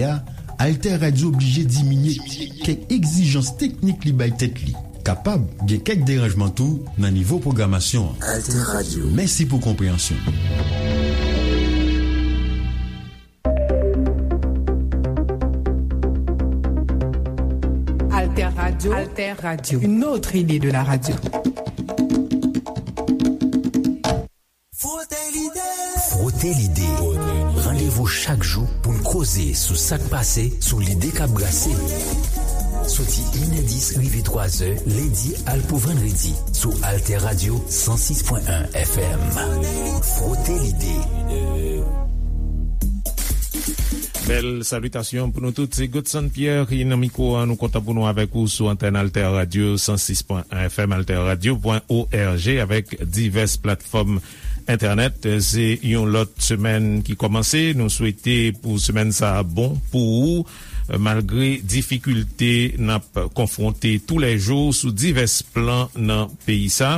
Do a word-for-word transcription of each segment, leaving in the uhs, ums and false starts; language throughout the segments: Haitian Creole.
a, Alter Radio oblije diminye kèk egzijans teknik li bay tèt li. Kapab gen kèk deranjman tou nan nivo pwogramasyon an. Alter Radio. Mèsi pou konpreyansyon. Alter Radio. Alter Radio. Une autre idée de la radio. Frote Lide. Frote Lide. Randevou chak jou pou n koze sou sa k pase, sou lide k ap brase. Soti inè dis rive twazè, lendi al pou vandredi, sou Alter Radio san sis pwen en F M. Frote Lide. Bèl salitasyon pou nou tout. Se Godson Pierre ki nan mikwo a. Nou kontan pou nou avèk ou sou antèn Alter Radio san sis pwen en F M, alter radio pwen O R G, avèk divès platfòm entènèt. Se yon lòt semèn ki kòmanse. Nou swete pou semèn sa a bon pou ou, malgre difikilte n ap konfwonte toulèjou sou divès plan nan peyi sa.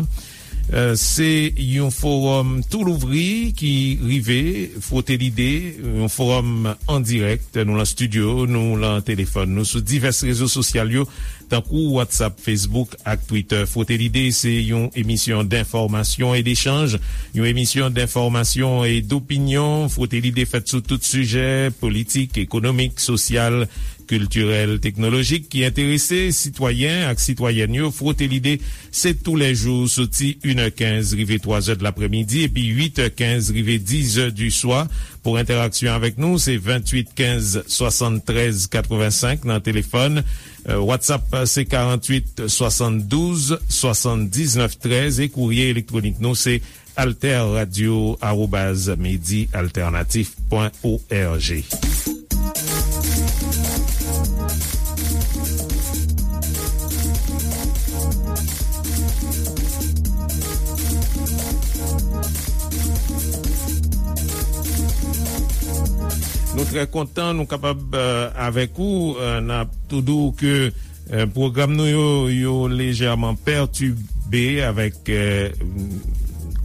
Euh, se yon fowòm tou louvri ki rive, Frote Lide, yon fowòm an dirèk. Nou lan estidyo, nou lan telefòn, nou sou divès rezo sosyal yo, tankou WhatsApp, Facebook ak Twitter. Frote Lide se yon emisyon denfòmasyon e dechanj, yon emisyon denfòmasyon e dopinyon. Frote Lide fèt sou tout sijè, politik, ekonomik, sosyal, kiltirèl, teknolojik ki enterese sitwayen ak sitwayèn yo. Frote Lide, se toulèjou soti inè kenz rive twazè de laprèmidi epi uitè kenz rive dizè di swa. Pou entèraksyon avèk nou, se venntuit kenz swasanntrèz katrevensenk nan telefòn. Euh, WhatsApp, se karanntuit swasanndouz swasanndiznèf trèz e kourye elektwonik nou, se alter radio arobaz medi alternatif pwen O R G. Nou trè kontan nou kapab, euh, avèk ou. Euh, n ap tou di w ke Euh, pwogram nou yo, yo lejèman pètibe avèk, euh,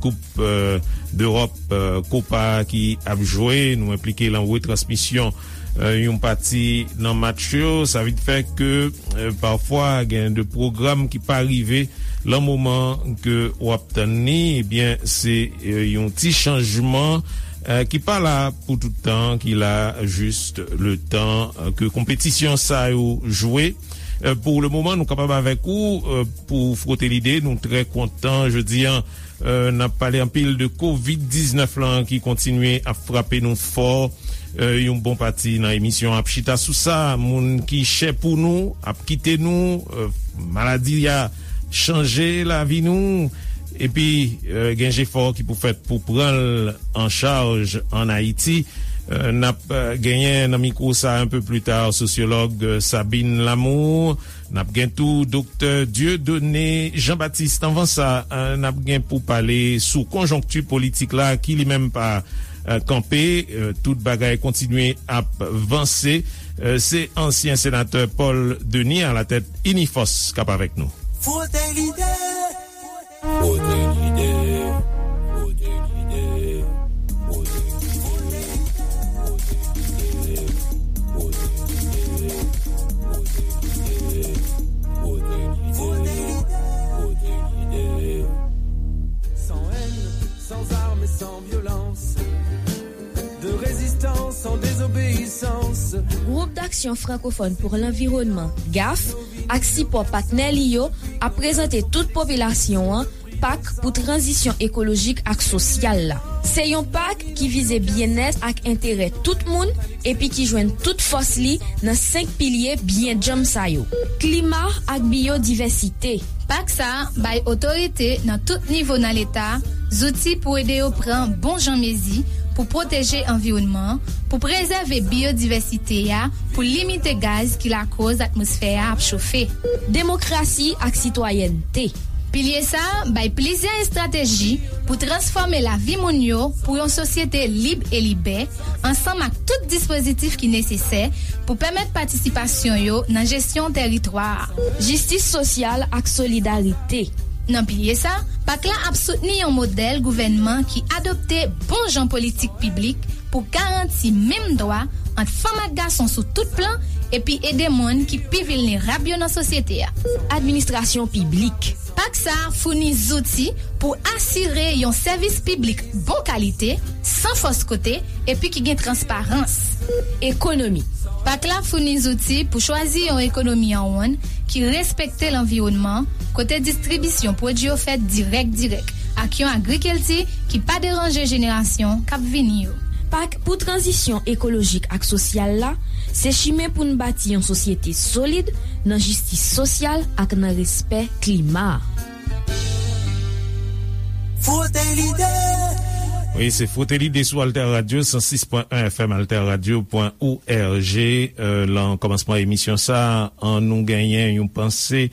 Koup, euh, Dewòp, euh, Kopa ki ap jwe. Nou enplike lan retransmisyon, euh, yon pati nan match yo. Sa vin fè ke, euh, pafwa, gen de pwogram ki pa rive lan moman ke w ap tann li. Ebyen, se, euh, yon ti chanjman, euh, ki pa la pou tout tan, ki la jis le tan, euh, ke konpetisyon sa yo jwe. Euh, pou le moman, nou kapab avèk ou, euh, pou Frote Lide. Nou trè kontan jodi a. Euh, n ap pale anpil de kovid diznèf lan ki kontinye ap frape nou fò. Euh, yon bon pati nan emisyon ap chita sou sa. Moun ki chè pou nou ap kite nou. Euh, maladi a chanje lavi nou. Epi, euh, gen jefò ki pou fèt pou pran l an chaj ann Ayiti. Euh, n ap, euh, genyen nan mikwo sa a un peu plus tard sosyològ, euh, Sabine Lamour. N ap gen tou Doktè Dieudonné Jean-Baptiste. Anvan sa, euh, n ap gen pou pale sou konjonkti politik la ki li menm pa, euh, kanpe. Euh, tout bagay kontinye ap vanse. Euh, se ansyen senatè Paul Denis alatèt Inifòs k ap avèk nou. Frote Lide. Frote Lide. Frote Lide. Frote Lide. Frote Lide. Frote Lide. Frote Lide. Frote Lide. Frote Lide. Sans haine, sans armes et sans violence. De résistance en désobéissance. Gwoup Daksyon Frankofòn pou Lanviwònman, gaf, ak sipò patnè li yo ap prezante tout popilasyon an pak pou tranzisyon ekolojik ak sosyal la. Se yon pak ki vize byennèt ak enterè tout moun epi ki jwenn tout fòs li nan senk pilye byen djanm sa yo: klima ak biyodivèsite. Pak sa a bay otorite nan tout nivo nan Leta zouti pou ede yo pran bon jan mezi pou pwoteje anviwònman an, pou prezève biyodivèsite a, pou limite gaz ki lakòz atmosfè a ap chofe. Demokrasi ak sitwayènte. Pilye sa a bay plizyè estrateji pou transfòme lavi moun yo pou yon sosyete lib e libè, ansanm ak tout dispozitif ki nesesè pou pèmèt patisipasyon yo nan jesyon tèritwa a. Jistis sosyal ak solidarite. Nan pilye sa, pak la ap soutni yon modèl gouvènman ki adopte bon jan politik piblik pou garanti menm dwa ant fanm ak gason sou tout plan, epi ede moun ki pi vilnerab yo nan sosyete a. Administrasyon piblik. Pak sa a founi zouti pou asire yon sèvis piblik bon kalite, san fòs kote, epi ki gen transparans. Ekonomi. Pak la founi zouti pou chwazi yon ekonomi an wonn ki respekte lanviwònman, kote distribisyon pwodui yo fèt dirèk dirèk, ak yon agrikilti ki pa deranje jenerasyon k ap vini yo. Pak pou tranzisyon ekolojik ak sosyal la, se chimen pou n bati yon sosyete solid nan jistis sosyal ak nan respè klima. Frote lide. Wi, se Frote Lide sou Alter Radio, san sis pwen en F M, alterradio pwen org. Euh, lan kòmansman emisyon sa, an nou genyen yon panse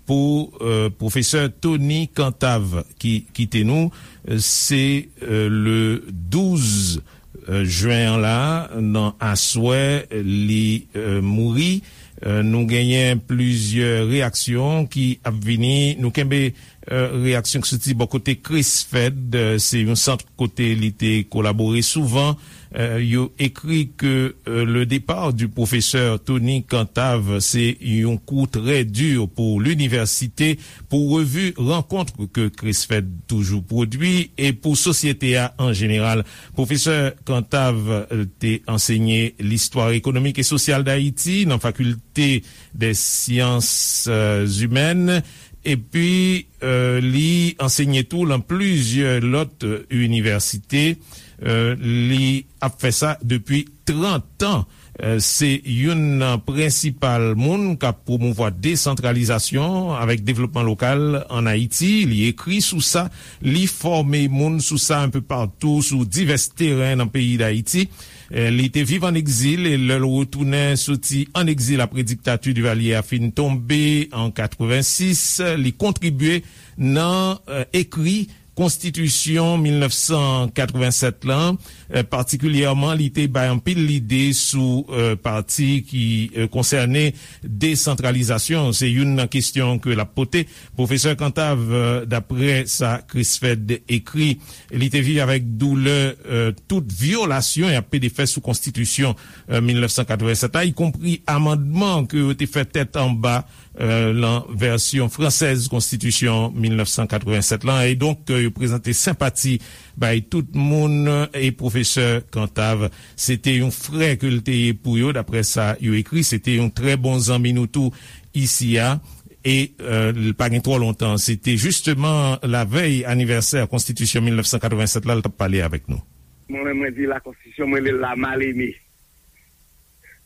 pou, euh, pwofesè Tony Cantave ki kite nou. Euh, se, euh, le douz, euh, jen an la, nan aswè, li, euh, mouri. Euh, nou genyen plizyè reyaksyon ki ap vini. Nou kenbe, euh, reyaksyon ki soti bò kote Chris Fed. Euh, se yon sant kote li te kolabore souvan. Euh, yo écrit que, euh, le départ du professeur Tony Cantave, c'est un coup très dur pour l'université, pou revi rankont ke Chris Fed toujou pwodui e pou sosyete a an jeneral. Pwofesè Cantave, euh, te ansenye listwa ekonomik e sosyal Dayiti nan Fakilte dè Syans, euh, Imèn, epi, euh, li ansenye tou lan plizyè lòt, euh, inivèsite. Euh, li ap fè sa depi trant an. Euh, se youn nan prensipal moun k ap pwomouvwa desantralizasyon avèk devlopman lokal ann Ayiti. Li ekri sou sa, li fòme moun sou sa enpe patou sou divès teren nan peyi Dayiti. Euh, li te viv ann egzil e lè l retounen soti ann egzil apre diktati Divalye a fin tonbe an katrevensis, li kontribye nan, euh, ekri Konstitisyon mil nèf san katrevennsèt lan, euh, patikilyèman, li te bay anpil lide sou, euh, pati ki, euh, konsène desantralizasyon. Se youn nan kesyon ke l ap pote. Pwofesè Cantave, euh, daprè sa Chris Fed ekri, li te viv avèk doulè, euh, tout vyolasyon y ap pede fè sou Konstitisyon, euh, mil nèf san katrevennsèt la, ikonpri amandman ke yo te fè tèt anba euh, lan vèsyon fransèz Konstitisyon mil nèf san katrevennsèt lan, e donk, euh, yo prezante senpati bay tout moun, euh, e pwofesè Cantave, se te yon frè ke l te ye pou yo, daprè sa yo ekri, se te yon trè bon zanmi nou tou isi a, e, euh, l pa gen twò lontan, se te jisteman lavèy anivèsè Konstitisyon mil nèf san katrevennsèt la, l t ap pale avèk nou. Mwen menm, mwen di la Constitution, mwen rele l la mal aimée.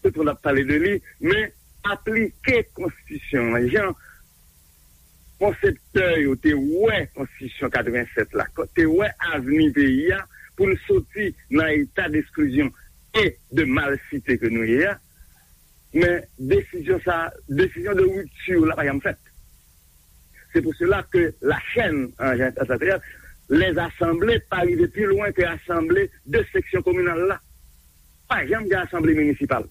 Tout moun ap pale de li, men aplike konstitisyon an jan konseptè yo te wè konstitisyon katrevennsèt la, te wè avni peyi a, pou n soti nan eta desklizyon e de malsite ke nou ye a, men desizyon sa, desizyon de ripti la pa janm fèt. Se pou sela ke la chèn an jan, an jan, les asanble pa rive pi lwen ke asanble de seksyon kominal la. Pa janm gen asanble minisipal.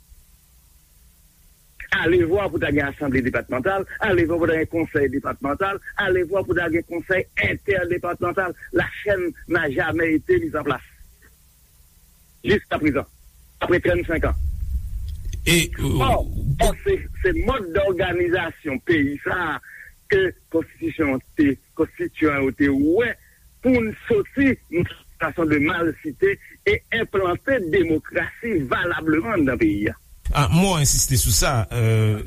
Alevwa pou ta gen asanble depatmantal, alevwa pou ta gen konsèy depatmantal, alevwa pou ta gen konsèy entèdepatmantal. La chaîne n'a jamais été mise en place. Jiska prezan, apre trannsenk an. E, ò, ò, se, se mòd dòganizasyon peyi sa a ke konstitisyon te, konstityan yo te wè pou n soti nan sitiyasyon de malsite e enplante demokrasi valableman anndan peyi a. Ah, mwen ensiste sou sa, euh,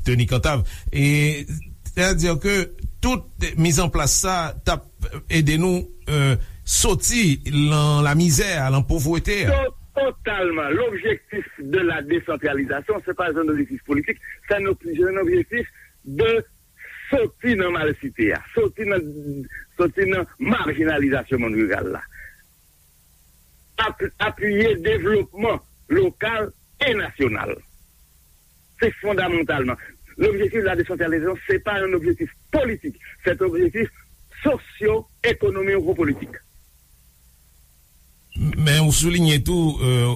Tony Cantave. E, sètadi ke tout mizanplas sa t ap ede nou, euh, soti lan lamizè a, lan povrete a. To-, totalman. L'objectif de la décentralisation, c'est pas un objectif politique, c'est un ob-, c'est un objectif de soti nan malsite a, soti nan, soti nan majinalizasyon monn riral la. Ap-, apiye devlopman lokal e nasyonal. Se fondamantalman. L'objectif de la décentralisation, c'est pas un objectif politique, c'est un objectif socio-économico-politique. Men ou soulinye tou, euh,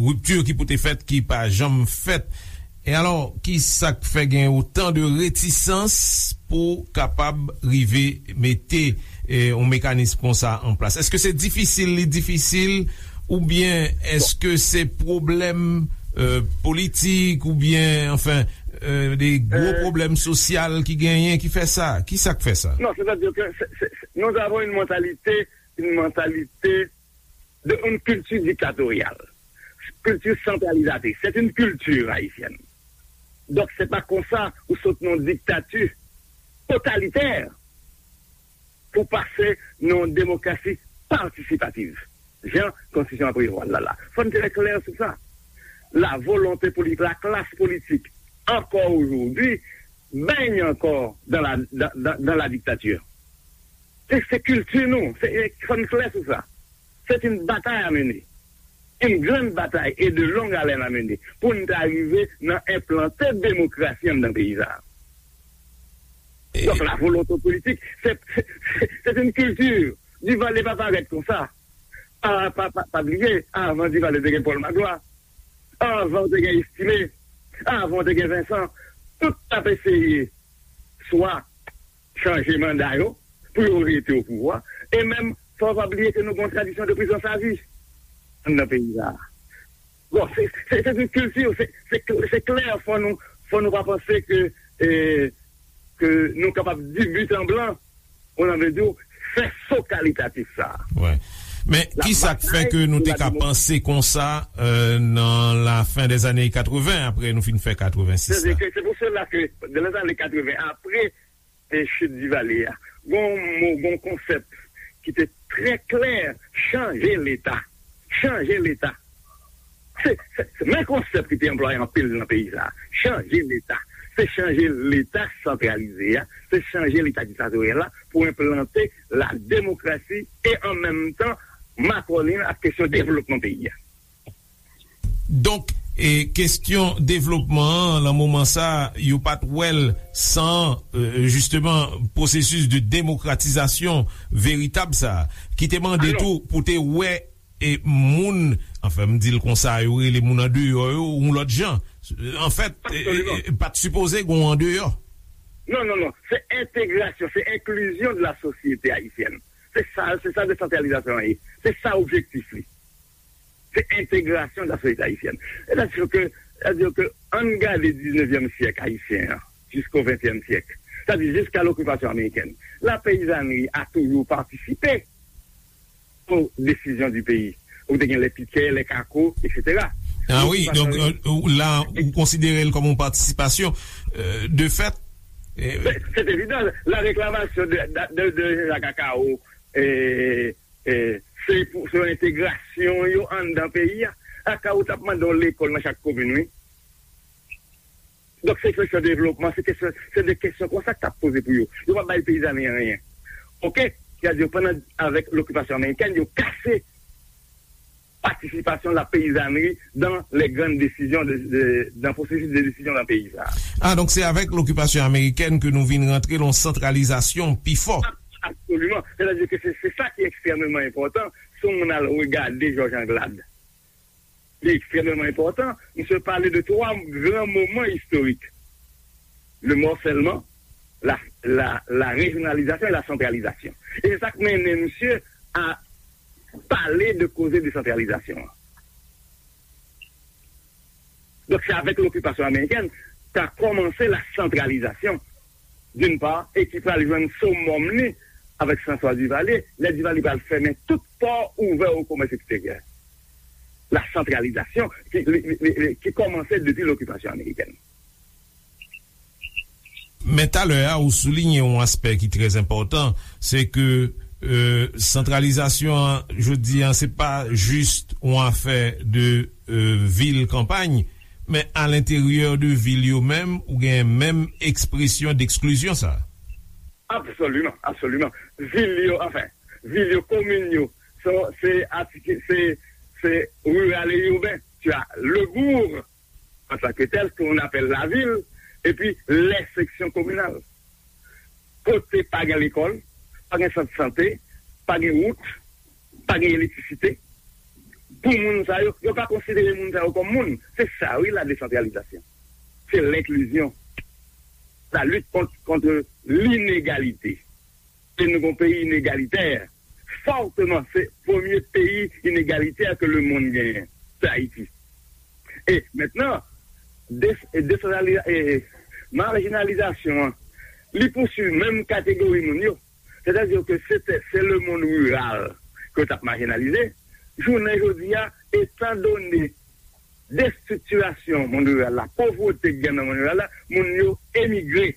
ripti ki pou te fèt, ki pa janm fèt. E alò, ki sa k fè gen otan de retisans pou kapab rive mete, eh, yon mekanis konsa an plas? Èske se difisil, li difisil, Oubyen èske se pwoblèm euh, politik oubyen anfen euh, de gwo pwoblèm sosyal ki genyen ki fè sa? Ki sa k fè sa? Non, c'est-à-dire que c'est- c'est- c'est- nous avons une mentalité, une mentalité de une culture dictatoriale, culture centralisatrice. C'est une culture haïtienne. Donc c'est pas comme ça ou saute non dictature totalitaire pour passer non démocratie participative. Jan konstitisyon an prevwa l la la. Fò n trè klè sou sa. La volonté politique, la classe politique, encore aujourd'hui, baigne encore dans la, dans, dans, dans la dictature. Se se kilti nou, se fò n klè sou sa. C'est une bataille à mener. Une grande bataille et de longue haleine à mener pour nous arriver à implanter la démocratie dans le pays. Donc la volonté politique, c'est c'est une culture. Duvalier pa parèt konsa. Pa, pa, pa, pa bliye, avan Duvalier te gen Paul Magloire, avan te gen Estimé, avan te gen Vincent. Tout t ap eseye swa chanje manda yo pou yo rete o pouvwa. E menm, fò w pa bliye ke nou gen yon tradisyon de prizon savi anndan peyi sa a. Bon, se se se yon kilti, se se se klè, fò nou fò nou pa panse ke e ke nou kapab di but en blanc, on a vle di fè so kalitatif sa a. Wi. Men ki sa k fè ke nou te ka panse konsa euh, nan la fen dè zane katreven apre nou fin fè katreven sis la? Se pou sela ke nan lè zane katreven apre e chit Divalye a, gon mo, gon konsèp ki te trè klè, chanje Leta. Chanje Leta. Se, se, se men konsèp ki te anplwaye anpil nan peyi sa. Chanje Leta. Se chanje Leta santralize a, se chanje Leta diktatoryal la pou enplante la demokrasi e an menm tan makònen ak kesyon devlopman peyi a. Donk, e, kesyon devlopman an, nan moman sa, yo pa t wè l san, e, jisteman, pwosesis de demokratizasyon veritab sa, ki te mande tou pou te wè e, moun, anfen, m di l konsa, yo rele moun andeyò yo, yon lòt jan. Anfèt, e, e, pa t sipoze gen yon andeyò. Non, non, non. Se entegrasyon, se enklizyon de la sosyete ayisyèn. Se sa, se sa desantralizasyon an ye. Se sa objektif li. Se entegrasyon de la sosyete ayisyèn. Sètadi ke, sètadi ke, ann gade diznevyèm syèk ayisyen an, jisko ventyèm syèk. Sètadi jiska lokipasyon amerikèn. La peyizanri a toujou patisipe o desizyon di peyi. Ou te gen lè pikè, lè kako, etsetera. Ah wi, donk euh, la, ou konsidere l kòm yon patisipasyon. Euh, de fèt, Se evidan, la reklamasyon de, de, de, de Jean-Jacques Akao, e, e, se pou se yon entegrasyon yo anndan peyi a. Akao t ap mande yon lekòl nan chak komin, wi. Donk, se kesyon devlopman, se kesyon, se de kesyon konsa k t ap poze pou yo. Yo pa bay peyizanri anyen. Oke? Sètadi, pandan, avèk lokipasyon amerikèn, yo kase patisipasyon la peyizanri dan lè grann desizyon de, de, dan pwosesis de desizyon nan peyi sa. Ah, donk se avèk lokipasyon amerikèn ke nou vin rantre lan santralizasyon pi fò. Absoliman. Sètadi ke se, se sa ki ekstrèmeman enpòtan. Si yon moun al regade Jòj Anglad, li ekstrèmeman enpòtan. Misye pale de twa gran moman istorik. Le mòsèlman, la, la, la rejyonalizasyon e la santralizasyon. E se sa k mennen misye a pale de koze desantralizasyon an. Donk, se avèk lokipasyon amerikèn ka kòmanse la santralizasyon, d'une part, e ki pral jwenn somòm li avèk François Duvalier, lè Duvalier pral fèmen tout pò ouvè o komès eksteryè. La santralizasyon ki, li, li, li, ki kòmanse depi lokipasyon amerikèn. Men talè a, ou souliye yon aspè ki trè enpòtan, se ke euh, santralizasyon an, jodi an, se pa jis yon afè de euh, vil kanpay, men alenteryè de vil yo menm, ou gen menm ekspresyon deksklizyon sa. Absoliman, absoliman. Vil yo, anfen, vil yo, komin yo, se, se, se, se riral e iben. Tu as le bourg, en tant que tel, qu'on appelle la ville, et puis les sections communales. Kote pa gen lekòl, pa gen sant sante, pa gen wout, pa gen elektrisite. Pou moun sa yo, yo pa konsidere moun sa yo kòm moun. Se sa wi la desantralizasyon. Se lenklizyon. La lit kont, kont linegalite. E nou gon peyi inegalitè. fòteman, se premye peyi inegalite ke lemonn genyen, se Ayiti. E mentnan, des, desantraliza, e, majinalizasyon an, li pouswiv menm kategori moun yo. Sètadi ke se, se, se lemonn riral ke yo t ap majinalize. Jounen jodi a, etandone destriktirasyon monn riral la, povrete k gen nan monn riral la, moun yo emigre,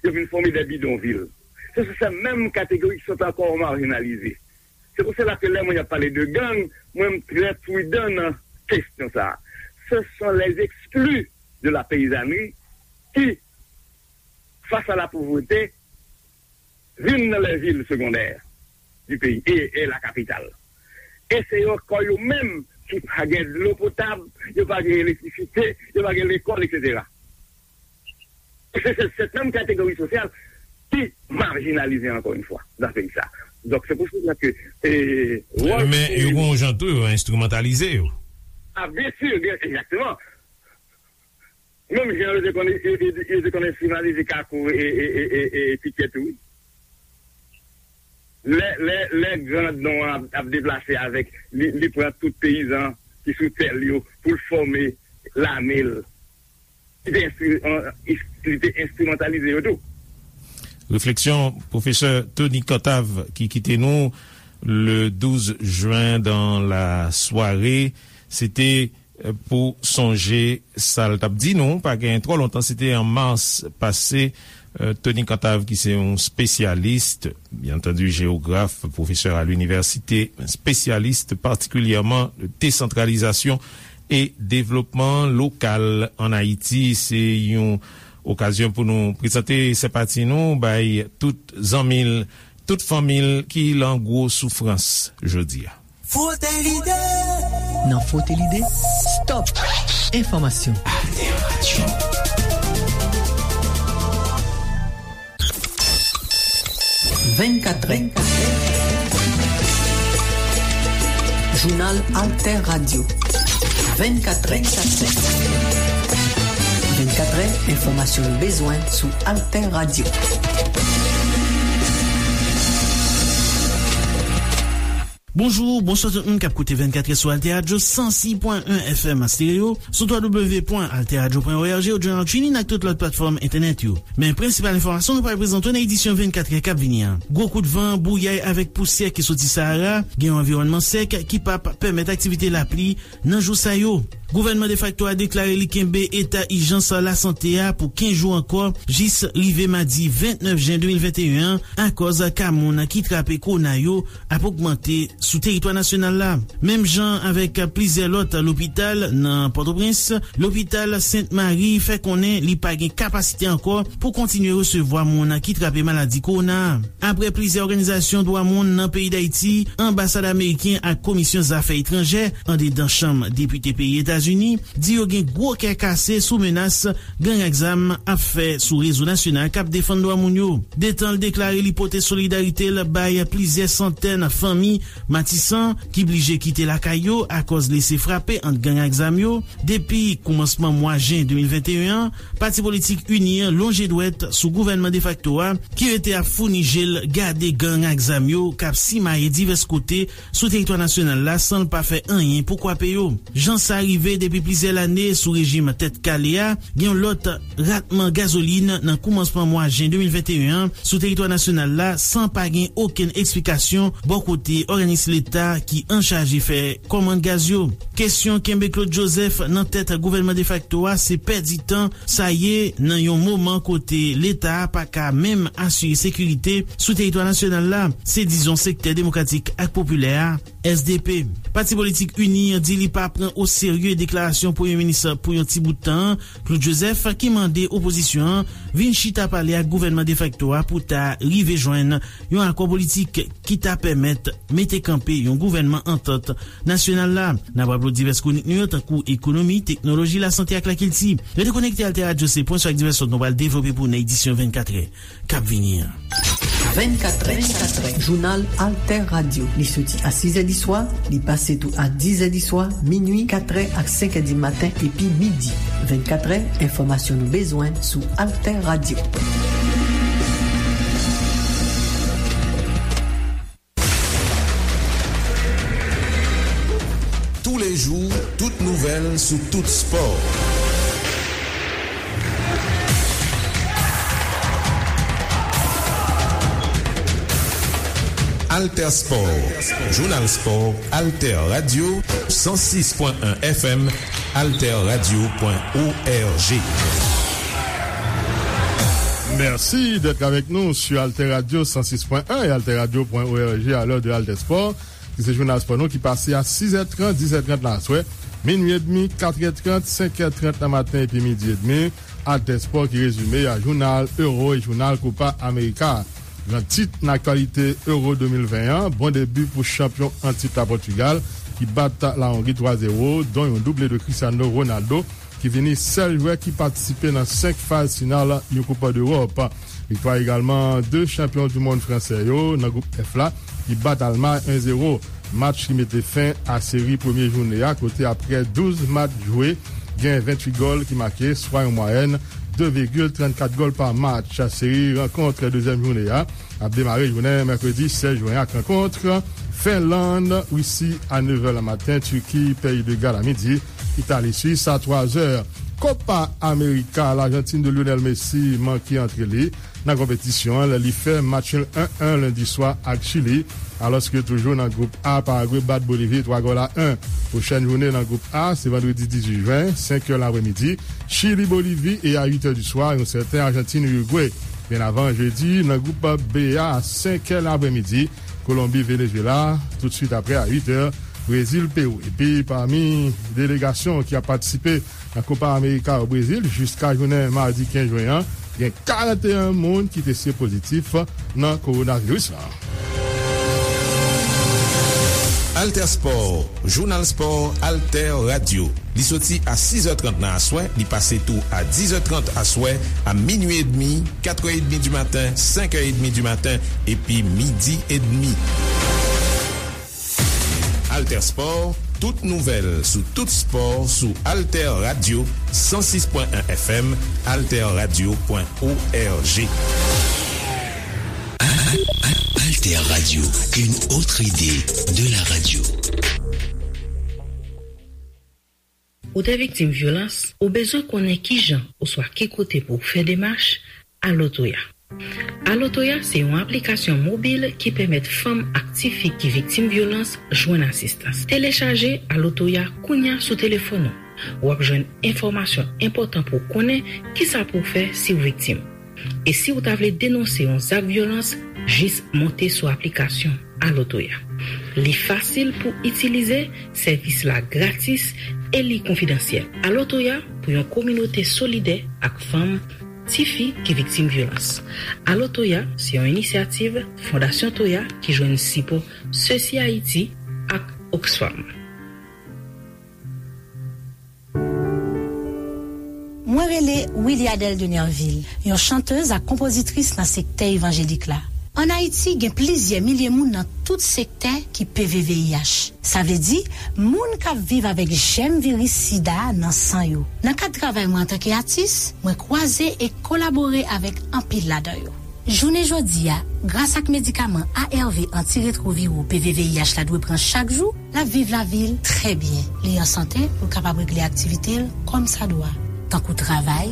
yo vin fòme de bidonvil. Se sou se menm kategori ki sot ankò majinalize. Se pou sela ke lè mwen ap pale de gang, mwen m trè pridan nan kesyon sa a. Ce sont les exclus de la paysannerie qui, face à la pauvreté, vin nan les villes secondaires du pays et, et la capitale. E se yo ankò yo menm ki pa gen dlo potab, yo pa gen elektrisite, yo pa gen lekòl, et cetera. Se, se, se menm kategori sosyal ki majinalize ankò yon fwa nan peyi sa. Donk, se pou sela ke, e, wòl Men yo gon jan tou, yo enstrimantalize yo. A, byen si, byen, egzakteman. Menm jan yo te konn, yo, yo, yo te konn enstrimalize Kakou e, e, e, e, e Pikè tou, wi. Lè, lè, lè gran don an ap, ap deplase avèk, li, li pran tout peyizan ki sou tè l yo pou l fòme lame l. Li te enstri-, an, li te enstrimantalize yo tou. Refleksyon pwofesè Tony Cantave ki kite nou le douz jen dan la sware. Se te pou sonje sa l t ap di nou, pa gen twò lontan, se te an mas pase, Tony Cantave, ki se yon spesyalis, byen antandi, jewograf, pwofesè a linivèsite, spesyalis patikilyèman de desantralizasyon e devlopman lokal ann Ayiti. Se yon okazyon pou nou prezante senpati nou bay tout zanmi l, tout fanmi l ki lan gwo soufrans jodi a. Frote lide. Nan Frote lide, stop enfòmasyon. Alter Radio. Vennkatrè. Jounal Alter Radio. Vennkatrè. Vennkatrè, enfòmasyon nou bezwen sou Alter Radio. Bonjou, bonswa tout moun k ap koute vennkatrè sou Alter Radio san sis pwen en F M stereo, sou w w w pwen alter radio pwen org, ou jounal TuneIn ak tout lòt platfòm entènèt yo. Men prensipal enfòmasyon nou pral prezante w nan edisyon vennkatrè k ap vini an. Gwo kout van, bouyay avèk pousyè ki soti Sahara, gen yon anviwònman sèk ki p ap pèmèt aktivite lapli nan jou sa yo. Gouvènman defakto a deklare li kenbe eta ijans lasante a pou kenz jou ankò, jis rive madi vennèf jen de mil venteyen an, akòz ka moun ki trape kowona yo ap ogmante sou teritwa nasyonal la. Menm jan avèk plizyè lòt lopital nan Pòtoprens, lopital Sent Mari fè konnen li pa gen kapasite ankò pou kontinye resevwa moun ki trape maladi kowona a. Apre plizyè òganizasyon dwa moun nan peyi Dayiti, anbasad ameriken ak komisyon zafè etranjè andedan chanm depite peyi Etazini di yo gen gwo kè kase sou menas gang ak zam ap fè sou rezo nasyonal k ap defann dwa moun yo. Detan l deklare li pote solidarite l bay plizyè santèn fanmi Matisan ki blije kite lakay yo akòz lese frape ant gang ak zam yo. Depi koumansman mwa jen de mil venteyen an, pati politik UNIR lonje dwèt sou gouvènman defakto a, ki rete ap founi je l gade gang ak zam yo k ap simaye divès kote sou teritwa nasyonal la san l pa fè anyen pou kwape yo. Jan sa rive depi plizyè lane sou rejim Tèt Kale a, gen yon lòt ratman gazolin nan koumansman mwa jen de mil venteyen an sou teritwa nasyonal la san pa gen okenn eksplikasyon bò kote òganis leta ki anchaje fè kòmand gaz yo. Kesyon kenbe Claude Joseph nan tèt gouvènman defakto a se pèdi tan sa ye nan yon moman kote leta a pa ka menm asire sekirite sou teritwa nasyonal la, se dizon sektè demokratik ak popilè a, S D P. Pati politik UNIR di li pa pran oserye deklarasyon premye minis pou yon ti bout tan an, Claude Joseph, ki mande opozisyon an vin chita pale ak gouvènman defakto a pou ta rive jwenn yon akò politik ki ta pèmèt mete kanpe yon gouvènman antant nasyonal la. N ap raple w divès kwonik nou yo, tankou ekonomi, teknoloji, lasante ak lakilti. Rete konekte Alter Radio, se pwen sou ak divès lòt nou pral devlope pou w nan edisyon vennkatrè k ap vini an. Vennkatrè, jounal Alter Radio. Li soti a sizè di swa, li pase tou a dizè di swa, minui, katrè ak senkè di maten epi midi. Vennkatrè, enfòmasyon nou bezwen sou Alter Radio. Jou, tout nouvèl sou tout spò. Alter Sport, Jounal Spò, Alter Radio, san sis pwen en F M, alter radio pwen org. Merci d'être avec nous sur Alter Radio cent six point un et alter radio point org à l'heure de Alter Sport, ki se jounal spò nou ki pase a sis è trant, dis è trant nan aswè, minui edmi, kat è trant, senk è trant nan maten epi midi edmi. Alter Sport ki rezime a jounal Euro e jounal Copa America. Gran tit nan aktyalite Euro de mil ven an, bon debi pou chanpyon an tit la Pòtigal, ki bat la Hongrie twa zewo, don yon double de Cristiano Ronaldo, ki vini sèl jwè ki patisipe nan senk faz final yon Koup Dewòp. Viktwa egalman de chanpyon du mond fransè yo nan gwoup F la, ki bat Almay en zewo. Match ki mete fen a seri premye jounen a, kote apre douz match jwe, gen venntuit gòl ki make, swa yon mwayèn de vigil trannkat gòl pa match. Seri rankont dezyèm jounen a ap demare jounen mèkredi sèz jen ak rankont Fenlann, Risi a nèf è nan maten, Tiki, Peyi de Gal a midi, Itali, Swis a twa zè. Copa America, Lajantin de Lionel Messi manke antre li nan konpetisyon an lè li fè match nul en en lendi swa ak Chili, alòske toujou nan gwoup A, Paragwe bat Bolivi twa gòl a en. Pwochèn jounen nan gwoup A se vandredi dizuit jen, senk è lapremidi, Chili, Bolivi, e a uit è di swa, yon sèten Ajantin, Irigwe. Byen avan jedi, nan gwoup B a, senk è lapremidi, Kolonbi, Venezuela, toutswit apre a uit è, Brezil, Pewou. Epi pami delegasyon ki ap patisipe nan Copa America o Brezil jiska jounen madi kenz jen an, gen karannteyen moun ki teste pozitif nan kowonaviris la. Alter Sport, Jounal Spò, Alter Radio. Li soti a sis è trant nan aswè, li pase tou a dis è trant aswè, a minui edmi, kat è edmi di maten, senk è edmi di maten, epi midi edmi. Alter Sport, tout nouvèl sou tout spò sou Alter Radio, san sis pwen en F M, alter radio pwen org. Alter Radio, une autre idée de la radio. Ou te viktim vyolans, ou bezwen konnen kijan oswa ki kote pou w fè demach, Alo Toya. Alo Toya se yon aplikasyon mobil ki pèmèt fanm ak tifi ki viktim vyolans jwenn asistans. Telechaje Alo Toya kounya sou telefòn ou. W ap jwenn enfòmasyon enpòtan pou w konnen kisa pou w fè si w viktim. E si w ta vle denonse yon zak vyolans, jis monte sou aplikasyon Alo Toya. Li fasil pou itilize, sèvis la gratis, e li konfidansyèl. Alo Toya pou yon kominote solidè ak fanm, tifi ki viktim vyolans. Alo Toya se yon inisyativ Fondasyon Toya ki jwenn sipò Sesi Ayiti ak Oxfam. Mwen rele Wiliadèle de Nerville, yon chantèz ak konpozitris nan sektè evanjelik la. Ann Ayiti, gen plizyè milye moun nan tout sektè ki P V V I H. Sa vle di, moun k ap viv avèk jèm viris sida a nan san yo. Nan kad travay mwen antanke atis, mwen kwaze e kolabore avèk anpil ladan yo. Jounen jodi a, gras ak medikaman A R V antiretwoviro P V V I H la dwe pran chak jou, l ap viv lavi l trè byen. Li an sante pou l kapab regle aktivite l kòmsadwa, tankou travay,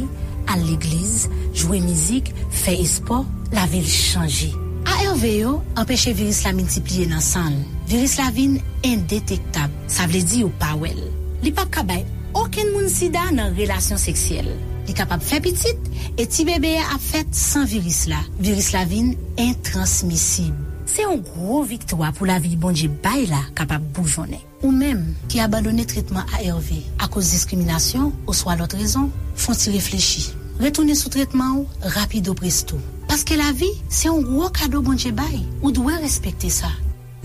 al legliz, jwe mizik, fè espò, lavi l chanje. A R V yo anpeche viris la miltipliye nan san l. Viris la vin endetektab, sa vle di yo pa wè l. Li p ap ka bay okenn moun sida nan relasyon seksyèl. Li kapab fè pitit, e ti bebe a ap fèt san viris la. Viris la vin entransmisib. Se yon gwo viktwa pou lavi Bondye bay la kapab boujonnen. Ou menm ki abandone tretman A R V akoz diskriminasyon oswa lòt rezon, fè yon ti reflechi. Retounen sou tretman w rapido presto. Paske lavi, se yon gwo kado Bondye bay. Ou dwe respekte sa.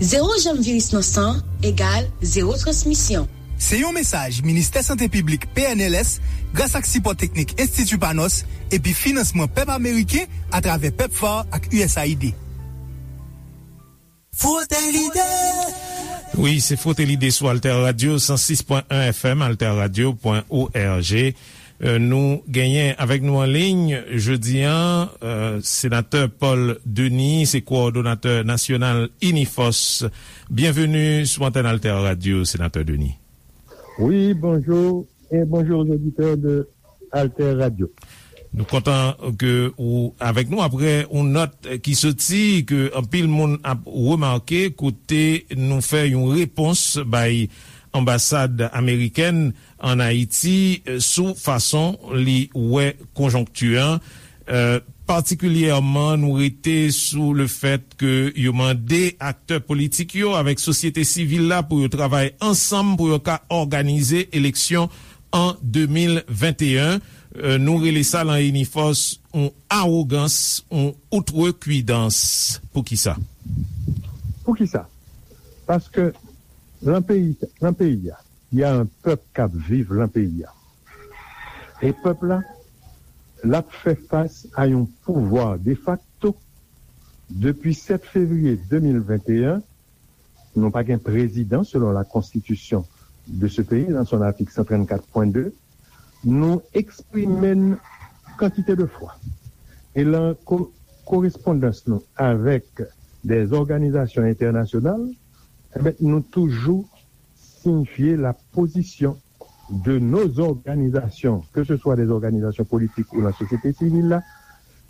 Zewo jèm viris nan san egal zewo transmisyon. Se yon mesaj Ministè Sante Piblik, P N L S, gras ak sipò teknik Enstiti Panos epi finansman pèp ameriken atravè PEPFAR ak U S A I D. Frote Lide. Wi, se Frote Lide sou Alter Radio san sis pwen en F M, alter radio pwen org. Euh, nou genyen avèk nou an liy jodi a, euh, Senatè Paul Denis, se kowòdonatè nasyonal Inifòs. Byenveni sou antèn Alter Radio, Senatè Denis. Wi, bonjou, e bonjou aux auditeurs de Alter Radio. Nou kontan ke ou avèk nou apre yon nòt ki soti ke anpil moun ap remake kote nou fè yon repons bay anbasad amerikèn an Ayiti, eh, sou fason li wè konjonkti an. Eh, patikilyèman, nou rete sou le fèt ke yo mande aktè politik yo avèk sosyete sivil la pou yo travay ansanm pou yo ka òganize eleksyon an de mil venteyen. Eh, nou rele sa lan Inifòs yon awogans, yon outrekwidans. Poukisa? Poukisa? Paske lan peyi, lan peyi a, y a un peuple k ap viv lan peyi a. E pèp la, l ap fè fas a yon pouvwa defakto. Depi sèt fevriye de mil venteyen, nou pa gen prezidan selon la konstitisyon de ce pays, dans son article cent trente-quatre point deux, nou eksprime n kantite de fwa. E lan ko-, korespondans nou avèk des organisations internationales, e ben, nou toujou signifier la position de nos organisations, que ce soit des organisations politiques ou la société civile, là,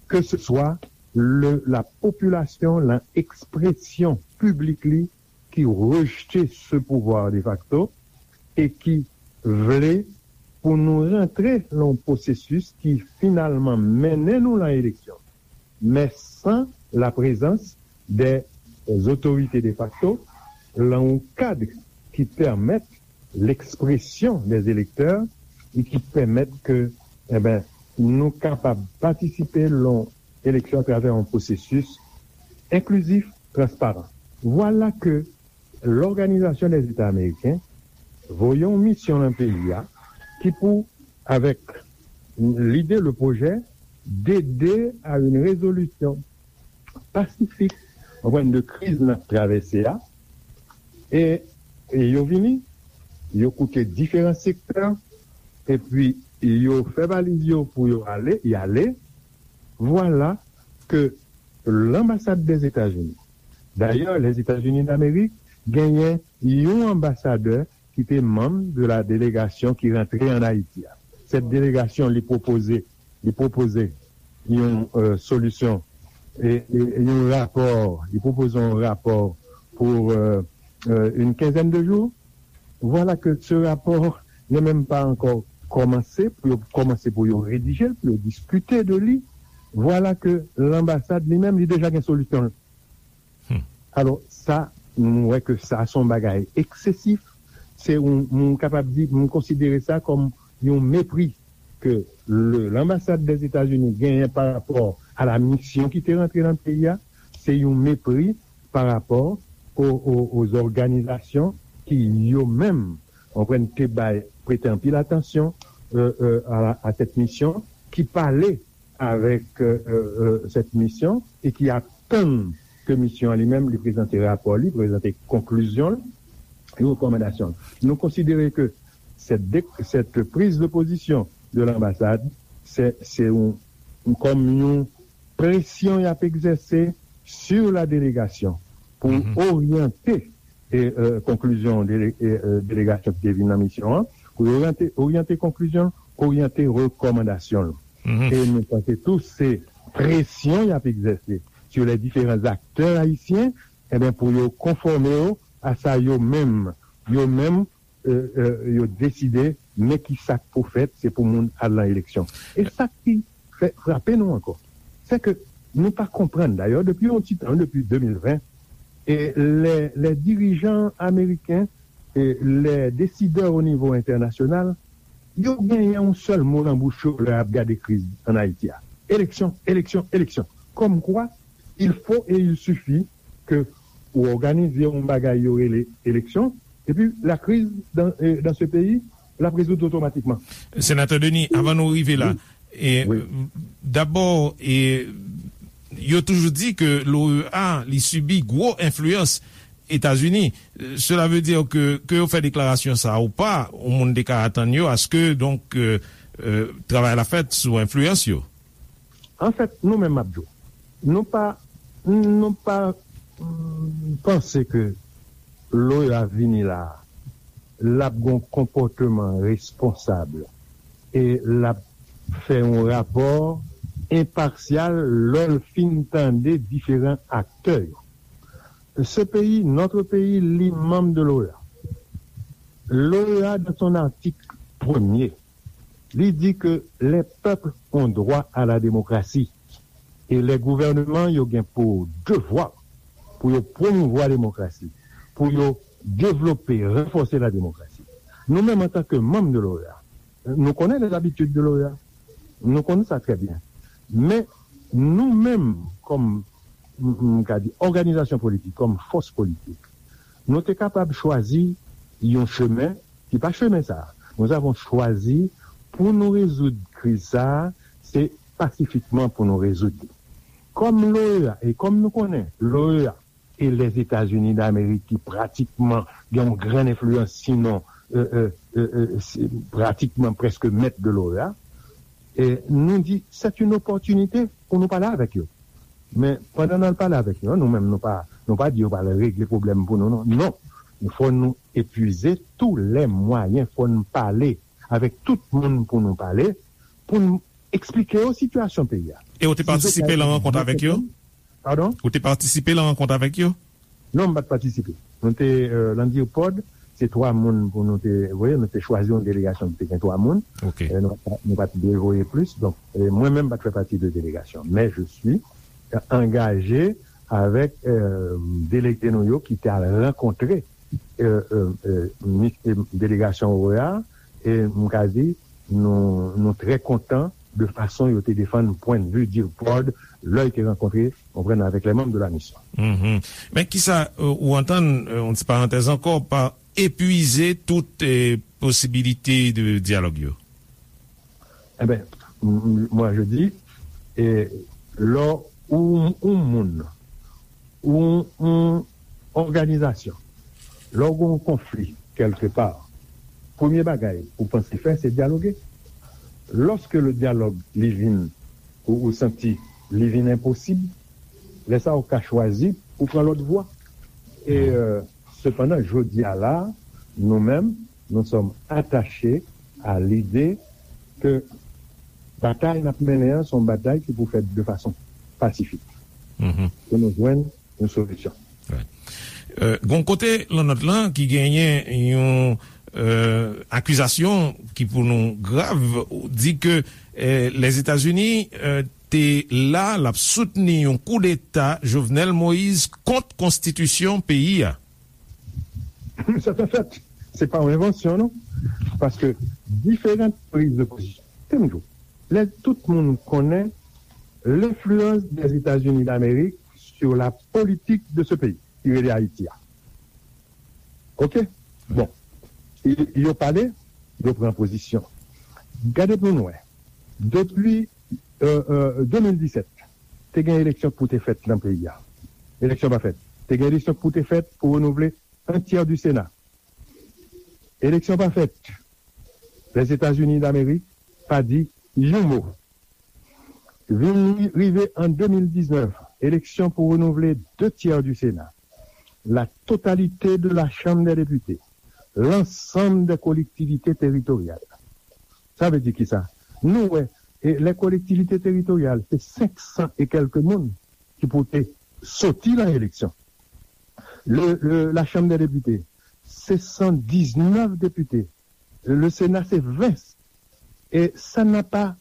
que ce soit le, la population, la expression publique li, ki rejte ce pouvoir de facto e ki vle pou nou rantre lan yon pwosesis ki finalman mennen nou lan eleksyon, men san la prezans de otorite de facto lan yon kad ki pèmèt lekspresyon de elektè e ki pèmèt ke, e ben, nou kapab patisipe lan yon eleksyon atravè yon pwosesis enklizif, transparan. Vwala ke Lòganizasyon dè Zeta Ameriken voye yon misyon lan peyi a ki pou, avèk lide, le pwojè, d'aider à une résolution pacifique, konprann, de kriz n ap travèse a. E, e yo vini, yo koute diferan sektè, epi yo fè valiz yo pou yo ale, y ale. Vwala ke lanbasad dèzetazini, dayè, Lèzetazini Damerik genyen yon anbasadè ki te manm de la delegasyon ki rantre an Ayiti a. Sèt delegasyon, li pwopoze, li pwopoze yon, euh, solisyon, e, e, yon rapò, li pwopoze yon rapò pou, euh, euh, une quinzaine de jours. Vwala ke se rapò, yo menm pa ankò kòmanse, pou yo kòmanse pou yo redije l, pou yo diskite de li. Vwala ke lanbasad li menm, li deja gen solisyon l. Hmm. Alò, sa, nou wè ke sa se yon bagay eksesif. Se yon, nou kapab di, nou konsidere sa kòm yon mepri ke le, lanbasad dèzetazini genyen pa rapò a la misyon ki te rantre nan peyi a. Se yon mepri pa rapò o, o, aux organisations ki yo menm, konprann, te bay, prete anpil atansyon, euh, euh, a, a cette mission, ki pale avèk, euh, euh, cette mission e ki atann ke misyon an li menm li prezante rapò li, prezante konklizyon l e rekòmandasyon l. Nou konsidere ke cette dé-, cette prise de position de l'ambassade, se, se yon, kòm yon presyon y ap egzèse sur la délégation pou oryante e, euh, konklizyon dele-, e, euh, delegasyon ki te vin nan misyon an, pou yo oryante, oryante konklizyon, oryante rekòmandasyon l. E nou panse tou se presyon y ap egzèse sur les différents acteurs haïtiens, e ben, pou yo konfòme yo a sa yo menm, yo menm, euh, euh, yo deside, men ki sa k pou fèt, se pou moun al nan eleksyon. E sa ki fè frape nou ankò, se ke nou pa konprann, dayè, depi yon ti tan, depi de mil ven, e les, les dirigeants américains, e les décideurs au niveau international, yo genyen yon sèl mo nan bouch yo lè y ap gade kriz an Ayiti a. Eleksyon, eleksyon, eleksyon. Comme quoi, il faut et il suffit que ou òganize yon bagay yo rele eleksyon, epi la crise dans, euh, dans ce pays, l ap rezoud otomatikman. Senatè Denis, avan nou rive la, e, dabò, e, yo toujou di ke l'O E A, li sibi gwo enfliyans Etazini. Cela veut dire que, ke yo fè deklarasyon sa ou pa, yon moun te ka atann yo aske, donk, euh, euh, travay la fèt sou enfliyans yo. Anfèt, nou menm, m ap di w, nou pa, nou pa, mm, panse ke l'O E A vini la a l ap gen yon konpòteman responsab e l ap fè yon rapò enpasyal lè l fin tande diferan aktè yo. Ce pays, notre pays, li manm de l'OEA. L'OEA, dans son article premier, li di ke les peuples ont droit à la démocratie. E lè gouvènman yo gen pou devwa pou yo pwomouvwa demokrasi, pou yo devlope, ranfòse la demokrasi. Nou menm, antanke manm de l'OEA, nou konnen les habitudes de l'OEA. Nou konnen sa trè byen. Men, nou menm, kòm, m, m ka di, òganizasyon politik, kòm fòs politik, nou te kapab chwazi yon chemen ki pa chemen sa a. Nous avons choisi pou nou rezoud kriz sa a, se pasifikman pou nou rezoud li. Kòm l'OEA, e kòm nou konnen, l'OEA e Lèzetazini Damerik ki pratikman gen yon grann enfliyans, sinon, e, e, e, e, se pratikman prèske mèt de l'OEA, e nou di, c'est une opportunité pou nou pale avèk yo. Men, pandan n al pale avèk yo, nou menm, nou pa, nou pa di yo pral regle pwoblèm pou nou, non. Non. Fò nou epuize tous les moyens, fò n pale avèk tout moun pou nou pale, pou n eksplike yo sitiyasyon peyi a. E ou te patisipe nan rankont avèk yo? Padon? Ou te patisipe nan rankont avèk yo? Non, m pa t patisipe. Nou te, euh, nan DIRPOD, se twa moun pou nou te voye, nou te chwazi yon delegasyon ki te gen twa moun. Ok. Euh, nou, nou pa t dwe voye plis. Donk, euh, mwen menm pa t fè pati de delegasyon. Men je suis, euh, angaje avèk, euh, delege nou yo ki te al rankontre, euh, euh, euh, mi-, euh, delegasyon OEA, e m ka di, nou, nou trè kontan de fason yo te defann pwennvi DIRPOD lè yo te rankontre, konprann, avèk les membres de la mission. Mhm. Men kisa, euh, ou antann, euh, yon ti parantèz ankò, pa epuize tout, euh, posibilite de dyalòg yo? Eh ben, m-, m-, moi je dis, e lè ou, ou moun, ou, ou òganizasyon, lè ou gen yon konfli kèlkepa, premye bagay ou panse fè, se dyaloge. Lorsque le dialogue li vin, ou, ou santi li vin enposib, lè sa ou ka chwazi pou pran lòt vwa. E, euh, sepandan, jodi a la, nou menm, nous sommes attachés à l'idée que batay n ap mennen an, se yon batay ki pou fèt de fason pasifik. Mhm. Pou nou jwenn yon solisyon. Right. Euh, gon kote lan nòt lan ki genyen yon, euh, akizasyon ki pou nou grav, di ke, euh, Lèzetazini, euh, te la, l ap soutni yon koudeta Jovenel Moïse kont konstitisyon peyi a. C'est un fait. Se pa yon envansyon, non. Paske diferan priz de pozisyon. Tande m di w, lè tout moun konnen l'influence des États-Unis d'Amérique sur la politique de ce pays, ki rele Ayiti a. Ok? Bon. Y-, yo pale, yo pran pozisyon. Gade pou nou wè. Depi, euh, euh, de mil disèt, te gen eleksyon pou te fèt nan peyi a. Eleksyon pa fèt. Te gen eleksyon pou te fèt pou renouvle un tiers du Sénat. Eleksyon pa fèt. Lèzetazini Damerik pa di yon mo. Vin ri-, rive an de mil diznèf, eleksyon pou renouvle deux tiers du Sénat, la totalité de la Chambre des députés, l'ensemble des collectivités territoriales. Sa vle di kisa? Nou wè, e, les collectivités territoriales, se senk san e kèlke moun ki pou te soti nan eleksyon. Le, le, la Chambre des députés, se san diznèf depite. Le Sénat, se ven. E sa n'a pas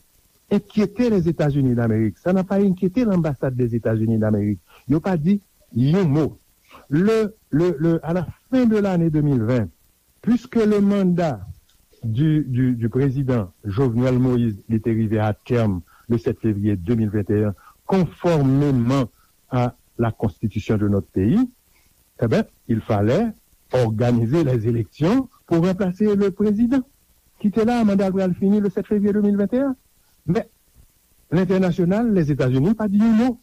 inquiété les États-Unis d'Amérique. Ça n'a pas inquiété l'ambassade des États-Unis d'Amérique. Yo pa di yon mo. Le, le, le, à la fin de l'année deux mille vingt, puisque le mandat du, du, du président Jovenel Moïse, li te rive à terme le sept février deux mille vingt et un, conformément à la constitution de notre pays, eh ben, il fallait organiser les élections pour remplacer le président qui était là, mandat l pral fini le sept février deux mille vingt et un. Men, lentènasyonal, Lèzetazini, pa di yon mo.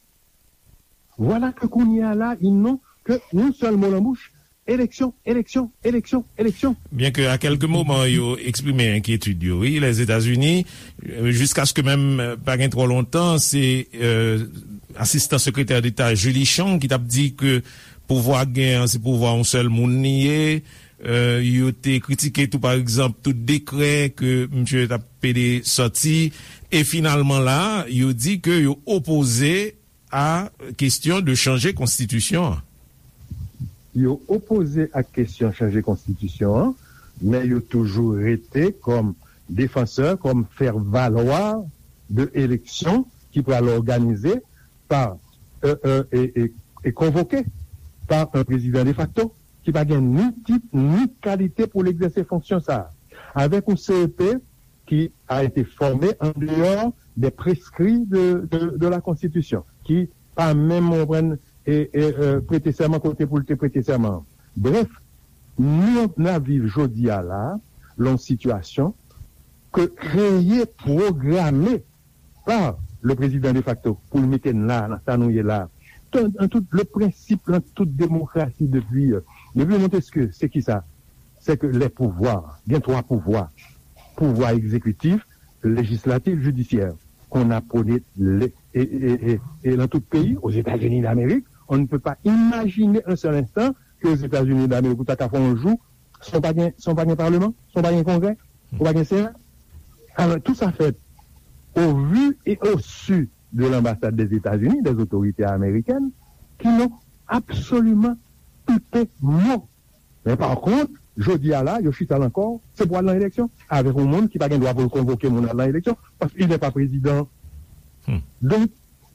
Vwala ke kounye a la, ils n'ont que yon sèl mo nan bouch, eleksyon, eleksyon, eleksyon, eleksyon. Byen ke a kèlke moman yo eksprime enkyetid yo, wi, Lèzetazini, euh, jiskaske menm, euh, pa gen twò lontan, se, euh, asistan sekretè deta Julie Chang ki t ap di ke pouvwa k gen an, se pouvwa yon sèl moun li ye, Euh, yo te kritike tou, pa egzanp, tout dekrè ke misye t ap pede sòti. E finalman la, yo di ke yo opoze a kesyon de chanje konstitisyon an. Yo opoze ak kesyon chanje konstitisyon an, men yo toujou rete kòm defansè, kòm fè valwa de eleksyon ki pral òganize pa, euh, euh, e, e, e konvoke pa un président de facto ki pa gen ni tit ni kalite pou l egzèse fonksyon sa a. Avèk yon C E P ki a été formé en dehors des prescrits de, de, de la Constitution, ki pa menm, w konprann, e, e, e, prete sèman kote pou l te prete sèman an. Brèf, nou, n ap viv jodi a la, lan yon sitiyasyon ke kreye, pwograme pa le président de facto pou l mete n la, nan sa nou ye la. An, an tout, le prensip, lan tout demokrasi depi, euh, depi Montesquieu, se ki sa? Se ke les pouvoirs, gen twa pouvwa, pouvwa egzekitif, lejislatif, jidisyè, qu'on a prôné le, e, e, e, e lan tout peyi, aux États-Unis d'Amérique, on ne peut pas imaginer un seul instant que aux États-Unis d'Amérique, ou ta ka fè yon jou, san w pa gen, san w pa gen paleman, san w pa gen kongrè, ou pa gen sena. Alors, tout ça fait au vu et au su de l'ambassade des États-Unis, des autorités américaines, qui n'ont absolument pipé mot. Men pa kont, jodi a la, yo chita lan kò, se pou al nan eleksyon, avèk yon moun ki pa gen dwa pou l konvoke moun al nan eleksyon, paske il n'est pas président. Hmm. Donk,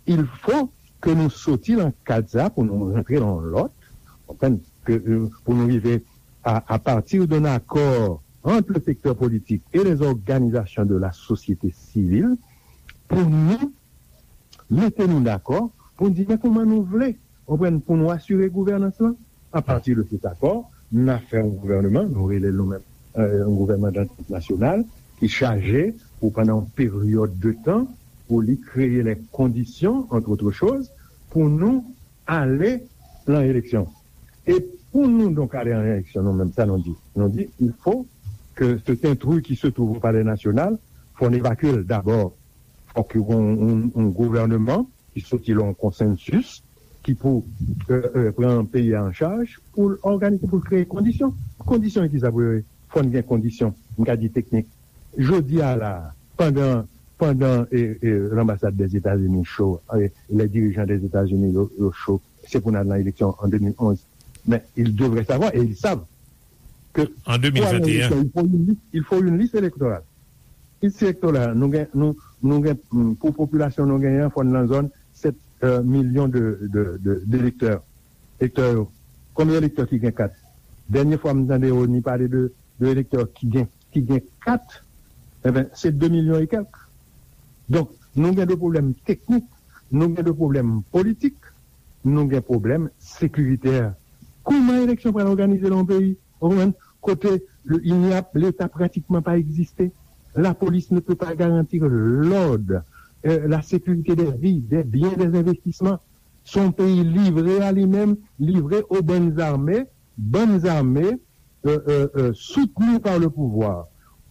il faut ke nou soti lan kad sa pou nou rantre lan lòt, konprann, ke, euh, pou nou rive à, à partir d'un accord entre le secteur politique et les organisations de la société civile, pou nou mete nou dakò pou n di men kòman nou vle, konprann, pou nou asire gouvènans lan. A pati de cet accord, n a fè yon gouvènman, nou rele l nou menm, euh, yon gouvènman dantant nasyonal, ki chaje pou pandan yon peryòd de tan, pou li kreye les conditions, entre autres choses, pou nou ale lan eleksyon. E pou nou donk ale an eleksyon, nou menm, sa nou di? Nou di, il faut que cet intrus qui se trouve au Palais National, fò n evakye l dabò. Fòk yo gen yon, yon, yon gouvènman ki soti lan yon konsansis, ki pou, euh, euh, pran peyi a an chaj, pou l òganize, pou l kreye kondisyon. Kondisyon ki sa pou yo ye? Fò n gen kondisyon, m ka di teknik. Jodi a la, pandan, pandan, e, e, l'ambassade des États-Unis cho, e, les dirigeants des États-Unis yo, yo cho, se pou n al nan eleksyon an de mil onz. Men, ils devraient savoir, et ils savent, que pour aller en élection, il faut une liste, il faut une liste électorale. Liste électorale, nou gen, nou, nou gen, mm, pou popilasyon nou genyen an, fò n nan zòn sèt, euh, milyon de, de, de, d'elektè. Elektè yo. Konbyen elektè ki gen kat? Dènye fwa m tande Rony pale de, de elektè ki gen, ki gen kat, enben, se de milyon e kèk. Donk, nou gen de pwoblèm teknik, nou gen de pwoblèm politik, nou gen pwoblèm sekiritè. Kòman eleksyon pral òganize nan yon peyi, ou konprann, kote le, il n'y a, Leta pratikman pa egziste? La police ne peut pas garantir l'ordre, euh, la sécurité des vies, des biens, des investissements. Se yon peyi livre a li menm, livre aux bandes armées, bandes armées, euh, euh, euh, soutenues par le pouvoir,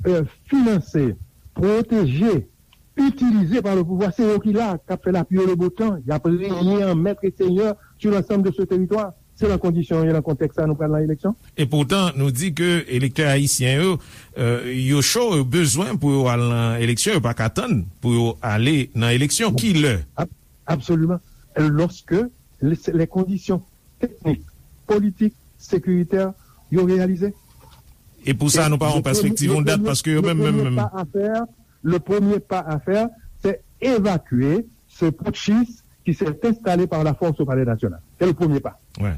euh, financées, protégées, utilisées par le pouvoir. Se yo ki la, k ap fè lapli e le beau temps. Y ap renye an maître et seigneur sur l'ensemble de ce territoire. Se nan kondisyon yo, nan kontèks sa nou pral nan eleksyon. E poutan, nou di ke elektè ayisyen yo, euh, yo cho, yo bezwen pou yo al nan eleksyon, yo pa ka tann pou yo ale nan eleksyon. Kilè? Ab-, absoliman. Lorsque les, les conditions techniques, politiques, sécuritaires, yo reyalize. E pou sa, nou pa yon pèspektiv, yon dat, paske yo menm, menm, menm. Le premier pas à faire, c'est évacuer ce putschiste qui s'est installé par la force au Palais National. C'est le premier pas. Ouais.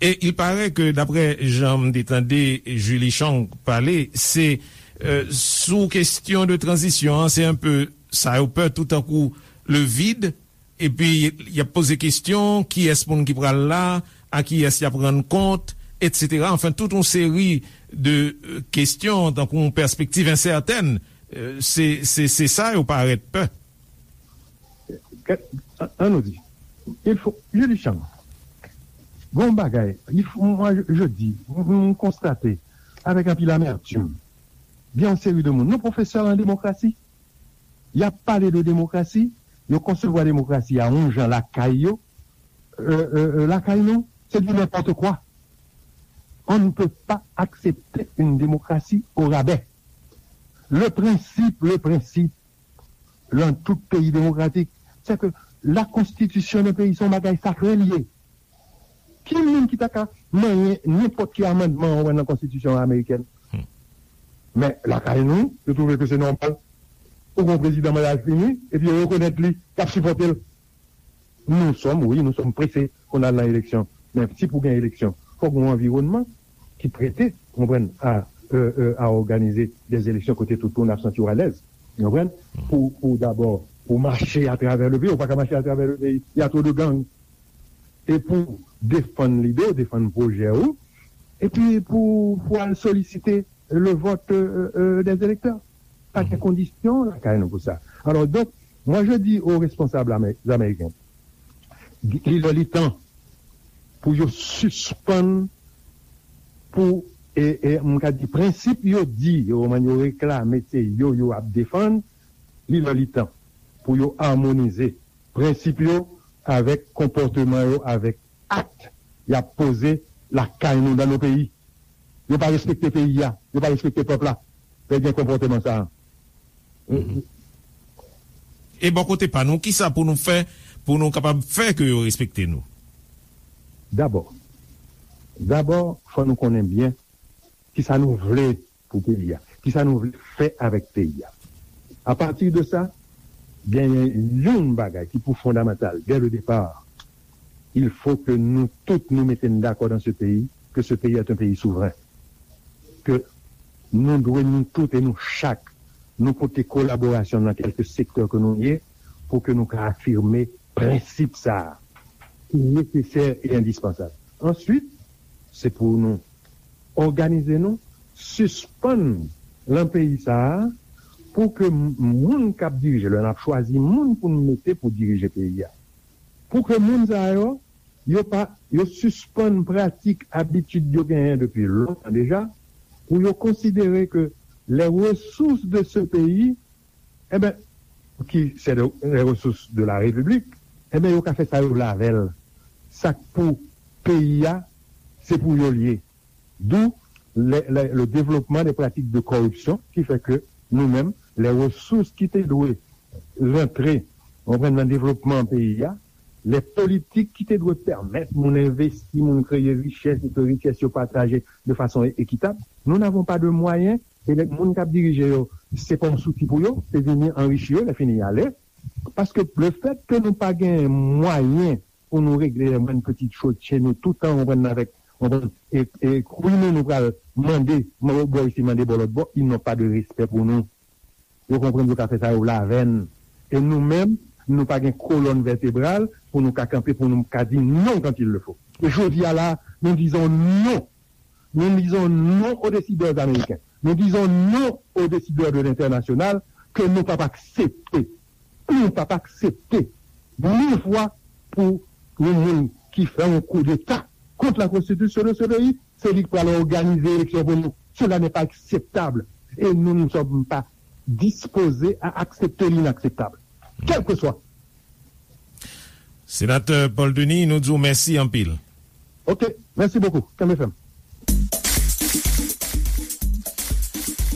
Et il paraît que, d'après jan m te tande Julie Chang pale, se, euh, sou kesyon de tranzisyon an, se enpe sa yo pè, toutankou le vide, epi y ap poze kesyon, kiyès moun ki pral la, a kiyès y ap rann kont, etsetera. Anfen, tout yon seri de, euh, kesyon, tankou yon pèspektiv ensètèn, euh, se, se, se sa yo parèt pè. An, an nou di, il faut, Julie Chang, gon bagay, il faut, moi, je, je dis, m, m konstate avèk anpil amètim, gen yon seri de moun, nou pwofesè an demokrasi, y ap pale de demokrasi, yo konsevwa demokrasi a yon jan lakay yo, euh, euh, euh, lakay nou, se du n'importe quoi. On ne peut pas accepter une démocratie au rabais. Le principe, le principe, dans tout pays démocratique, c'est que la constitution d'un pays, c'est un bagage sacré lié. Ki moun ki ta ka manyen nenpòt ki amandman ou wè nan konstitisyon amerikèn? Men lakay nou, yo twouve ke se nòmal. Ou gen yon prezidan mandal fini, epi yo rekonèt li, y ap sipòte l. Nous sommes, oui, nous sommes pressés pou n al nan eleksyon. Men si pou gen eleksyon, fòk gen yon anviwònman ki prete, konprann, a, euh, euh, à organiser des élections kote tout moun ap santi yo alèz. Konprann? Pou, pou dabò, pou mache atravè le peyi, ou pa ka mache atravè le peyi. Il y a trop de gangs. E pou defann lide w, defann pwojè ou, epi pou, pou al solisite le vote, euh, euh, des électeurs. Pa gen kondisyon lakay nou pou sa. Alors, donc, moi, je dis aux responsables amé-, américains, il est temps pou yo sispann pou, e, e, m ka di, prensip yo di, yo, yo reklame, se yo, yo ap defann, il est temps pou yo amonize prensip yo avèk konpòteman yo, avèk ak y ap poze lakay nou, dans nos pays. Yo pa respekte peyi a, yo pa respekte pèp la. Lè gen konpòteman sa a. E bò kote pa nou, kisa pou nou fè pou nou kapab fè ke yo respekte nou? Dabò, dabò, fò nou konnen byen kisa nou vle pou peyi a, kisa nou vle fè avèk peyi a. Apati de sa, genyen yon bagay ki pou fondamantal, dès le départ, il faut que nous tous nous mettions d'accord dans ce pays, que ce pays est un pays souverain. Ke nou dwe nou tout e nou chak, nou pote kolaborasyon nan kèlke sektè ke nou ye, pou ke nou ka afime prensip sa a, ki nesesè e endispansab. Answit, se pou nou òganize nou, sispann lan peyi sa a, pou ke moun k ap dirije, lè n ap chwazi moun pou n mete pou dirije peyi a, pou ke moun sa yo, yo pa, yo sispann pratik, abitid yo genyen depi lontan deja, pou yo konsidere ke les ressources de ce pays, enben, ki se les ressources de la République, enben, yo ka fè sa yo vle avè l. Sa k pou peyi a, se pou yo l ye. D'où le, le, le développement des pratiques de corruption qui fait que nou menm, les ressources ki te dwe rantre, konprann, nan devlopman peyi a, les politiques ki te dwe pèmèt moun envesti, moun kreye richès e ke richès yo pataje de façon équitable, nous n'avons pas de moyens, e lè moun k ap dirije yo, se pa yon souti pou yo, se vini anrichi yo, lè fini y ale. Paske le fait que nou pa gen mwayen pou nou regle les moindres petites choses chez nous, tout an, konprann, avèk, konprann, e, e kwi nou, nou pral mande, bò isi, mande bò lòt bò, ils n'ont pas de respect pour nous. Yo konprann yo ka fè sa yo vle avè n. E nou menm, nou pa gen kolòn vètebral pou nou ka kanpe, pou nou ka di non quand il le faut. E jodi a la, nous disons non. Nous disons non aux décideurs américains. Nous disons non aux décideurs de l'international ke nou p ap aksepte. Nou p ap aksepte mil fwa pou yon moun ki fè yon koudeta kont la konstitisyon de ce pays, se li k pral òganize eleksyon pou nou. Cela n'est pas acceptable. Et nous ne sommes pas disposés à accepter l'inakseptab. Kèlkeswa. Senatè Paul Denis, nou di w mèsi anpil. Ok, merci beaucoup. Kenbe fèm.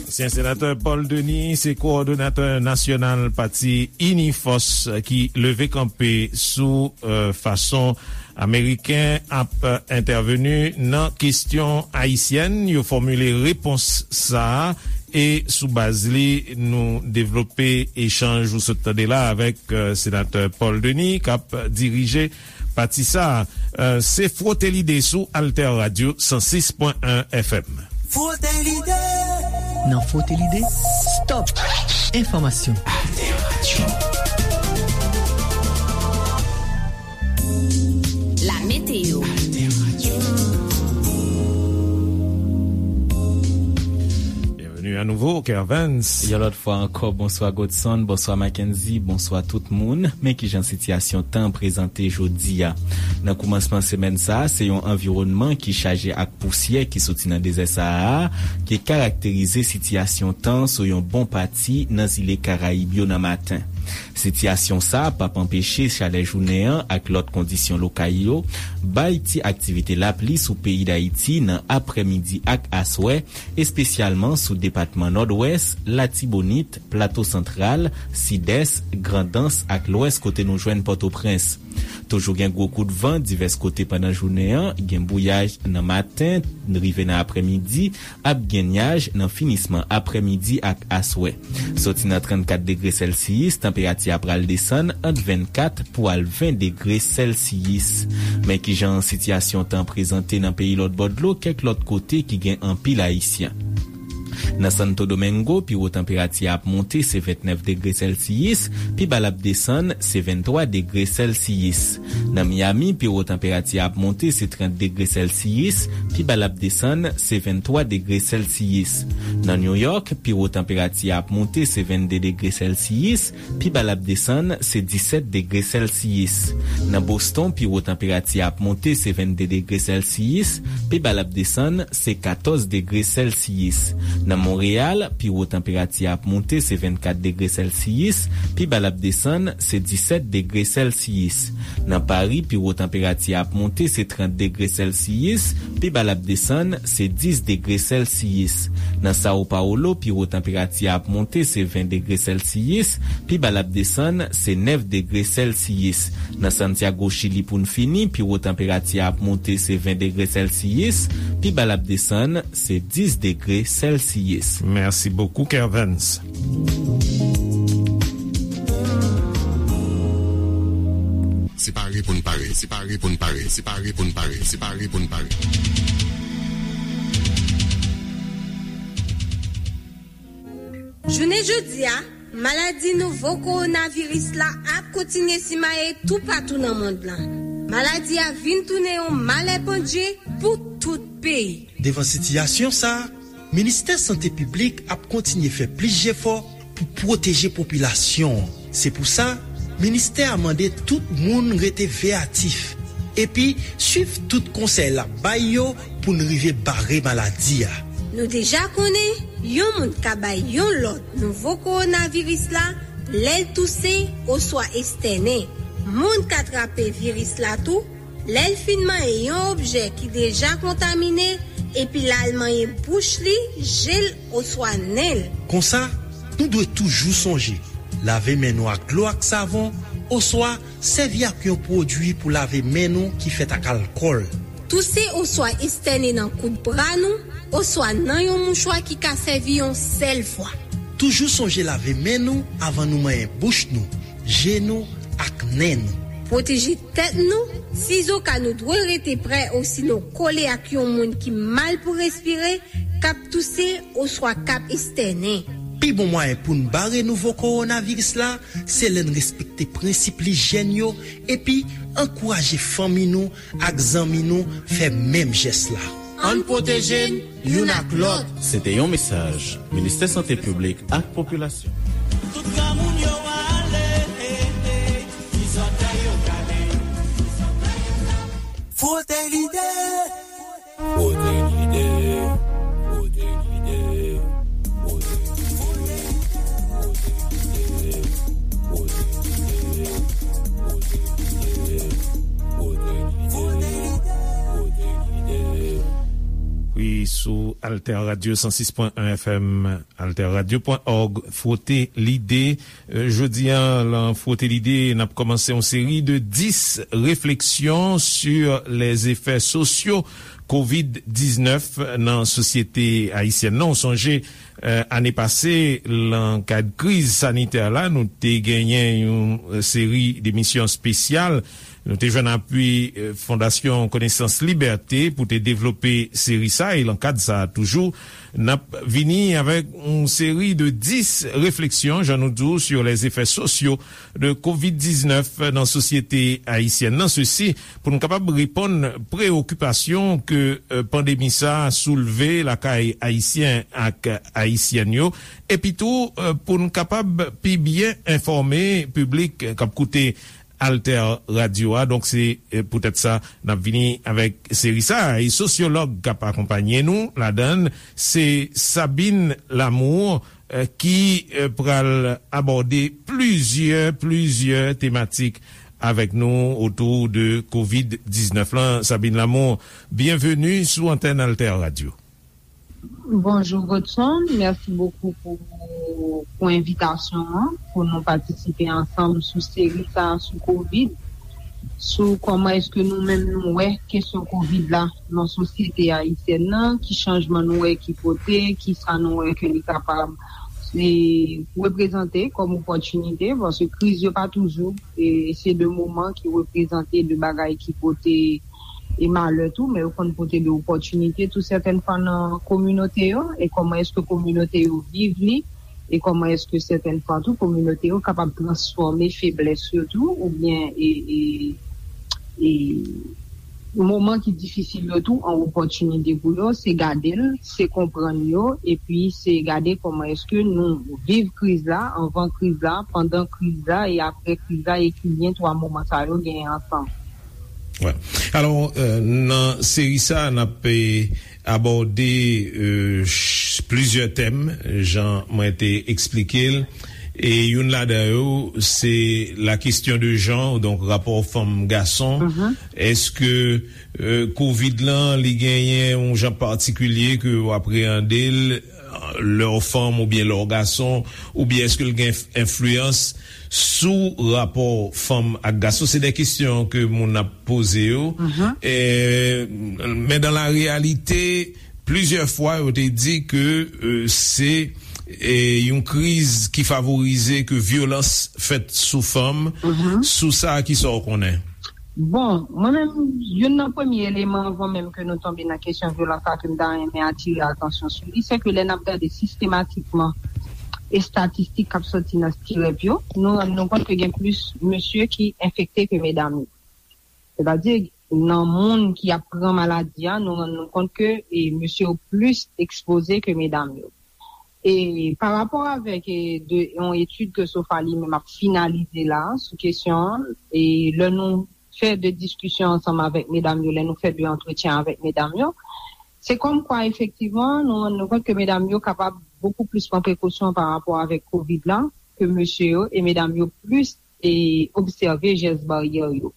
Ansyen senatè Paul Denis se kowòdonatè nasyonal pati Inifòs ki leve kanpe sou, euh, fason Ameriken ap, euh, entèveni nan kesyon ayisyèn. Yo fòmile repons sa a e sou baz li, nou devlope echanj ou sot tande la avèk, euh, senatè Paul Denis k ap dirije pati sa a. Euh, se Frote Lide sou Alter Radio san sis pwen en F M. Frote Lide. Nan Frote Lide, stop enfòmasyon. Alter Radio. La météo. Byenveni anouvo, Kervens. Yon lòt fwa ankò, bonswa Godson, bonswa Mackenzie, bonswa tout moun. Men kijan sitiyasyon tan an prezante jodi a. Nan koumansman semèn sa a, se yon anviwònman ki chaje ak pousyè ki soti nan dezè Sahara a ki karakterize sitiyasyon tan sou yon bon pati nan zile Karayib yo nan maten. Sitiyasyon sa a p ap anpeche chalè jounen an ak lòt kondisyon lokal yo bay ti aktivite lapli sou peyi Dayiti nan aprèmidi ak aswè, espesyalman sou depatman Nòdwès, Latibonit, Plato Santral, Sidès, Grandans ak Lwès kote nou jwenn Pòtoprens. Toujou gen gwo kout van divès kote pandan jounen an, gen bouyaj nan maten, rive nan aprèmidi, ap gen nyaj nan finisman aprèmidi ak aswè. Soti nan trannkat degre sèlsiyis, tanperati a pral desann ant vennkat pou al ven degre sèlsiyis. Men kijan sitiyasyon tan prezante nan peyi lòtbò dlo kèk lòt kote ki gen anpil Ayisyen. Nan Santo Domingo, pi wo tanperati a ap monte se vennèf degre sèlsiyis, pi ba l ap desann se venntwa degre sèlsiyis. Nan Miami, pi wo tanperati a ap monte se trant degre sèlsiyis, pi ba l ap desann se venntwa degre sèlsiyis. Nan New York, pi wo tanperati a ap monte se vennde degre sèlsiyis, pi ba l ap desann se disèt degre sèlsiyis. Nan Boston, pi wo tanperati a ap monte se vennde degre sèlsiyis, pi ba l ap desann se katòz degre sèlsiyis. Nan Monreyal, pi wo tanperati a ap monte se vennkat degre sèlsiyis, pi ba l ap desann se disèt degre sèlsiyis. Nan Pari, pi wo tanperati a ap monte se trant degre sèlsiyis, pi ba l ap desann se dis degre sèlsiyis. Nan Sao Paulo, pi wo tanperati a ap monte se ven degre sèlsiyis, pi ba l ap desann se nèf degre sèlsiyis. Nan Santiago, Chili, pou n fini, pi wo tanperati a ap monte se ven degre sèlsiyis, pi ba l ap desann se dis degre sèlsiyis. Mèsi bokou, Kervens. Separe pou n pare, separe pou n pare, separe pou n pare, separe pou n pare. Jounen jodi a, maladi nouvo kowonaviris la ap kontinye simaye toupatou nan mond lan. Maladi a vin tounen yon malè pandje pou tout peyi. Devan sitiyasyon sa a, Ministè Sante Piblik ap kontinye fè plis jefò pou pwoteje popilasyon an. Se pou sa, ministè a mande tout moun rete veyatif epi swiv tout konsèy l ap bay yo pou n rive bare maladi a. Nou deja konnen yon moun ka bay yon lòt nouvo kowonaviris la lè l touse oswa estènen. Moun ka trape viris la tou lè l fin manyen yon objè ki deja kontamine epi l al manyen bouch li, je l oswa nen l. Konsa, nou dwe toujou sonje lave men nou ak dlo ak savon oswa sèvi ak yon pwodui pou lave men nou ki fèt ak alkòl. Touse oswa estène nan kout bra nou oswa nan yon mouchwa ki ka sèvi yon sèl fwa. Toujou sonje lave men nou avan nou manyen bouch nou, je nou ak nen nou. Pwoteje tèt nou, sizoka nou dwe rete prè osinon kole ak yon moun ki mal pou respire, k ap touse oswa k ap estènen. Pi bon mwayen pou n bare nouvo kowonaviris la, se lè n respekte prensip lijyèn yo epi ankouraje fanmi nou ak zanmi nou fè menm jès la. Ann pwoteje n youn ak lòt. Se te yon mesaj Ministè Sante Piblik ak Popilasyon. Tout granmoun yo ale, ki zòtèy yo kale. Fwote lide. Fwote lide. Fwote lide. Fwote lide. Fwote lide. Fwote lide. Fwote lide. Fwote lide. Wi, sou Alter Radio san sis pwen en F M, alter radio pwen òg, Fwote Lide. Euh, jodi a, lan Fwote Lide, n ap kòmanse yon seri de dis réflexions sur les effets sociaux kovid diznèf nan sosyete ayisyèn nan. Ou sonje, euh, ane pase, lan kad kriz sanitè la, nou te genyen yon, euh, seri de emisyon espesyal. Nou te jwenn apui, euh, Fondasyon Konesans Libète pou te devlope seri sa, e lan kad sa a toujou, n ap vini avèk yon seri de dis réflexions, jan nou di w, sur les effets sociaux de kovid diznèf nan sosyete ayisyèn nan. Sesi, pou n kapab reponn preyokipasyon ke, euh, pandemi sa a soulve lakay Ayisyen ak Ayisyèn yo, epi tou, euh, pou n kapab pi byen enfòme piblik k ap koute Alter Radio a. Donk, se, eh, poutèt sa, n ap vini avèk seri sa a. E sosyològ k ap akonpaye nou ladan l, se Sabine Lamour, eh, ki eh, pral abòde plizyè, plizyè tematik avèk nou otou de kovid diznèf lan. Sabine Lamour, byenveni sou antèn Alter Radio. Bonjou Godson, mèsi bokou pou, pou envitasyon an, pou nou patisipe ansanm sou seri sa a sou kovid, sou kòman èske nou menm nou wè kesyon kovid la nan sosyete ayisyèn nan, ki chanjman nou wè ki pote, ki sa nou wè ke li kapab e, reprezante kòm opòtinite, paske kriz yo pa toujou e se de moman ki reprezante de bagay ki pote e malè tou, men yo konn pote de opòtinite tou sètèn fwa nan kominote yo, e kòman èske kominote yo viv li, e kòman èske sètèn fwa tou kominote yo kapab transfòme feblès yo tou oubyen e, e, e moman ki difisil yo tou an opòtinite pou yo, se gade l, se konprann yo, epi se gade kòman èske nou viv kriz la, anvan kriz la, pandan kriz la e apre kriz la, e ki lyen twa moman sa yo genyen ansanm. Alò, nan seri sa a, n ap abòde plizyè tèm, jan mwen te eksplike l. E youn ladan yo, se la kesyon de jan, donk rapò fanm gason. Èske kovid lan, li genyen yon jan patikilye ke w apreyande l lè w fanm oubyen lè w gason, oubyen èske l gen enfliyans sou rapò fanm ak gason? Se de kesyon ke moun ap poze yo. Men dan la reyalite, plizyè fwa yo te di ke se yon kriz ki favorize ke vyolans fèt sou fanm. Sou sa, kisa w konnen? Bon, mwen menm, youn nan premye eleman anvan menm ke nou tonbe nan kesyon vyolans la ke m ta renmen atire atansyon sou li, se ke lè n ap gade sistematikman estatistik k ap soti nan stirèp yo, nou rann nou kont ke gen plis mesye ki enfekte ke medam yo. Sètadi, nan moun ki ap pran maladi a, nou rann nou kont ke e, mesye yo plis ekspoze ke medam yo. E pa rapò avèk e, de, yon etid ke sofa li menm ap finalize la sou kesyon an, e lè nou fè de diskisyon ansanm avèk medam yo, lè nou fè de antretyen avèk medam yo, se kòmkwa efektivman nou rann nou kont ke medam yo kapab bokou plis pran prekosyon pa rapò avèk kovid la ke mesye yo, e medam yo plis e obsève jès baryè yo.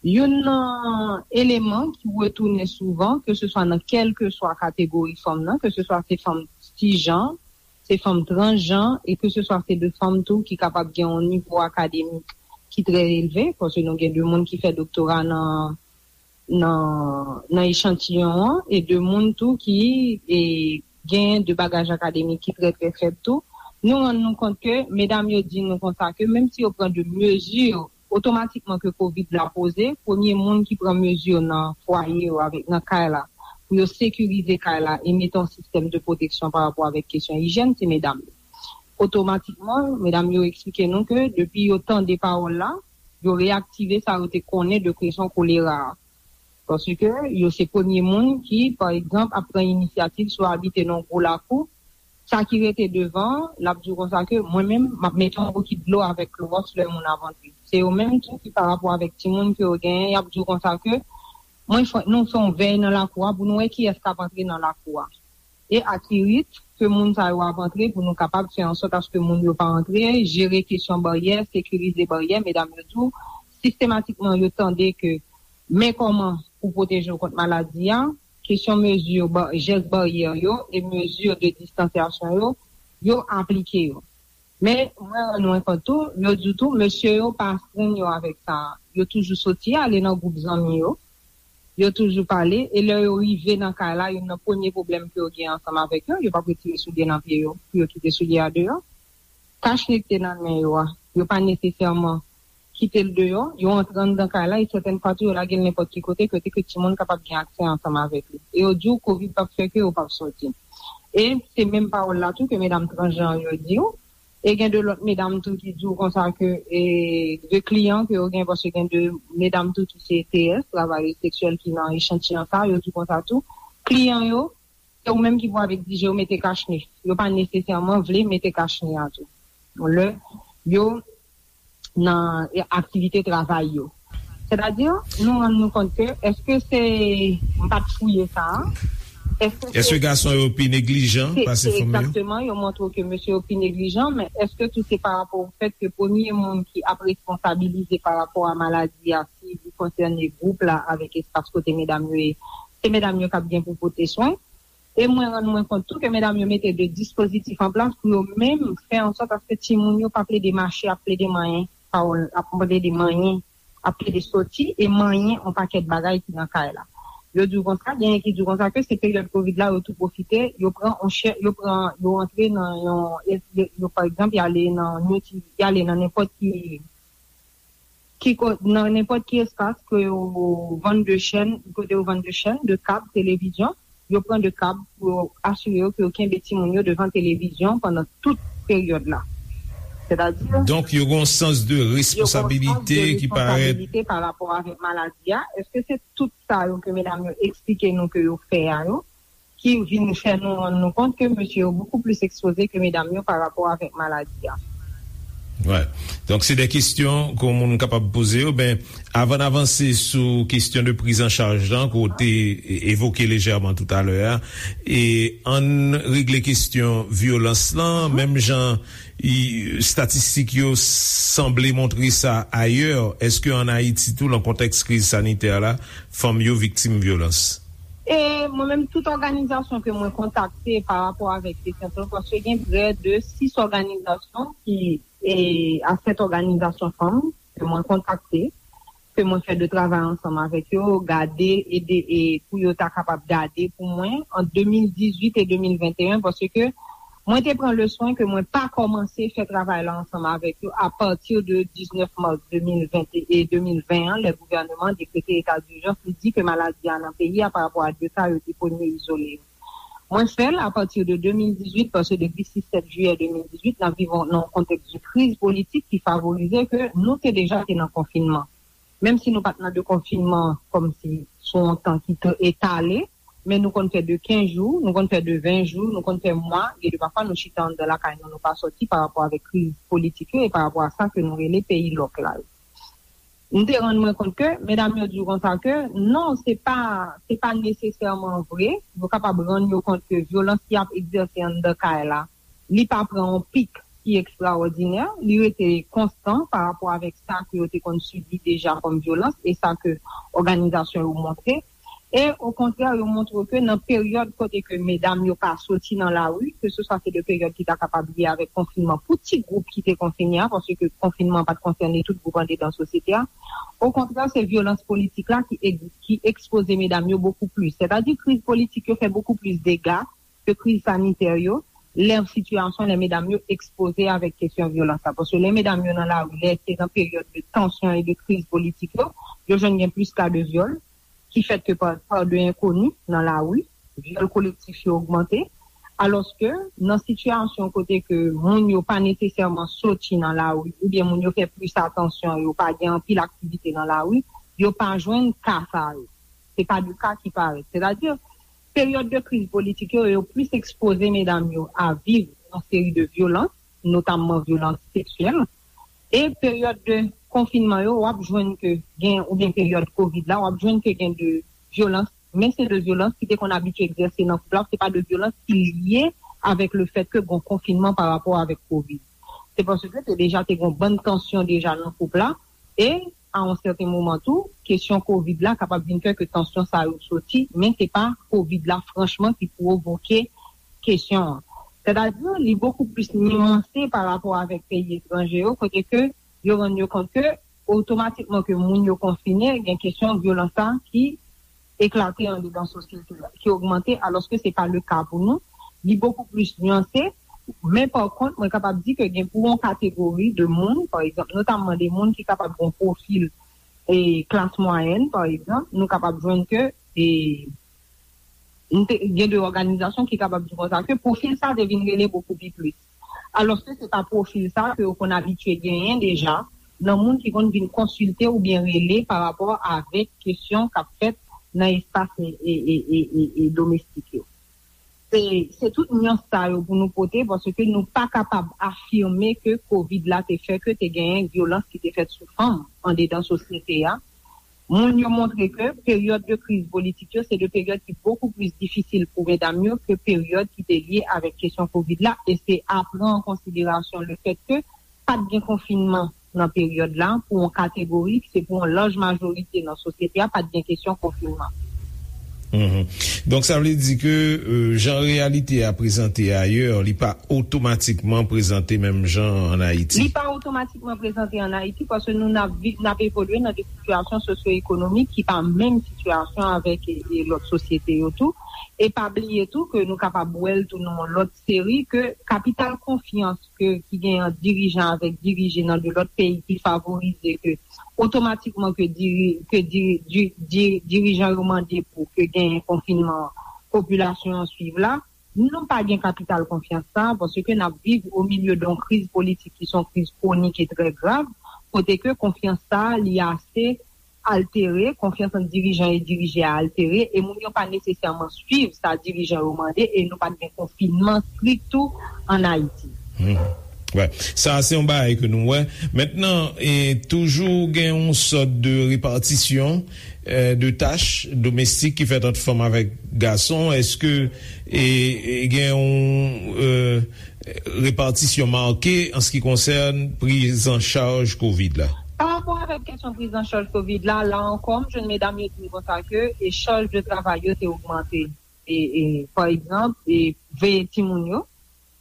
Youn nan eleman ki retounen souvan, keseswa nan kèlkeswa kategori fanm nan, keseswa se fanm sijan, se fanm transjan, e keseswa se de fanm tou ki kapab gen yon nivo akademik ki trè elve, paske nou gen de moun ki fè doktora nan nan nan echantiyon an, e de moun tou ki e, gen de bagaj akademik ki trè trè fèb tou. Nou rann nou kont ke medam yo di nou konsa ke menm si yo pran de mezi otomatikman ke kovid la poze, premye moun ki pran mezi nan fwaye yo avèk nan kay la pou yo sekirize kay la e mete yon sistèm de pwoteksyon pa rapò avèk kesyon ijyèn, se medam yo. Otomatikman, medam yo eksplike nou ke depi yo tande pawòl la, yo reyaktive sa yo te konnen de kesyon kolera a. Paske yo se premye moun ki, pa egzanp, ap pran inisyativ si w abite nan yon gwo lakou, sa ki rete devan, l ap di w konsa ke mwen menm, m ap mete yon bokit dlo avèk klowòks lè moun ap antre. Se yo menm tou ki pa rapò avèk timoun ke yo genyen, y ap di w konsa ke mwen fè, nou fè yon vèy nan lakou a pou nou wè kiyès k ap antre nan lakou a. E akirit ke moun sa yo ap antre pou nou kapab fè ansòt aske moun yo pa antre, jere kesyon baryè, sekirize baryè, medam yo tou, sistematikman yo tande ke men kòman pou pwoteje w kont maladi a, kesyon mezi ba, jès baryè yo e mezi de distansyasyon yo, yo aplike yo. Men mwen rann mwen kont tou, yo di tou, mesye yo pa astrenn yo avèk sa. Yo toujou soti ale nan gwoup zanmi yo, yo toujou pale, e lè yo rive nan kay la, youn nan premye pwoblèm ke yo gen ansanm avèk yo, yo p ap retire soulye nan pye yo pou yo kite soulye a deyò. Kachne ki te nan men yo a, yo pa nesesèman kite l deyò, yo antre anndan kay la, e sètèn fwa tou yo lage l nenpòt ki kote, kote ke timoun kapab gen aksè ansanm avèk li. E yo di w kovid p ap fè ke yo p ap soti. E se menm pawòl la tou ke medam transjan yo di w. E gen de lòt medam tou ki di w konsa ke e, de kliyan ke yo gen, paske gen de medam tou ki se T S, travayè seksyèl ki nan echantiyon sa, yo di w konsa tou. Kliyan yo, se ou menm ki pou al egzije yo mete kachne. Yo pa nesesèman vle mete kachne a tou. Lè yo nan aktivite travay yo. Sètadi, nou rann nou kont ke, èske se, m pa t fouye sa a, Èske gason yo pi neglijan pase fanm yo? Egzakteman, yo montre ke mesye yo pi neglijan, men èske tou se pa rapò o fèt ke premye moun ki ap responsabilize pa rapò a maladi a, si li konsène gwoup la avèk espas kote medam yo ye, se medam yo k ap gen pou pote swen? E mwen rann mwen kont tou ke medam yo mete de dispozitif an plas pou yo menm fè an sòt aske timoun yo pa plede mache ap plede manyen, pawòl ap plede manyen, ap plede soti e manyen yon pakèt bagay ki nan kay la. Yo di w konsa, genyen ki di w konsa ke se peryòd kovid la, yo tou pwofite, yo pran yon chè, yo pran, yo antre nan yon, yo, yo, pa egzanp, y ale nan, y ale nan nenpòt ki ki ko- nan nenpòt ki espas ke yo vann de chèn, kote yo vann de chèn, de kab, televizyon, yo pran de kab pou yo asire yo ke yo kenbe timoun yo devan televizyon pandan tout peryòd la. Sètadi, donk, yo gen yon sans de responsabilite ki parèt. Responsabilite pa rapò avèk maladi a. Èske se tout sa yo ke medam yo eksplike nou ke yo fè a yo? Ki vin fè nou rann nou kont ke mesye yo bokou plis ekspoze ke medam yo pa rapò avèk maladi a. Wè. Donk, se de kesyon ke yon moun kapab poze yo. Ben, avan n avanse sou kesyon de priz an chaj lan, ke w te e- evoke lejèman toutalè a, e ann regle kesyon vyolans lan, menm jan i- estatistik yo sanble montre sa ayè, èske ann Ayiti tou, nan kontèks kriz sanitè la, fanm yo viktim vyolans? E mwen menm, tout òganizasyon ke mwen kontakte pa rapò avèk kesyon sa, paske gen prè de sis òganizasyon ki, e, a sèt òganizasyon fanm ke mwen kontakte, ke mwen fè de travay ansanm avèk yo, gade, ede, e pou yo ta kapab gade pou mwen ant de mil dizuit e de mil venteyen, paske mwen te pran le swen ke mwen pa kòmanse fè travay la ansanm avèk yo apati de diznèf mas de mil ven e de mil ven an, lè gouvèneman an dekrete eta dijans, li di ke maladi a nan peyi a pa rapò a de ka yo te premye izole yo. Mwen fè l apati de de mil dizuit, paske depi sis sèt jiyè de mil dizuit, n ap viv nan yon kontèks de kriz politik ki favorize ke nou te deja te nan konfinman. Menm si nou pa t nan de konfinman kòmsi sou yon tan ki te etale, men nou konn fè de kenz jou, nou konn fè de ven jou, nou konn fè mwa, gen de pafwa nou chita anndan lakay nou, nou pa sòti pa rapò avèk kriz politik yo e pa rapò a sa ke nou rele peyi lòk la yo. M te rann mwen kont ke medam yo di w konsa ke non, se pa, se pa nesesèman vre. Yo kapab rann yo kont ke vyolans ki ap egzèse anndan kay la, li pa pran yon pik ki ekstraòdinè, li rete konstan pa rapò avèk sa ke yo te konn sibi deja kòm vyolans e sa ke òganizasyon yo montre. E okontrè, yo montre ke nan peryòd kote ke medam yo pa soti nan lari, ke se swa se de peryòd ki ta kapab lye avèk konfinman pou ti gwoup ki te konfine a, paske konfinman pa t konsène tout gwoup andedan sosyete a. Okontrè, se vyolans politik la ki, ki ekspoze medam yo bokou plis. Sètadi, kriz politik yo fè bokou plis dega ke kriz sanitè yo, lè sitiyasyon, lè medam yo ekspoze avèk kesyon vyolans la. Paske lè medam yo nan lari, lè se nan peryòd de tansyon e de kriz politik yo, yo jwenn gen plis ka de vyòl ki fèt ke pa, pa de enkoni nan lari, vyòl kolektif yo ogmante, alòske nan sitiyasyon kote ke moun yo pa nesesèman soti nan lari, oubyen moun yo fè plis atansyon, yo pa gen anpil aktivite nan lari, yo pa jwenn ka sa yo. Se pa de ka ki parèt. Sètadi, peryòd de kriz politik yo, yo plis ekspoze medam yo a viv yon seri de vyolans, notamman vyolans seksyèl. E peryòd de konfinman yo, w ap jwenn ke gen, oubyen peryòd kovid la, w ap jwenn ke gen de vyolans, men se de vyolans ki te konn abitye egzèse nan koup la, se pa de vyolans ki lye avèk le fèt ke gon konfinman pa rapò avèk kovid. Se paske te deja te gon bann tansyon deja nan koup la, e a yon sèten moman tou, kesyon kovid la kapab vin fè ke tansyon sa yo soti, men se pa kovid la franchman ki pwovoke kesyon an. Sètadi, li bokou plis niyanse pa rapò avèk peyi etranje yo, kote ke yo rann yo kont ke otomatikman ke moun yo konfine, gen kesyon vyolans sa ki eklate andedan sosyete a, ki ogmante, alòske se pa le ka pou nou. Li bokou plis niyanse, men pa kont, mwen kapab di ke gen pou yon kategori de moun, pa egzanp, notamman de moun ki kapab gen pwofil e klas mwayèn, pa egzanp, nou kapab jwenn ke e, gen de òganizasyon ki kapab di konsa ke pwofil sa te vin rele bokou pi plis. Alòske se pa pwofil sa ke yo konn abitye genyen deja nan moun ki konn vin konsilte oubyen rele pa rapò avèk kesyon k ap fèt nan espas e, e, e, e, e, e domestik yo. Se, se tout nyans sa yo pou nou pote, paske nou pa kapab afime ke kovid la te fè ke te genyen vyolans ki te fèt sou fanm andedan sosyete a. Moun yo montre ke peryòd de kriz politik yo se de peryòd ki bokou plis difisil pou medam yo ke peryòd ki te lye avèk kesyon kovid la, e se a pran an konsiderasyon le fèt ke pa t gen konfinman nan peryòd la pou yon kategori, se pou yon laj majorite nan sosyete a, pa t gen kesyon konfinman. Mhm. Donk, sa vle di ke euh, jan reyalite a prezante ayè, li pa otomatikman prezante menm jan an Ayiti. Li pa otomatikman prezante an Ayiti paske nou n ap vi- n ap evolye nan de sitiyasyon sosyo-ekonomik ki pa menm sitiyasyon avèk e, e lòt sosyete yo tou. E pa bliye tou ke nou kapab wè l tou nan yon lòt seri ke kapital konfyans ke ki gen ant dirijan avèk dirije nan de lòt peyi ki favorize ke otomatikman ke diri, ke diri, di, di, dirijan yo mande pou ke genyen konfinman popilasyon an swiv la. Nou pa gen kapital konfyans sa paske n ap viv o milye de yon kriz politik ki se yon kriz kwonik e trè grav, kote ke konfyans sa li ase altere, konfyans ant dirijan e dirije a altere, e moun yo pa nesesèman swiv sa dirijan yo mande, e nou pa t gen konfinman strik tou an Ayiti. Wè, sa se yon bagay ke nou wè. Mentnan, e, toujou gen yon sòt de repatisyon e, de tach domestik ki fèt ant fanm avèk gason. Èske e, e, gen yon e, repatisyon make an se ki konsène prizanchaj kovid la? Pa rapò avèk kesyon prizanchaj kovid la, la ankò, m jwenn medam yo di m konsa ke e chaj de travay yo te ogmante. E, e, pa egzanp, e veye timoun yo,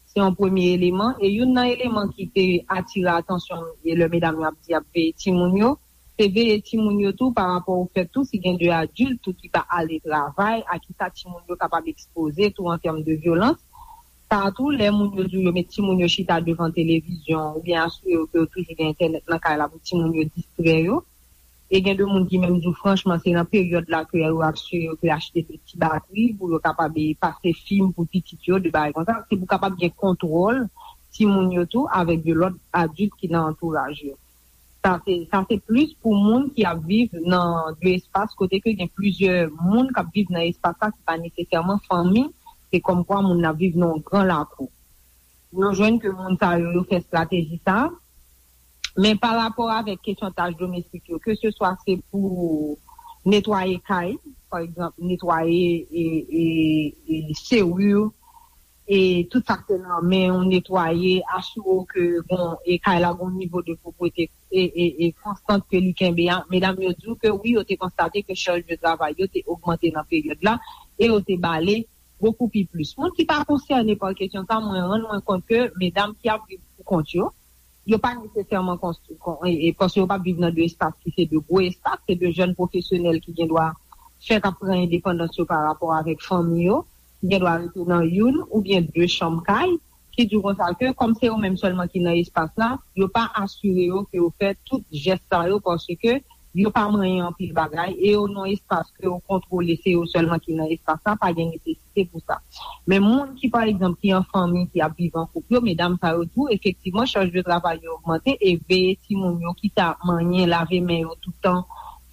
se yon premye eleman. E youn nan eleman ki te atire atansyon m, e lè medam yo ap di y ap veye timoun yo, se veye timoun yo tou pa rapò o fèt tou si gen de adilt tou ki pa ale travay, a kisa timoun yo kapab ekspoze tou an tèm de vyolans. Sa tou, lè moun yo di w yo met timoun yo chita devan televizyon oubyen asire yo ke yo toujou gen entènèt nan kay la pou timoun yo distrè yo. E gen de moun ki menm di w franchman se nan peryòd la ke yo asire yo ke achte de ti batri pou yo kapab pase fim pou pitit yo, de bagay konsa. Se pou kapab gen kontwòl timoun yo tou avèk de lòt adilt ki nan antouraj yo. Sa se, sa se plis pou moun ki ap viv nan de espas kote ke gen plizyè moun k ap viv nan espas la ki pa nesesèman fanmi, se kòmkwa moun nan ap viv nan yon gran lakou. Nou jwenn ke moun sa yo, yo fè estrateji sa. Men pa rapò avèk kesyon tach domestik yo, ke se swa se pou netwaye kay, pa egzanp, netwaye e, e, e seri, e tout sa k te nan men w, netwaye, asire w ke bon, e kay la gon nivo de pwoprete e, e, e konstant ke li kenbe a. Medam yo di w ke wi, yo te konstate ke chaj de travay yo te ogmante nan peryòd la e yo te bale bokou pi plis. Moun ki pa konsène pa kesyon sa, mwen rann mwen kont ke medam ki ap viv pou kont yo, yo pa nesesèman konstwi, kon, e, e, paske yo pa viv nan de espas ki se de gwo espas, se de jèn pwofesyonèl ki gen dwa fèk ap pran endepandans yo pa rapò avèk fanmi yo, ki gen dwa rete nan youn oubyen de chanm kay, ki di w konsa ke kòm se yo menm sèlman ki nan espas la, yo pa asire yo ke yo fè tout jès sa yo paske yo pa manyen anpil bagay e yo nan espas ke yo kontwole, se yo sèlman ki nan espas la, pa gen nesesite pou sa. Men moun ki, pa egzanp, ki an fanmi, ki ap viv an koup yo, medam sa yo di w, efektivman, chaj de travay yo ogmante e veye timoun yo, kit a manyen, lave men yo toutan,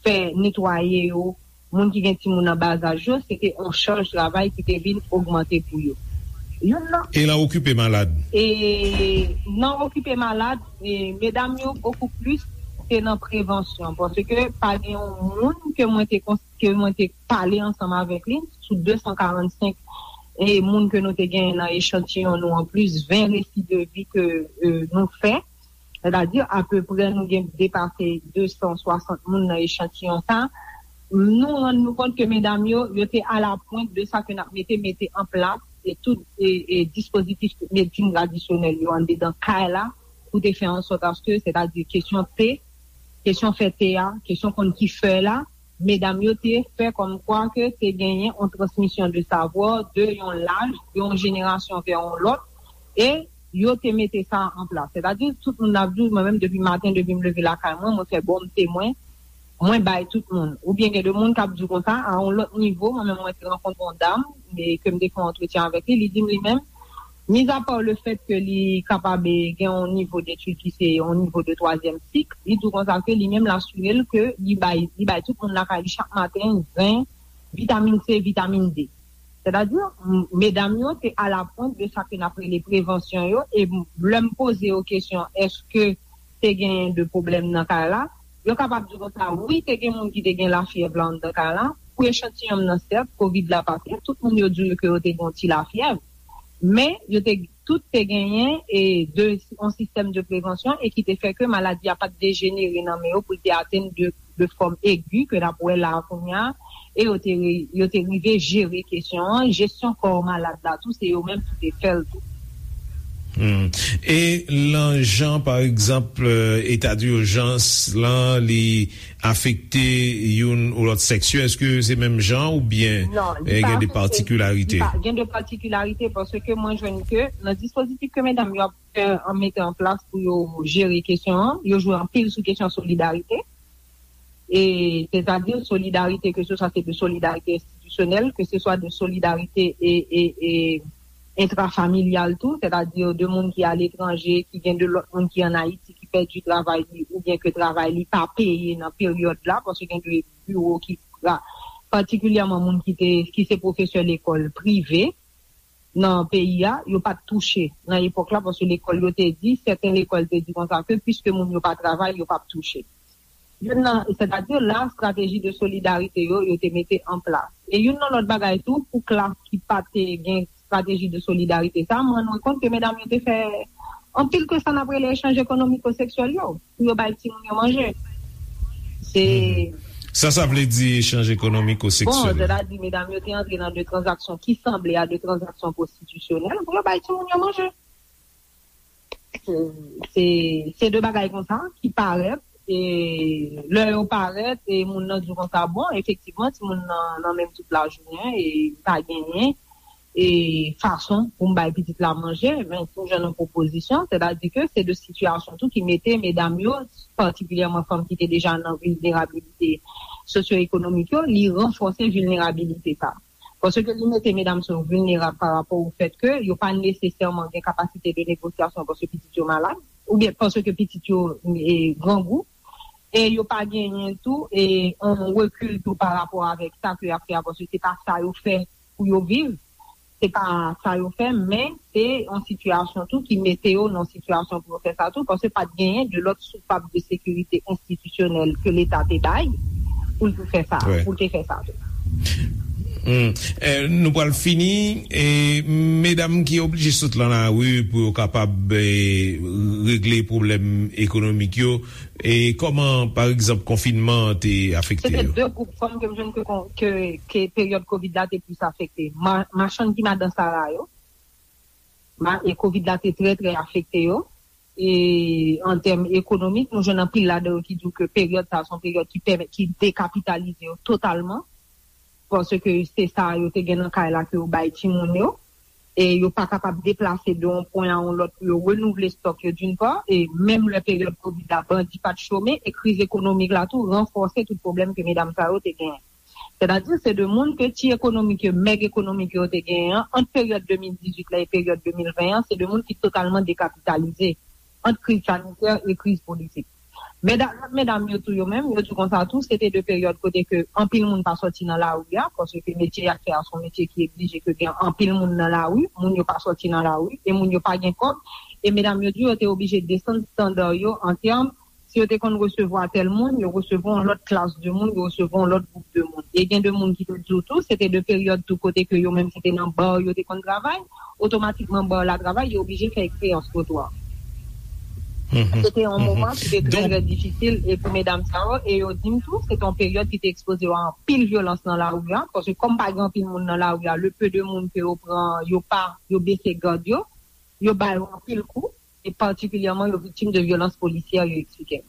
fè netwaye yo, moun ki gen timoun nan ba zaj yo, se te yon chaj travay ki te vin ogmante pou yo. Youn nan. E nan okipe malad? E nan okipe malad, e medam yo bokou plis se nan prevansyon, paske pa gen yon moun ke mwen te kons- ke mwen te pale ansanm avèk li sou de san karannsenk e moun ke nou te genyen nan echantiyon nou, anplis ven resi de vi ke e, nou fè, sètadi apeprè nou gen depase de san swasant moun nan echantiyon sa. Nou rann nou kont ke medam yo, yo te alapwent de sa ke n ap mete mete an plas e tout e, e dispozitif medsin tradisyonèl yo anndedan kay la pou te fè an sòt aske, sètadi kesyon te, kesyon fè te a, kesyon konn ki fè la, medam yo te fè kòmkwa ke te genyen yon transmisyon de savwa de yon laj, de yon jenerasyon vè yon lòt, e yo te mete sa an plas. Sètadi, tout moun ap di w, mwen menm depi maten, depi m leve lakay mwen, mwen fè bòn te mwen, mwen bay tout moun. Oubyen gen de moun k ap di w konsa, a yon lòt nivo, mwen menm mwen te rankontre yon dam, e ke m te fè yon antretyen avèk li, li di m li menm, mizapa le fèt ke li kapab gen yon nivo detid ki se yon nivo de twazyèm sik, li di w konsa ke li menm l asire l ke li bay, li bay tout moun lakay li chak maten zen, vitamin C, vitamin D. Sètadi, m- medam yo te alapwent de sa ke n ap rele prevansyon yo, e m- lè m poze yo kesyon, èske te genyen de pwoblèm nan kay la, Yo kapab di konsa, wi, te gen moun ki te gen lafyèv la anndan kay la. Pou echantiyon m nan, sèt, kovid la pa fèt, tout moun yo di w ke yo te gen yon ti lafyèv. Men, yo te, tout te genyen e de, yon sistèm de prevansyon e ki te fè ke maladi a pa t dejenere nan men yo pou l te atenn de, de fòm egi ke n ap wè la a kounye a, e yo te, yo te rive jere kesyon an, jesyon kò malad la tou, se yo menm ki te fè l tou. Hmm. E lan jan, pa egzanp, eta dijans lan, li afekte youn ou lòt sèks yo, èske se menm jan oubyen Non, li eh, pa gen de afekte, li patikilarite? Pa, gen de patikilarite paske mwen jwenn ke nan dispozitif ke medam yo ap fè an mete an plas pou yo jere kesyon an, yo jwe anpil sou kesyon solidarite. E sètadi solidarite, ke se swa se de solidarite enstitisyonèl, ke se swa de solidarite e, e, e entrafamilyal tou, sètadi de moun ki aletranje, ki gen de lòt moun ki ann Ayiti ki pèdi travay li oubyen ke travay li pa peye nan peryòd la, paske gen de biwo ki, patikilyèman moun ki te, ki se pwofesè lekòl prive nan peyi a, yo pa t touche nan epòk la, paske lekòl yo te di, sèten lekòl te di konsa ke piske moun yo pa travay, yo p ap touche. Youn nan, sètadi la, estrateji de solidarite yo, yo te mete an plas. E youn nan lòt bagay tou, pou klas ki pa te gen estrateji de solidarite sa, mwen rann mwen kont ke medam yo te fè anpil ke sa n ap rele echanj ekonomiko-seksyèl yo, pou yo bay timoun yo manje. Se Mhm. Sa, sa vle di echanj ekonomiko-seksyèl? Bon, sètadi medam yo te antre nan de tranzaksyon ki sanble a de tranzaksyon pwostitisyonèl pou yo bay timoun yo manje. Se, se, se de bagay konsa ki parèt, e lè yo parèt, e moun nan di w konsa, bon, efektivman, timoun nan, nan menm tout lajounen, e li pa genyen, e fason pou m bay pitit la manje, men pou jwenn yon pwopozisyon, sètadi ke se de sitiyasyon tou ki mete medam yo, patikilyèman fanm ki te deja nan vilnerabilite sosyo-ekonomik yo, li ranfòse vilnerabilite sa. Paske li mete medam sa yo vilnerab pa rapò o fèt ke yo pa nesesèman gen kapasite de negosyasyon paske pitit yo malad, oubyen paske pitit yo e, grangou, e yo pa genyen tou e yon rekil tou pa rapò avèk sa ke y ap fè a, paske se pa sa yo fè pou yo viv, se pa sa yo fè, men se yon sitiyasyon tou ki mete yo nan sitiyasyon pou yo fè sa tou, paske pa t genyen de lòt soupap de sekirite enstitisyonèl ke Leta te bay pou l te fè sa, Wi. pou l te fè sa tou. Hmm. Eh, nou pral fini. E medam ki oblije sot lan lari pou yo kapab eh, regle pwoblèm ekonomik yo, e kòman, pa egzanp, konfinman an te afekte Se te yo? de gwoup fanm ke m jwenn ke, ke, ke peryòd kovid la te plis afekte. Ma, machann ki madan sara yo, ma, e kovid la te trè, trè afekte yo. E an tèm ekonomik, nou jwenn anpil ladan yo ki di w ke peryòd sa a se yon peryòd ki pèmèt, ki dekapitalize yo totalman. Paske se sa yo te gen nan kay la ke yo bay timoun yo. E yo pa kapab deplase de yon pwen a yon lòt pou yo renouvle stòk yo, d'une part, e menm lè peryòd kovid la, bandi pa t chome, e kriz ekonomik la tou ranfòse tout pwoblèm ke medam sa yo te genyen. Sètadi, se de moun ke ti ekonomik yo, mèg ekonomik yo te genyen an, ant peryòd de mil dizuit la e peryòd de mil ven an, se de moun ki totalman dekapitalize ant kriz sanitè e kriz politik. Medam, lòt medam yo tou yo menm, yo di konsa tou, se te de peryòd kote ke anpil moun pa sòti nan lari a, paske metye y ap fè a se yon metye ki eblije ke gen anpil moun nan lari, moun yo pa sòti nan lari, e moun yo pa gen kòb, e medam yo di yo te oblije desann estanda yo an tèm, si yo te konn resevwa tèl moun, yo resevwa yon lòt klas de moun, yo resevwa yon lòt gwoup de moun. E gen de moun ki te di w tou, se te de peryòd tou kote ke yo menm se te nan ba yo te konn travay, otomatikman ba la travay, yo oblije fè eksperyans twotwa. Mhm. Se te yon Mhm. moman ki te trè, Donk, trè difisil, e pou medam sa yo, e yo di m tou, se te yon peryòd ki te ekspoze yo a anpil vyolans nan lari a, paske kòm pa gen anpil moun nan lari a, le peu de moun ke yo pran, yo pa, yo bese gad yo, yo ba yo anpil kou, e patikilyèman yo viktim de vyolans polisyè, yo eksplike m.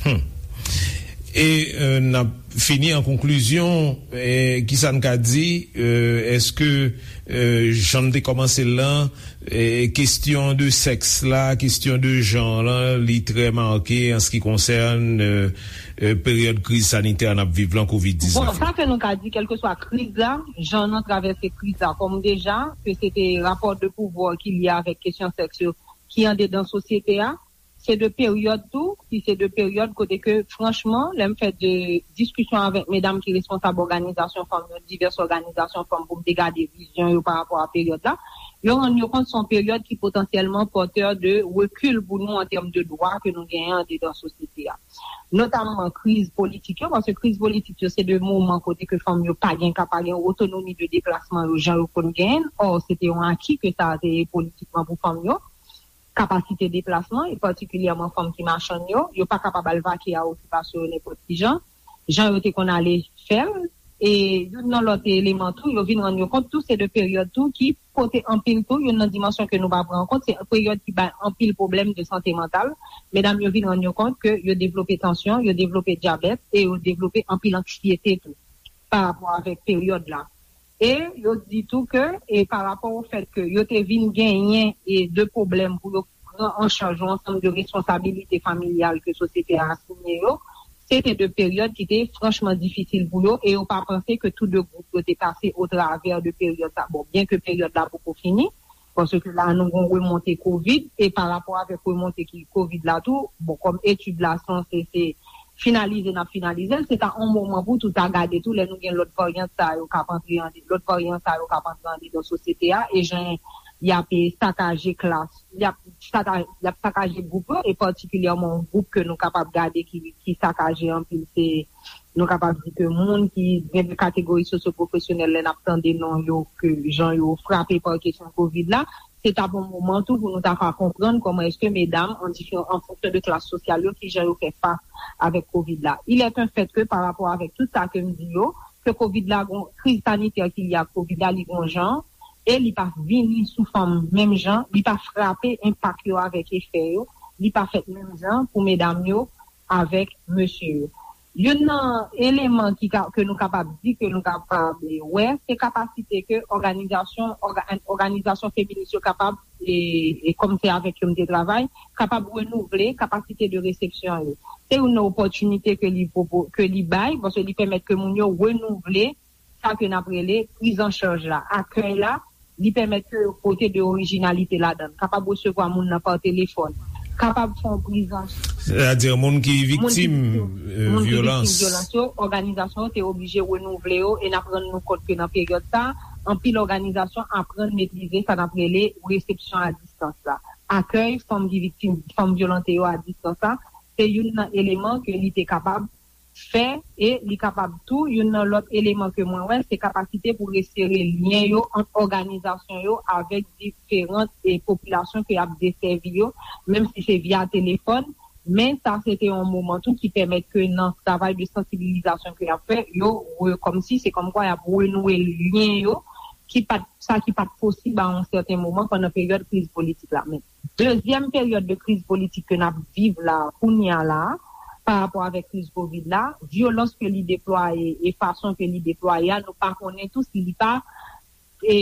Hmm. E euh, n ap fini an konklizyon, eh, kisa n ka di, euh, èske euh, jan n te kòmanse l lan, eh, kesyon de sèks la, kesyon de jan lan, li trè make an se ki konsène euh, euh, peryòd kriz sanitè n ap viv lan, kovid Bon, diznèf sa la? ke nou ka di, kèlkeswa kriz la, jan nou travèse kriz la, kòm deja, ke se te rapò de pouvwa ki lye avèk kesyon sèks yo, ki andedan sosyete a, se de peryòd tou, ki se de peryòd kote ke, franchman, lè m fè de diskisyon avèk medam ki responsab òganizasyon fanm yo, divès òganizasyon fanm, pou m te gade vizyon yo pa rapò a peryòd la, yo rann yo kont se yon peryòd ki potansyèlman pòtè de rekil pou nou an tèm de dwa ke nou genyen andedan sosyete a. Notamman kriz politik yo, paske kriz politik yo se de moman kote ke fanm yo pa gen ka, pa gen otonomi de deplasman yo jan yo konn genyen. Ò, se te yon aki ke sa te ye politikman pou fanm yo. Kapasite deplasman, e patikilyèman fanm ki machann yo, yo pa kapab al vake a okipasyon yo nenpòt ki jan, jan yo te konn ale fè l. E youn nan lòt eleman tou, yo vin rann yo kont tou, se de peryòd tou ki pote anpil tou, youn nan dimansyon ke nou pa pran an kont, se peryòd ki bay anpil pwoblèm de sante mantal. Medam yo vin rann yo kont ke yo devlope tansyon, yo devlope dyabèt, e yo devlope anpil anksyete tou, pa rapò avèk peryòd la. E yo di tou ke, e pa rapò o fèt ke yo te vin genyen e de pwoblèm pou yo pran an chaj yon ansanm de responsabilite familyal ke sosyete a asinye yo, se te de peryòd ki te franchman difisil pou yo, e yo pa panse ke tou de gwoup yo te pase otravè de peryòd sa. Bon, byen ke peryòd la poko fini, paske la nou gon remonte kovid, e pa rapò avèk remonte ki kovid la tou, bon, kòm etid la sanse se finalize, n ap finalize l, se ta yon moman pou tou ta gade tou lè nou gen lòt varyant sa yo k ap antre an, lòt varyan sa yo k ap antre andedan sosyete a, e jan y ap, e, sakaje klas, y ap saka-, y ap sakaje gwoup yo, e patikilyèman yon gwoup ke nou kapab gade ki, ki sakaje anpil, se, nou kapab di ke moun ki gen de kategori sosyopwofesyonèl, lè n ap tande non yo, ke jan yo frape pa kesyon kovid la, se t ap yon moman tou pou nou ta ka konprann kòman èske medam, an diferan, an fonksyon de klas sosyal yo, ki jan yo fè fas avèk kovid la. Il est un fait que, pa rapò avèk tout sa ke m di yo, ke kovid la, gon kriz sanitè ki lye ak kovid la, li gon jan, e li pa vini sou fanm menm jan, li pa frape enpak yo avèk efè yo, li pa fèt menm jan pou medam yo avèk mesye yo. Youn nan eleman ki ka, ke nou kapab di, ke nou kapab wè, se kapasite ke òganizasyon, òga-, òganizasyon feminis yo kapab, e, e kòm se avèk yo m te travay, kapab renouvle kapasite de resepsyon yo. Se youn nan opòtinite ke li pwopo-, ke li bay, paske li pèmèt ke moun yo renouvle sa ke n ap rele priz an chaj la, akèy la, li pèmèt ke yo pote de orijinalite ladan l, kapab resevwa moun nan pa telefòn, kapab fè yon priz an chaj. Sètadi moun ki viktim, viktim, euh, moun ki viktim vyolans. Vyolans yo, òganizasyon yo te oblije renouvle yo, e n ap rann nou kont ke nan peryòd sa, anpil òganizasyon aprann metrize sa n ap rele resepsyon a distans la. Akèy fanm ki viktim, fanm vyolante yo a distans la, se youn nan eleman ke li te kapab fè, e li kapab tou, youn nan lòt eleman ke mwen wè, se kapasite pou resere lyen yo ant òganizasyon yo avèk diferan, e, popilasyon ke y ap desèvi yo, menm si se via telefòn, men sa se te yon moman tou ki pèmèt ke nan travay de sansibilizasyon ke y ap fè, yo re-, kòmsi se kòmkwa y ap renouwe lyen yo, ki pa t, sa ki pa t posib a yon sèten moman pandan peryòd kriz politik la. Men dezyèm peryòd de kriz politik ke n ap viv la, kounye a la, pa rapò avèk kriz kovid la, vyolans ke li deplwaye e fason ke li deplwaye a, nou pa konnen tou si li pa, e,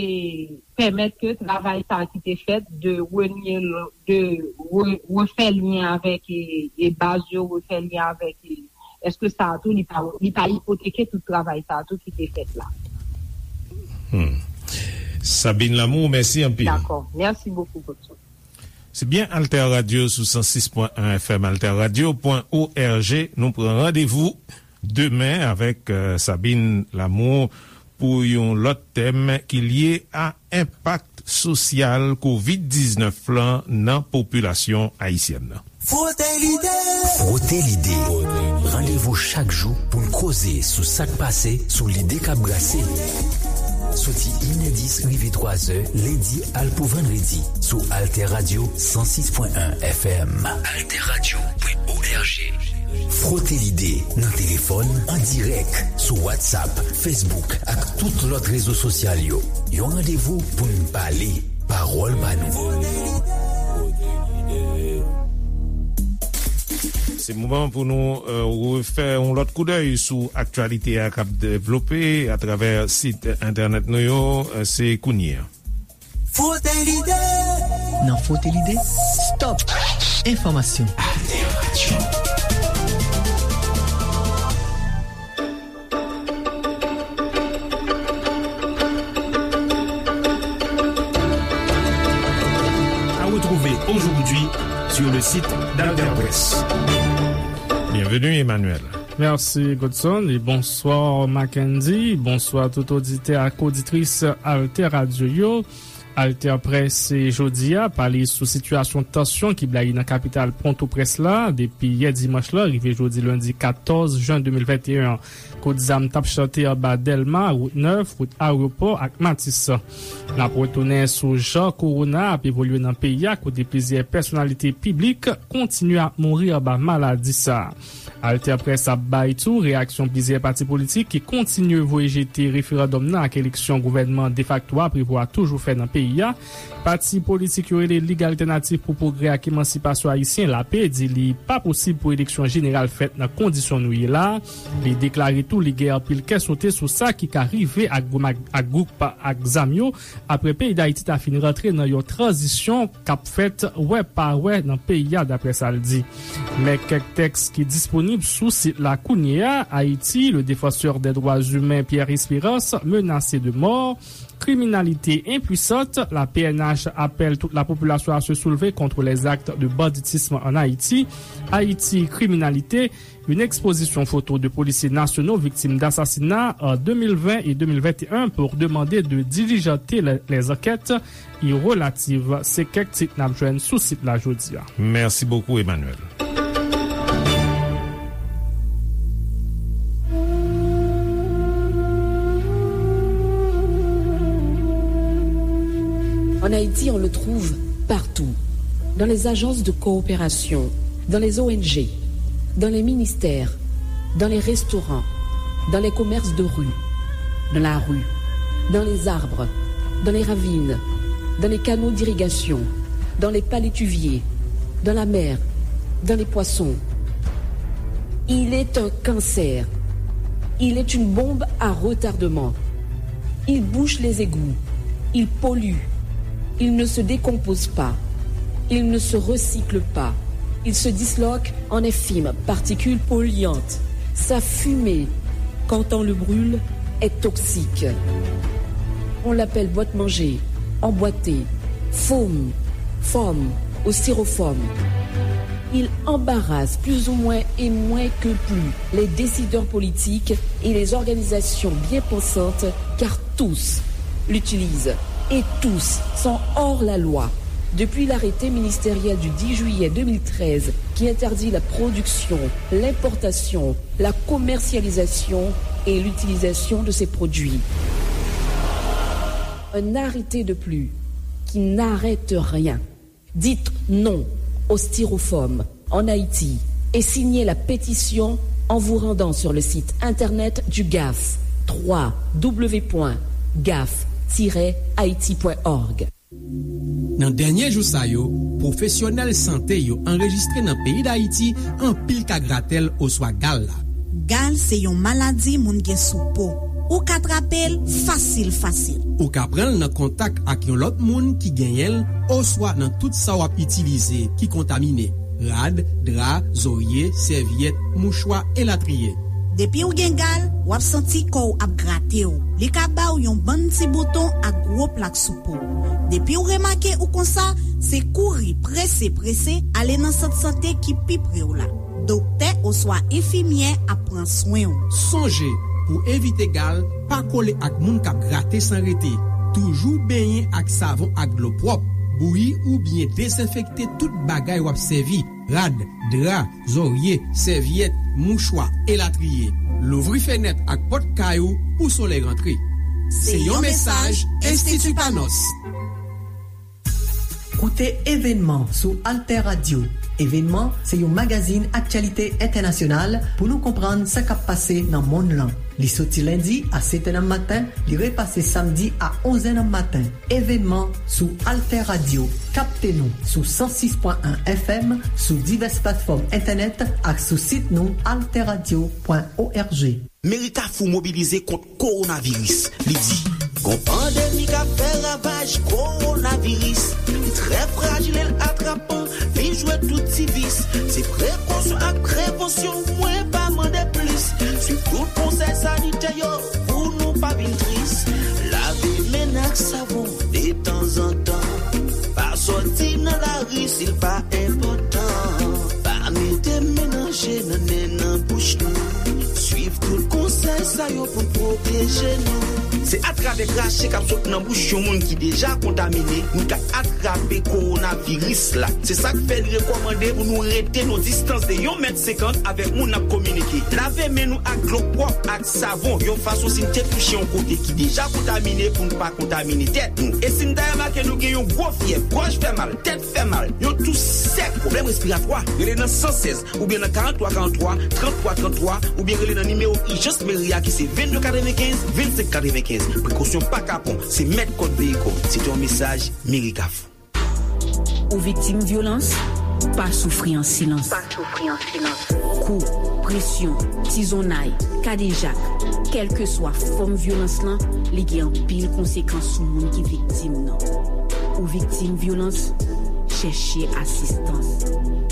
pèmèt ke travay sa a ki te fèt de renye, de re-, refè lyen avèk, e, e baz yo, refè lyen avèk, e, èske sa a tou li pa, li pa ipoteke tout travay sa a tou ki te fèt la? Hmm. Sabine Lamour, mèsi anpil. Dakò. Mèsi bokou, Godson. Se byen Alter Radio sou san sis pwen en F M, alter radio pwen O R G. Nou pran randevou demen avèk, euh, Sabine Lamour pou yon lòt tèm ki lye a enpak sosyal kovid diznèf lan nan popilasyon ayisyèn nan. Frote lide! Frote lide! Randevou chak jou pou n koze sou sa k pase, sou lide k ap brase. Soti inèdis rive twazè, lendi al pou vandredi, sou Alter Radio san sis pwen en F M. Alter Radio pwen O R G. Frote lide nan telefòn, an dirèk, sou WhatsApp, Facebook ak tout lòt rezo sosyal yo. Yon randevou pou n pale, pawòl pa nou. Se moman pou nou, euh, refè yon lòt koudèy sou aktyalite a k ap devlope atravè sit entènèt nou yo, euh, se kounye a. Frote lide! Nan Frote lide, stop! Enfòmasyon. Alter Radio. À retrouver aujourd'hui sur le site d'Alter Presse. Bienvenue, Emmanuel. Mèsi, Godson, e bonswa, Mackendy. Bonswa tout oditè ak oditris Alter Radio yo. Alter Press jodi a pale sou sitiyasyon tansyon ki blayi nan kapital Pòtoprens la depi yè dimanch la rive jodi lendi katòz jen de mil venteyen an. Kout zam t ap chante anba Dèlma, Wout Nèf, wout Ayewopò ak Matis. N ap retounen sou jan kowona ap evolye nan peyi a, kote plizyè pèsonalite piblik kontinye ap mouri anba maladi sa a. Alter Press ap bay tou reyaksyon plizyè pati politik ki kontinye voye jete referandòm nan ak eleksyon gouvènman defakto a prevwa toujou fè nan peyi a. Pati politik yo rele Lig Altènatif pou Pwogrè ak Emansipasyon Ayisyen, lape, di li pa posib pou eleksyon jeneral fèt nan kondisyon nou ye la a. Li deklare tou li gen anpil kè sote sou sa ki ka rive ak gwoup ak, ak gwoup ak zam yo, apre peyi Dayiti ta fin rantre nan yon tranzisyon k ap fèt wè pa wè nan peyi a, daprè sa l di. Men kèk tèks ki disponib sou sit la kounye a: Haïti, le défenseur des droits humains Pierre Espérance menacé de mort, criminalité impuissante, la P N H appelle toute la population à se soulever contre les actes de banditisme en Haïti, Haïti, criminalité, une exposition photo de policiers nationaux victimes d'assassinats en deux mille vingt et deux mille vingt et un pour demander de diligenter les, les enquêtes y relatives. Se kèk tit n ap jwenn sou sit la jodi a. Merci beaucoup, Emmanuel. En Haïti, on le trouve partout. Dans les agences de coopération, dans les O N G, dans les ministères, dans les restaurants, dans les commerces de rue, dans la rue, dans les arbres, dans les ravines, dans les canaux d'irrigation, dans les palétuviers, dans la mer, dans les poissons. Il est un cancer. Il est une bombe à retardement. Il bouche les égouts. Il pollue. Il ne se décompose pas. Il ne se recycle pas. Il se disloque en infimes particules polluantes. Sa fime, quand on le brûle, est toxique. On l'appelle boîte-manger, emboîté, foam, foam ou styrofoam. Il embarrasse plus ou moins et moins que plus les décideurs politiques et les organisations bien pensantes, car tous l'utilisent et tous sont hors la loi. Depuis l'arrêté ministériel du dix juillet deux mille treize qui interdit la production, l'importation, la commercialisation et l'utilisation de ces produits. Un arrêté de plus qui n'arrête rien. Dites non au styrofoam en Haïti et signez la pétition en vous rendant sur le site internet du gaf, trois w w w point gaf tiret haïti point org. Nan dènye jou sa yo, pwofesyonèl sante yo anrejistre nan peyi Dayiti anpil ka gratèl oswa gal la. Gal se yon maladi moun gen sou po. Ou ka trape l fasil fasil. Ou ka pran l nan kontak ak yon lòt moun ki genyen l oswa nan tout sa w ap itilize ki kontamine, rad, dra, zorye, sèvyèt, mouchwa, elatriye. Depi w gen gal, w ap santi kò w ap grate w. Li ka ba w yon bann ti bouton ak gwo plak sou po w. Depi w remake ou konsa, se kouri prese prese ale nan sant sante ki pi pre w la. Doktè oswa enfimyè ap pran swen w. Sonje, pou evite gal, pa kole ak moun k ap grate san rete. Toujou benyen ak savon ak dlo pwòp. Bouyi oubyen dezenfekte tout bagay w ap sèvi, rad, dra, zòrye, sèvyèt, mouchwa, elatriye. Louvri fenèt ak pòt kay ou pou solèy rantre. Se yon mesaj Enstiti Panos. Koute Evènman sou Alter Radio. Evènman se yon magazin aktyalite entènasyonal pou nou konprann sa k ap pase nan monn lan. Li soti lendi a sèt è nan maten, li repase samdi a onz è nan maten. Evènman sou Alter Radio. Kapte nou sou san sis pwen en F M, sou divès platfòm entènèt ak sou sit nou alter radio pwen org. Meri Kafou mobilize kont kowonaviris. Li di, gon pandemi k ap fè ravaj, kowonaviris. Li trè frajil e l atrapan, li jwe tout ti vis. Se prekosyon ak prevansyon, mwen pa mande plis. Swiv tout konsèy sanitè yo pou nou pa vin tris. Lave men n ak savon detanzantan. Pa sòti nan lari si l pa enpòtan. Pa mete men nan je, nan nen, nan bouch nou. Swiv tout konsèy sa yo pou n pwoteje nou. Se atravè krache k ap sot nan bouch yon moun ki deja kontamine, nou ka atrape kowonaviris la. Se sa k fè li rekòmande pou nou rete nan distans de yon mèt senkant avèk moun n ap kominike. Lave men nou ak dlo pwòp ak savon, yon fason si n te touche yon kote ki deja kontamine pou n pa kontamine tèt nou. E si n ta remake nou gen yon gwo fyèv, gòj fè mal, tèt fè mal, yon tous sèk, pwoblèm respiratwa, rele nan san sèz oubyen nan karant twa karant twa, trant twa trant twa, oubyen rele nan nimewo ijans meri a ki se vennde katrevenkenz, vennsenk katrevenkenz. Prekosyon pa kapon, se mèt kòd veyikòl. Se te yon mesaj Meri Kafou. Ou viktim vyolans? Pa soufri an silans. Pa soufri an silans. Kou, presyon, tizonnay, kadejak, kèlkeswa fòm vyolans lan, li gen anpil konsekans sou moun ki viktim nan. Ou viktim vyolans? Chèche asistans.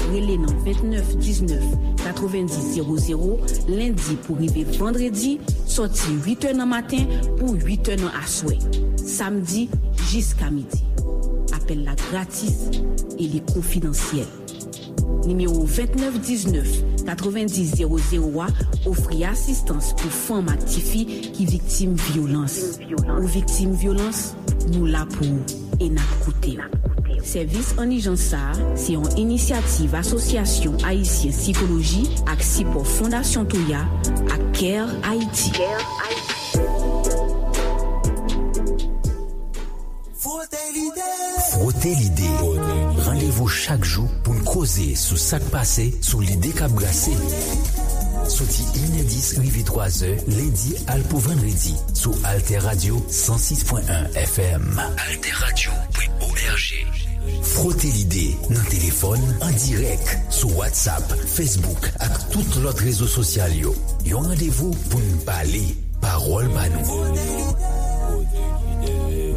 Rele nan vennèf diznèf katrevenndis zewo zewo, lendi pou rive vandredi, sòti uit è nan maten pou uit è nan aswè, samdi jiska midi. Apèl la gratis e li konfidansyèl. Nimewo vennèf diznèf katrevenndis zewo zewo a ofri asistans pou fanm ak tifi ki viktim vyolans. Ou viktim vyolans, nou la pou ou e n ap koute w. Sèvis an ijans sa a se yon inisyativ Asosyasyon Ayisyen Sikoloji ak sipò Fondasyon Toya ak Care Haiti. Frote lide. Frote lide. Randevou chak jou pou n koze sou sa k pase, sou lide k ap brase. Soti inèdis rive twazè, lendi al pou vandredi, sou Alter Radio san sis pwen en F M. Alter Radio pwen O R G. Frote lide nan telefòn, an dirèk, sou WhatsApp, Facebook ak tout lòt rezo sosyal yo. Yon randevou pou n pale, pawòl pa nou.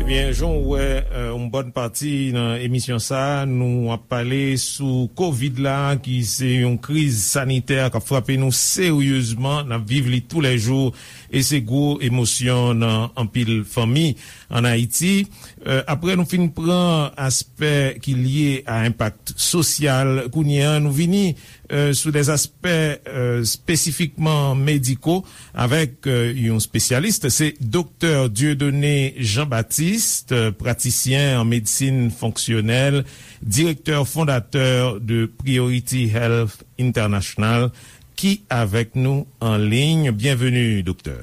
Ebyen, jan w wè, euh, yon bòn pati nan emisyon sa a, nou ap pale sou kovid la, ki se yon kriz sanitè k ap frape nou seryezman, n ap viv li toulèjou, e se gwo emosyon nan anpil fanmi ann Ayiti. Euh, apre nou fin pran aspè ki lye a enpak sosyal, kounye a nou vini, euh, sou de aspè, euh, espesifikman mediko avèk, euh, yon espesyalis. Se Doktè Dieudonné Jean-Baptiste, euh, pratisyen an medsin fonksyonèl, direktè fondatè de Priority Health International, ki avèk nou an liy. Byenveni, doktè.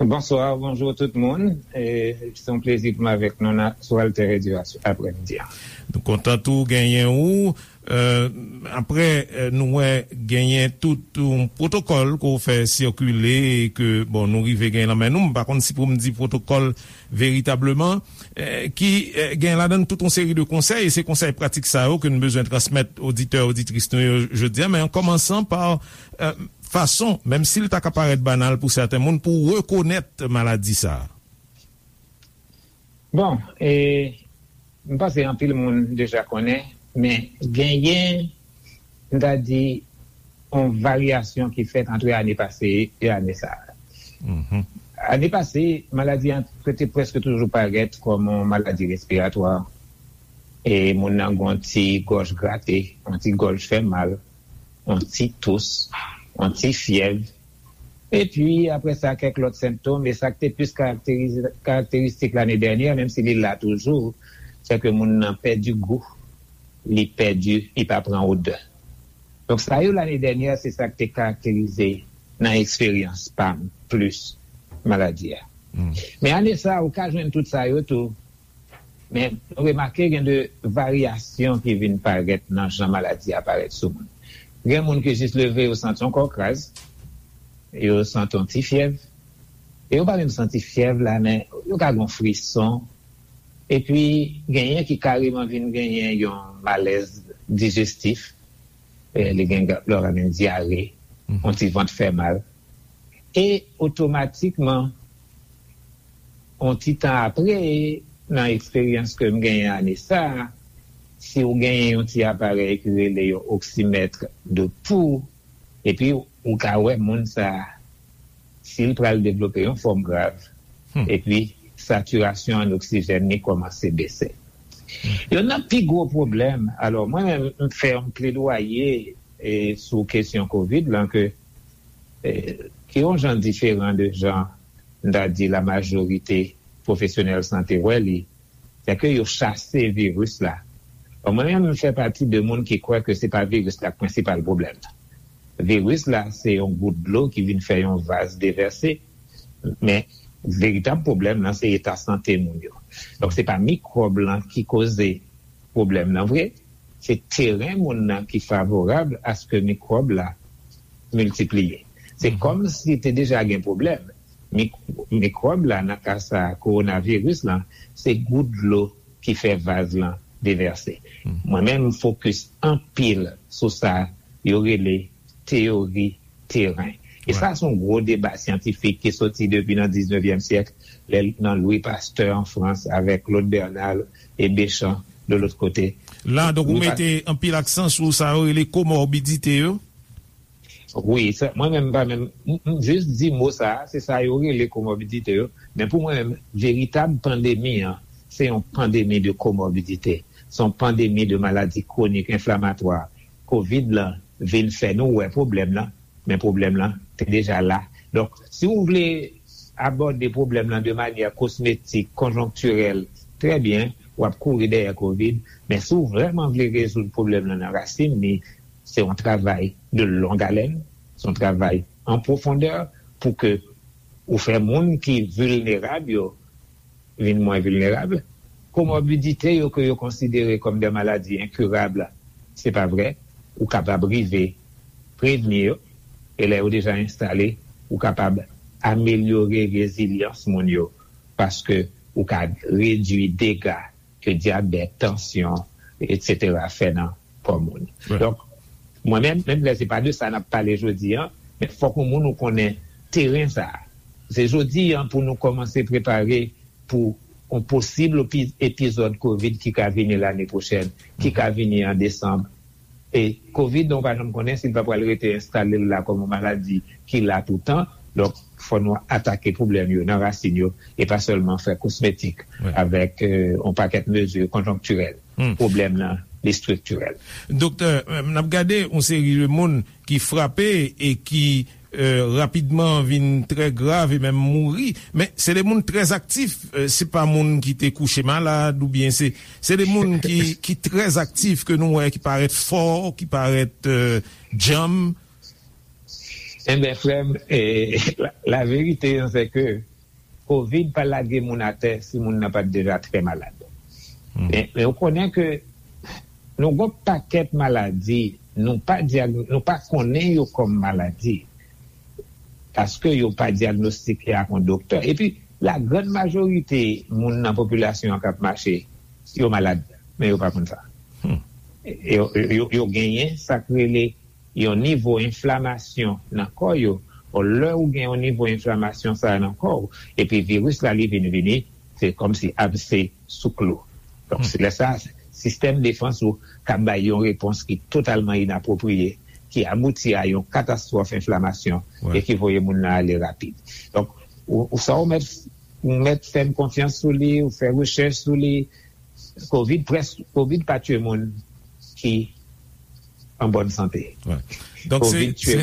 Bonswa, bonjou tout moun. E, se yon plezi pou m avèk nou nan, sou Alter Radio a, aprèmidi a. Nou kontan tou genyen ou. Euh, apre, euh, nou wè genyen tout yon pwotokòl ke w fè sikile e ke, bon, nou rive genyen nan men nou. M pa konn si pou m di pwotokòl veritableman, euh, ki, euh, gen ladan tout yon seri de konsèy, e se konsèy pratik sa yo ke n bezwen transmèt oditè, oditris nou yo jodi a, men an kòmansan pa, euh, fason, menm si l ta ka parèt banal pou sèten moun, pou rekonèt maladi sa a? Bon, e, m panse anpil moun deja konnen, men genyen, m ta di, yon varyasyon ki fèt ant ane pase e ane sa a. Mhm. Ane pase, maladi an te prèske toujou parèt kòm yon maladi respiratwa. E moun nan gen yon ti gòj grate, yon ti gòj fè mal, yon ti tous, yon ti fyèv. Epi, apre sa, kèk lòt sentòm, e sa k te plis karakterize, karakteristik lane dènyè, menm si li la toujou, se ke moun nan pèdi gou, li pèdi, li pa pran odè. Donk, sa yo lane dènyè, se sa k te karakterize nan eksperyans pa m plis maladi a. Hmm. Men ane sa a, ou ka jwenn tout sa yo tou. Men nou remake gen de varyasyon ki vin parèt nan jan maladi a parèt sou moun. Gen moun ki jis leve, yo santi yon kò kraz, yo santi yon ti fyèv. E yo pa menm santi fyèv la, men yo ka gen yon frison. Epi, genyen ki kareman vin genyen yon malèz dijestif. Eh, li gen, lè w ka gen dyare, mhm, yon ti vant fè mal. E otomatikman, yon ti tan apre, nan eksperyans ke m genyen ane sa a, si w genyen yon ti aparèy ki rele yon oksimèt de pou, epi ou ka wè moun sa a, si l pral devlope yon fòm grav, hmm, epi satirasyon an oksijèn li kòmanse bese. Hmm. Youn nan pi gwo pwoblèm, alò, mwen menm, m fè yon pledwaye, e, sou kesyon kovid lan, ke, e, ki yon jan diferan de jan m ta di la majorite pwofesyonèl sante wè li, se ke yo chase viris la. Bon, mwen menm, m fè pati de moun ki kwè ke se pa viris la k prensipal pwoblèm nan. Viris la, se yon gout dlo ki vin fè yon vaz devèse, men veritab pwoblèm nan, se eta sante moun yo. Donk, se pa mikwòb lan ki koze pwoblèm nan vre, se teren moun nan ki favorab aske mikwòb la miltipliye. Se kòm si te deja gen pwoblèm. Mik- mikwòb la, nan ka sa, kowonaviris lan, se gout dlo ki fè vaz lan devèse. Mwen menm, m fokis anpil sou sa yo rele teyori teren. E sa, se yon gwo deba syantifik ki soti depi nan diznevyèm syèk, lè, nan Louis Pasteur an Frans, avèk Claude Bernal e Béchamp de lòt kote. La, donk, ou mete anpil aksan sou sa yo rele komorbidite yo? Wi, sa, mwen menm, pa menm, m, m jis di mo sa a, se sa yo rele komorbidite yo. Men pou mwen menm, veritab pandemi an, se yon pandemi de komorbidite. Se yon pandemi de maladi kwonik enflamatwa. Kovid lan vin fè nou wè pwoblèm lan, men pwoblèm lan te deja la. Donk, si w vle abòde pwoblèm lan de manyè kosmetik, konjonktirèl, trè byen, w ap kouri dèyè kovid, men si w vrèman vle rezoud pwoblèm lan nan rasin li, se yon travay de long haleine, se yon travay an pwofondè pou ke ou fè moun ki vilnerab yo vin mwen vilnerab. Komorbidite yo ke yo konsidere kòm de maladi enkirab, se pa vre. Ou kapab rive prevni yo, e lè yo deja enstale, ou kapab amelyore rezilyans moun yo, paske ou ka redwi dega ke dyabèt, tansyon, etsetera fè nan kò moun. Donk, mwen menm, menm lè se pa de sa n ap pale jodi an, men fòk yon moun ou konnen teren sa a. Se jodi an pou nou kòmanse prepare pou yon posib epi- epizòd kovid ki ka vini lane pwochèn, ki ka vini an desanm. E kovid, nou pa janm konnen si l pa pral rete enstale l la kòm yon maladi ki la toutan. Donk, fò nou atake pwoblèm yo nan rasin yo e pa sèlman fè kosmetik avèk, euh, yon pakèt mezi konjonktirèl. Pwoblèm nan, li estriktirèl. Doktè, euh, n ap gade yon seri de moun ki frape e ki, euh, rapidman vin trè grav e menm mouri. Men se de moun trè aktif, euh, se pa moun ki te kouche malad oubyen se, se de moun ki, ki trè aktif ke nou wè, ki parèt fò, ki parèt, euh, djanm. Enben, frè m, eh, la, la verite an, se ke kovid pa lage moun atè si moun nan pa t deja trè malad. Men, men ou konnen ke nou gon pakèt maladi, nou pa dyag- nou pa konnen yo kòm maladi, paske yo pa dyagnostike ak yon doktè. Epi, la grann majorite moun nan popilasyon an k ap mache, yo malad, men yo pa konn sa. Yo, yo, yo genyen sa k rele yon nivo enflamasyon nan kò yo. Bon, lè ou gen yon nivo enflamasyon sa a nan kò w, epi viris la li vin vini, se kòmsi abse sou klou. Donk, se lè sa a, sistèm defans ou ka bay yon repons ki totalman inapwopriye, ki abouti a yon katastwòf enflamasyon e ki voye moun nan ale rapid. Donk, ou, ou sa ou mèt, ou mèt fè m konfyans sou li, ou fè rechèch sou li, Kovid près, Kovid pa tye moun ki an bòn sante. Donk, se, se,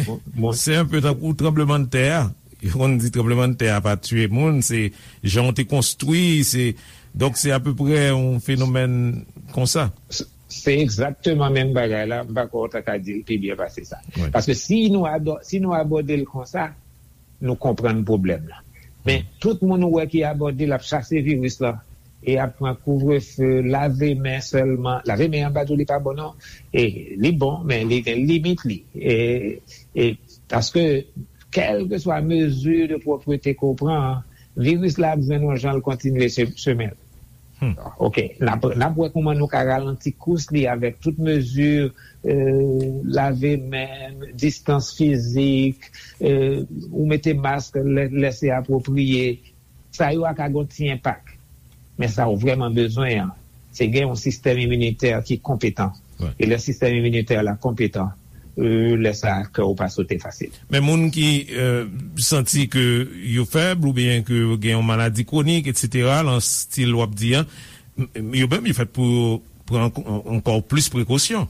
se yon pe tankou tranblemanntè a. Yo konn di tranblemanntè a pa tye moun, se jan w te konstwi, se, donk, se apeprè yon fenomèn konsa. Se, se egzakteman menm bagay la, m pa kwè w ta ka di l pi byen pase sa. Paske si nou ado- si nou abòde l konsa, nou konprann pwoblèm la. Men tout moun ou wè ki abòde l ap chase viris lan, e ap pran kouvrefe, lave men sèlman. Lave men an, m pa di w li pa bon non. E li bon, men li gen limit li. E, e paske kèlkeswa mezi de pwòprete ke w pran an, viris la ap jwenn yon jan l kontinye che- chemen l. Oke, n ap, n ap wè kòman nou ka ralanti kous li avèk tout mezi, euh, lave men, distans fizik, euh, ou mete mask lè, lè se apwopriye. Sa yo a ka gon ti enpak. Men sa ou vrèman bezwen an, se gen yon sistèm iminitè ki konpetan. E lè sistèm iminitè la konpetan, euh, lè sa a, kè w pa sote fasil. Men moun ki, euh, santi ke yo fèb oubyen ke yo gen yon maladi kwonik, etsetera, lan stil w ap di an, m- yo menm, yo fèt pou yo pran ank- ankò plis prekosyon.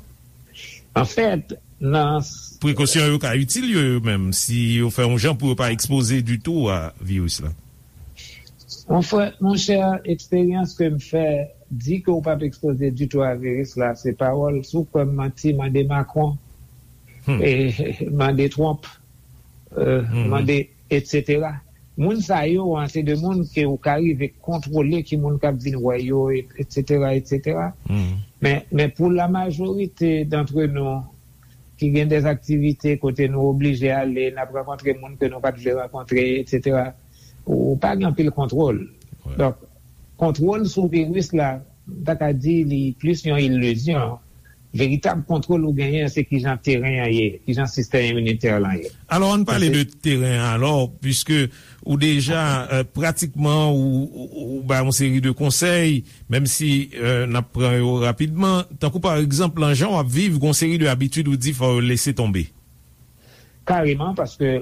Anfèt, nan s- Prekosyon yo ka itil yo, yo menm, si yo fè yon jan pou yo pa ekspoze ditou a viris la. Mon frè, monchè, eksperyans ke m fè di ke w p ap ekspoze ditou a viris la, se pawòl. Si w kwè m manti, mande Macron, e, mande Trump, e, mande, etsetera. Moun sa yo an, se de moun ke w ka rive kontwole ki moun k ap vin wè yo, etsetera, etsetera. Men, men pou la majorite d'antre nou, ki gen de aktivite kote nou oblije ale, n ap rankontre moun ke nou pa t vle rankontre, etsetera. Ou pa gen anpil kontwòl. Donk, kontwòl sou viris la, m ta ka di li plis yon ilizyon. Veritab kontwòl ou genyen, se kijan teren an ye, kijan sistèm iminitè lan ye. Alò, ann pale de teren an, alò, piske ou deja, euh, pratikman, ou, ou, ou bay yon seri de konsèy, menm si, euh, n ap pran yo rapidman. Tankou, pa egzanp, lan jan w ap viv, gon seri de abitid ou di fò yo lese tonbe. Kareman, paske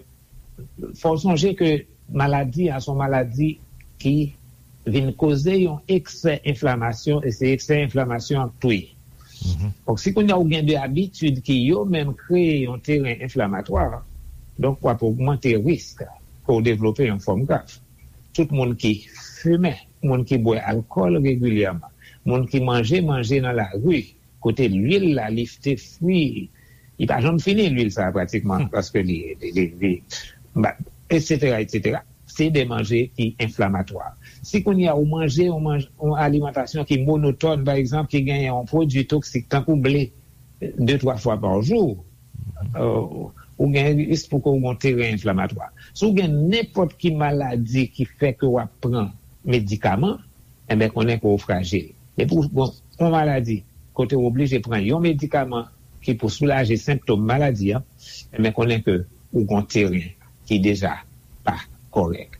fò w sonje ke maladi a se yon maladi ki vin koze yon eksè enflamasyon, e se eksè enflamasyon an k touye. Donk, si kounye a ou gen de abitid ki yo menm kreye yon teren enflamatwa, donk w ap ogmante risk ke w devlope yon fòm grav. Tout moun ki fimen, moun ki bwè alkòl regilyèman, moun ki manje manje nan lari, kote lwil la, li te fri, li pa janm fini, lwil sa a, pratikman, paske li, li, li, li, ba, etsetera, etsetera. Se de manje ki enflamatwa. Si kounye a ou manje yon manj-, yon alimantasyon ki monotòn, pa egzanp, ki genyen yon pwodui toksik, tankou ble, de, twa fwa pa jou, euh, ou gen risk pou ke w gen yon teren enflamatwa. Si w gen nenpòt ki maladi ki fè ke w ap pran medikaman, enben, konnen ke w frajil. Depi w gen yon maladi kote w oblije pran yon medikaman ki pou soulaje senptòm maladi an, enben, konnen ke ou gen yon teren ki deja pa kòrèk.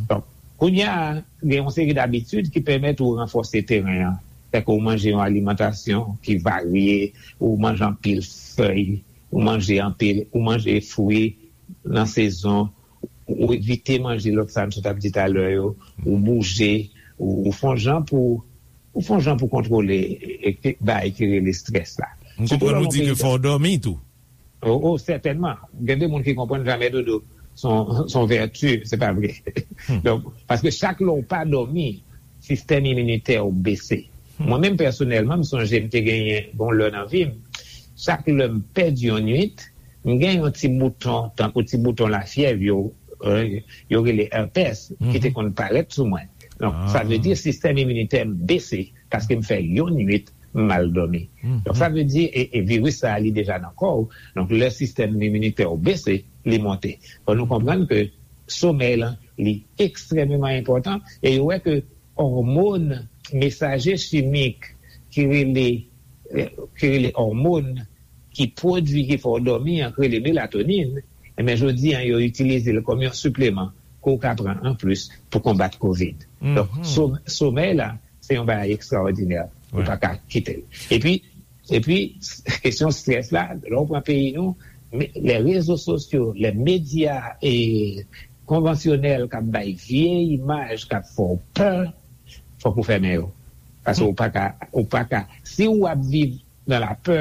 Donk, kounye a, gen yon seri dabitid ki pèmèt ou ranfòse teren an. Fè ke w manje yon alimantasyon ki varye, ou manje anpil fèy, ou manje anpil, ou manje fwi nan sezon, ou evite manje lòt sa m sot ap di talè yo, ou bouje, ou, ou fè yon jan pou, ou fè yon jan pou kontwole e, e, bagay ki rele estrès la. M konprann ou di ke fò w dòmi tou. Oh, oh, sètènman. Gen de moun ki konprann jamè dodo se yon, se yon vèti, se pa vre. Donk, paske chak lè w pa dòmi, sistèm iminitè w bese. Mwen menm pèsonèlman, m sonje m te genyen bon lè nan vi m, chak lè m pèdi yon nwit, m gen yon ti bouton, tankou ti bouton lafyèv yo, euh, yo rele herpès, ki te konn parèt sou mwen. Donk, sa vle di sistèm iminitè m bese paske m fè yon nwit m mal dòmi. Donk, sa vle di, e, e viris sa a, li deja nan kò w. Donk, lè sistèm iminitè w bese, li monte. Fò nou konprann ke somèy lan, li ekstrèmeman enpòtan, e yo wè ke òmòn, mesaje chimik ki rele, ki rele òmòn ki pwodui, ki fè w dòmi an, ki rele melatonin, enben, jodi an, yo itilize l kòm yon sipleman ke w ka pran anplis pou konbat kovid. Donk, som-, somèy la, se yon bagay ekstraòdinè. Ou pa ka kite l. Epi, epi, kesyon strès la, lè w pran peyi nou, me-, lè rezo sosyo, lè medya e konvansyonèl k ap bay vye imaj, k ap fè w pè, fòk ou fèmen yo. Paske ou pa ka, ou pa ka, si w ap viv nan lapè,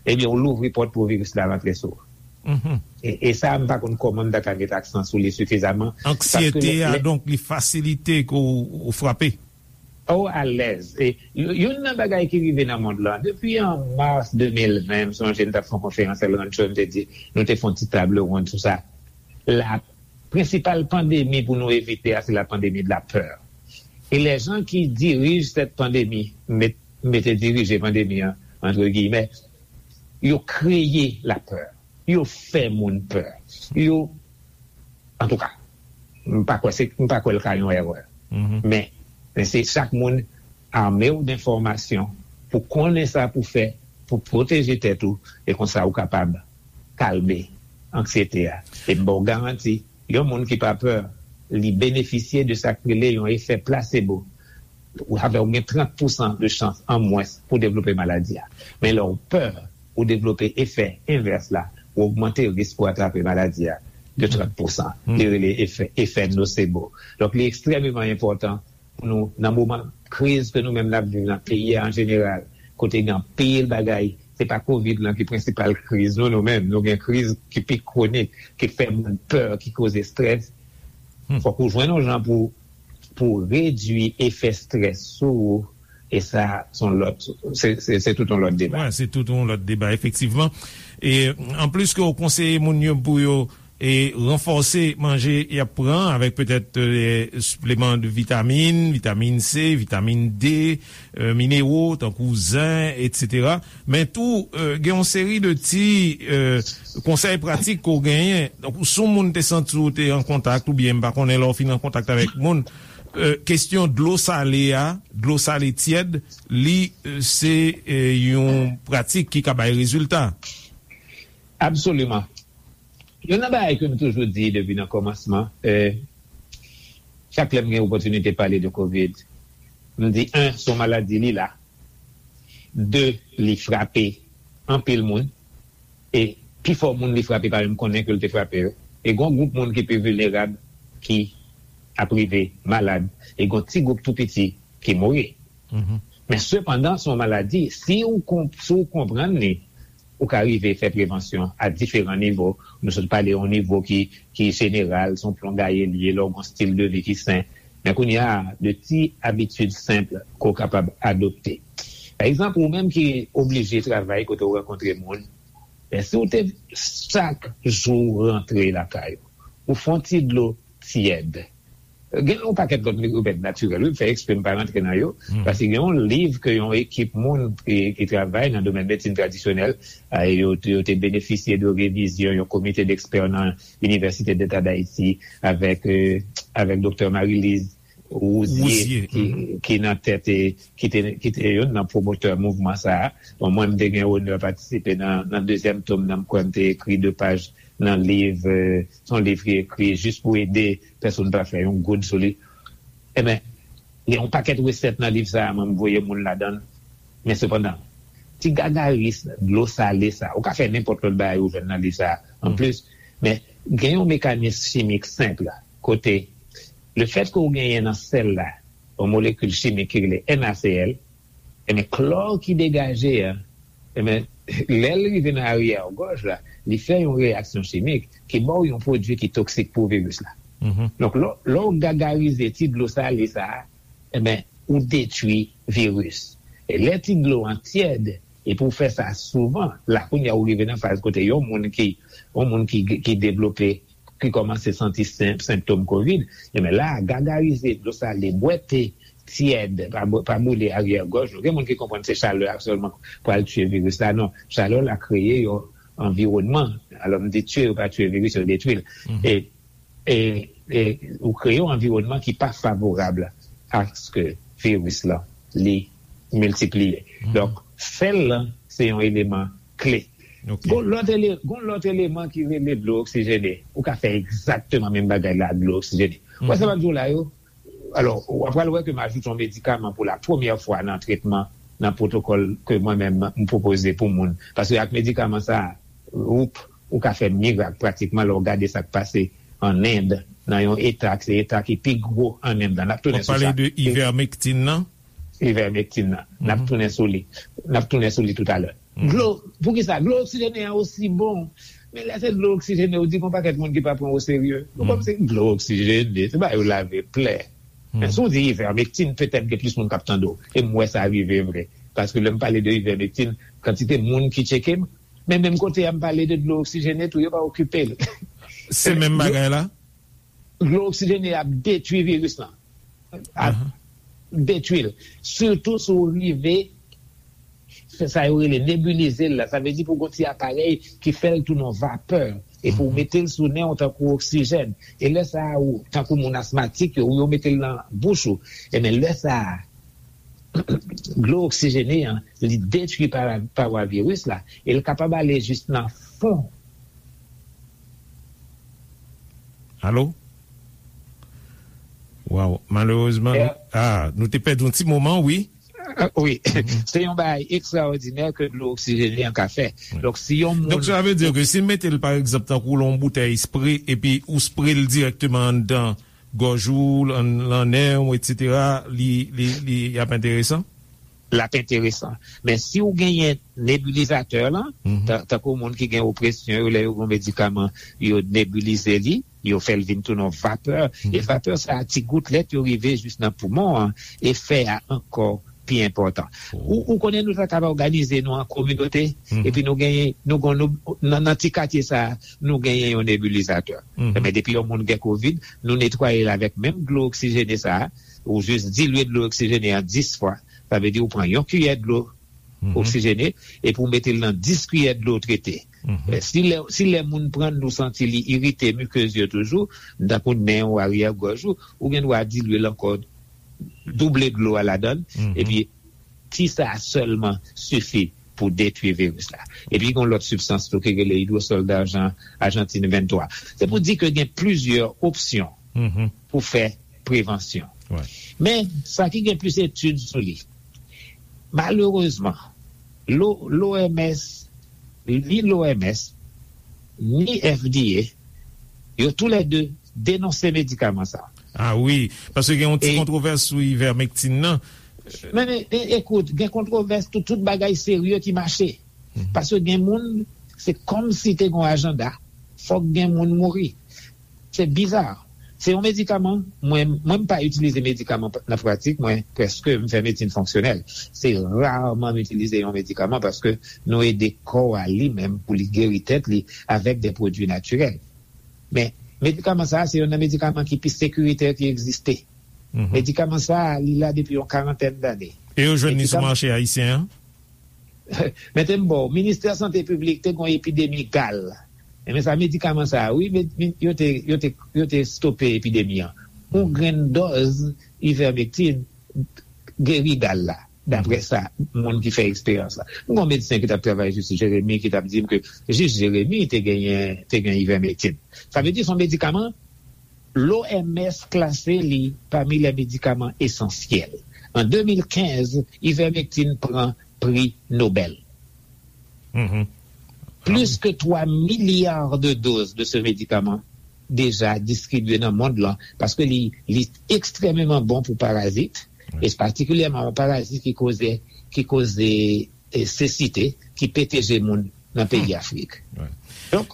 ebyen, ou louvri pòt pou viris la rantre sou ou. E, e sa, m pa konn kòman m ta ka met aksan sou li sifizaman. Anksiyete a, donk, li fasilite ke w, w frape. Oh, alèz. E y-, youn nan bagay ki rive nan mond lan, depi an mas de mil ven, m sonje m t ap fè yon konferans El Rancho, m te di, nou te fè yon ti table ronde sou sa. La prensipal pandemi pou nou evite a, se la pandemi de la peur. E les gens qui dirigent cette pandémie, met, mete dirije pandemi an, entre guillemets, yo kreye lapè. Yo fè moun pè. Yo, antouka, m pa kwè se, m pa kwè l ka yon erè. Men, men se chak moun ame w d enfòmasyon pou konnen sa pou fè, pou pwoteje tèt ou, e konsa ou kapab kalme anksyete a. E m ba w garanti, yon moun ki pa pè, li benefisye de sa k rele yon efè plasebo. Ou, sa fè ou gen trant pousan de chans an mwens pou devlope maladi a. Men lè w pè, ou devlope efè envès la, ou ogmante risk pou atrape maladi a de trant pousan. Li rele efè, efè nosebo. Donk, li ekstrèmeman enpòtan pou nou, nan moman kriz ke nou menm n ap viv nan peyi a an jeneral, kote gen anpil bagay, se pa kovid lan ki prensipal kriz nou, nou menm, nou gen kriz ki pi kwonik, ki fè moun pè, ki koze estrès. Fòk ou jwenn yon jan pou, pou redui efè strès sou ou, e sa, se yon lòt, se, se, se tout yon lòt deba. Wi, se tout yon lòt deba, efektivman. E anplis ke w konseye moun yo pou yo e ranfòse manje y ap pran avèk petèt, e, sipleman de vitamin, vitamin C, vitamin D, e, minero, tankou zen, etsetera. Men tou, e, gen yon seri de ti, e, konsèy pratik ke w genyen. Donk, si yon moun te santi w te an kontak, oubyen m pa konnen lè w fin an kontak avèk moun, e, kesyon dlo sale a, dlo sale tyèd, li, e, se, e, yon pratik ki ka bay rezilta. Absoliman. Youn nan bagay ke m toujou di depi nan kòmansman, e, chak lè m gen opòtinite pale de kovid, m di, en, se yon maladi, li la. De, li frape anpil moun. E pifò moun li frape pa menm konnen ke l te frape yo. E gen yon gwoup moun ki pi vilnerab ki ap rive malad. E gen yon ti gwoup tou piti ki mouri. Men sepandan, se yon maladi, si ou, si ou konprann li, ou ka rive fè prevansyon a diferan nivo. Nou sot pale yon nivo ki, ki jeneral, se yon plon gaye l ye, lè w gen yon stil de vi ki sen. Men kounye a, de ti abitid senp ke w kapab adopte. Pa egzanp, ou menm ki oblije travay kote w rankontre moun, men si w te chak jou rantre lakay ou, ou fè yon ti dlo tyèd. Gen yon pakèt lòt remèd natirèl, wi, m fè eksprè m pa rantre nan yo, paske gen yon liv ke yon ekip moun ki, ki travay nan domèn medsin tradisyonèl, a, yo, yo te benefisye de revizyon yon komite dekspè nan Inivèsite Deta d Ayiti avèk, e, avèk Doktè Marie-Lise Rouzier, ki, ki nan tèt, e, ki te, ki te youn nan pwomotè mouvman sa a. Bon, mwen, m te gen onè patisipe nan, nan dezyèm tom nan, m kwè m te ekri de paj nan liv, e, se yon liv ki ekri jis pou ede pèsonn pa fè yon goud sou li. Ebyen, gen yon pakèt resèt nan liv sa a, mwen, m voye moun ladan l. Men sepandan, ti gagaris dlo sale sa, ou ka fè nenpòt lòt bagay ou jwenn nan liv sa a. Anplis, men gen yon mekanis chimik senp kote lefèt ke ou genyen nan sèl la, yon molekil chimik ki rele NaCl, ebyen, klò ki degaje a, ebyen, lè l rive nan aryè gòj la, li fè yon reyaksyon chimik ki ba w yon pwodui ki toksik pou viris la. Donk, lè, lè w gagarize ti dlo sale sa a, ebyen, ou detwi viris. E lè ti dlo an tyèd, epi w fè sa souvan, la kounye a ou rive nan faz kote yon moun ki, yon moun ki, ki devlope, ki kòmanse santi sen-, senptòm kovid, ebyen la, gagarize dlo sale, bwè te tyèd, pa bou-, pa boule aryè gòj ou. Gen moun ki konprann se chalè a sèlman pral tiye viris la. Non, chalè la kreye yon anviwònman. Alò, m di tiye, yo pa tiye viris, yo detwi l. E, e, e ou kreye yon anviwònman ki pa favorab aske viris la, li miltipliye. Donk, fè l lan, se yon eleman kle. Gon lòt ele-, gon lòt eleman ki rele dlo oksijene. Ou ka fè egzakteman menm bagay la ak dlo oksijene. Ou wè sa m ap di w la yo? Alò, w ap pral wè ke m ajoute yon medikaman pou la premyè fwa nan tretman, nan pwotokòl ke mwen menm m pwopoze pou moun. Paske ak medikaman sa a, ou, ou ka fè mirak pratikman lè w gade sa k pase an End, nan yon eta, se eta ki pi gwo an End la. N ap tounen sou sa. W ap pale de ivermectin nan? Ivermectin nan. N ap tounen sou li. N ap tounen sou li toutalè. Dlo, poukisa? Dlo oksijene an osi bon. Men lè se dlo oksijene, ou di gon pakèt moun ki pa pran w oserye. Nou kòmsi dlo oksijene, se ba yo lave plè. Men si w di ivermectin, petèt gen plis moun k ap tande w. E m wè sa rive vre. Paske lè m pale de ivermectin, kantite moun ki tcheke m, men menm kote a m pale de dlo oksijene tou, yo pa okipe l. Se menm bagay la? Dlo oksijene ap detwi viris lan. Ap detwi l. Sitou si w rive fè sa yo rele nebilize l la. Sa vle di pou gon ti aparèy ki fè l tounen yon vapè. Epi w mete l sou nen w tankou oksijèn. E lè sa a, ou, tankou moun asmatik yo, ou yo mete l nan bouch ou. Ebyen, lè sa a, dlo oksijene an, li detwi pa-, pawa viris la, e l kapab ale jis nan fon. Alo? Waw, malerezman, nou, ah, nou te pèdi yon ti moman, wi. Ah, wi. Se yon bagay ekstraòdinè ke dlo oksijene an ka fè. Donk, si yon moun... Donk, sa vle di ke si l mete l, pa egzanp, tankou l yon boutèy spre, epi ou spre l dirèkteman anndan gòj ou, lan, lan nen w, etsetera, li, li, li ap enteresan? L ap enteresan. Men si w genyen nebilizatè lan, ta-, tankou moun ki gen opresyon yo, lè yo gen medikaman, yo nebilize li, yo fè l vin tounen yon vapè. E vapè sa a, ti goutlèt yo rive jis nan poumon an, e fè a ankò pi enpòtan. Ou, ou konnen nou ta kapab òganize nou an kominote, epi nou genyen, nou gon, nou, nan, nan ti katye sa a, nou genyen yon nebilizatè. Ebyen, depi yon moun gen kovid, nou netwaye l avèk menm dlo oksijene sa a, ou jis dilye dlo oksijene an dis fwa. Sa vle di ou pran yon kiyè dlo oksijene, epi ou mete l nan dis kiyè dlo trete. Eh, si lè, si lè moun pran l, nou santi li irite mikez yo toujou, tankou nen ou, aryè gòj ou, ou gen dwa dilye l ankò, double dlo a ladan l, epi ti sa a sèlman sifi pou detwi viris la. Epi gen yon lòt sibstans tou ki rele idwosòl dajan, Ajantin venntwa. Se pou di ke gen plizyè opsyon pou fè prevansyon. Men, sa ki gen plis etid sou li, malerezman, l'O M S, ni l'O M S, ni F D A, yo toulède denonse medikaman sa. Ah wi, paske gen yon ti kontwovès sou ivermectin nan. Men, men, e, ekout, gen kontwovès tout, tout bagay serye ki mache. Paske gen moun, se kòmsi te gen yon ajanda, fòk gen moun mouri. Se biza. Se yon medikaman, mwen, mwen m pa itilize medikaman nan pratik mwen, prèske m fè medsin fonksyonèl. Se raman m itilize yon medikaman paske nou ede kò a li menm pou li geri tèt li avèk de pwodui natirèl. Men, medikaman sa a, se youn nan medikaman ki pi sekiritè ki egziste. Medikaman sa a, li la depi yon karantèn dane. E yo jwenn li sou mache ayisyen an? Mete m ba w, Ministè Sante Piblik te gen yon epidemi gal. Enben sa, medikaman sa a, wi, men, men, yo te, yo te, yo te stope epidemi an. Yon grenn dòz ivermectin geri gal la, daprè sa, moun ki fè eksperyans la. M gen yon medsen ki t ap travay jis Jeremi, ki t ap di m ke jis Jeremi te genyen, te gen ivermectin. Sa vle di se yon medikaman, l'O M S klase li pami les médicaments essentiels. An de mil kenz, ivermectin pran pri Nobèl. Plis ke twa milya de doz de ce médicament deja distribye nan mond lan, paske li, li ekstrèmeman bon pou parazit, e patikilyèman yon parazit ki koze, ki koze, e, sesite, ki pete je moun nan peyi Afrik. Donk,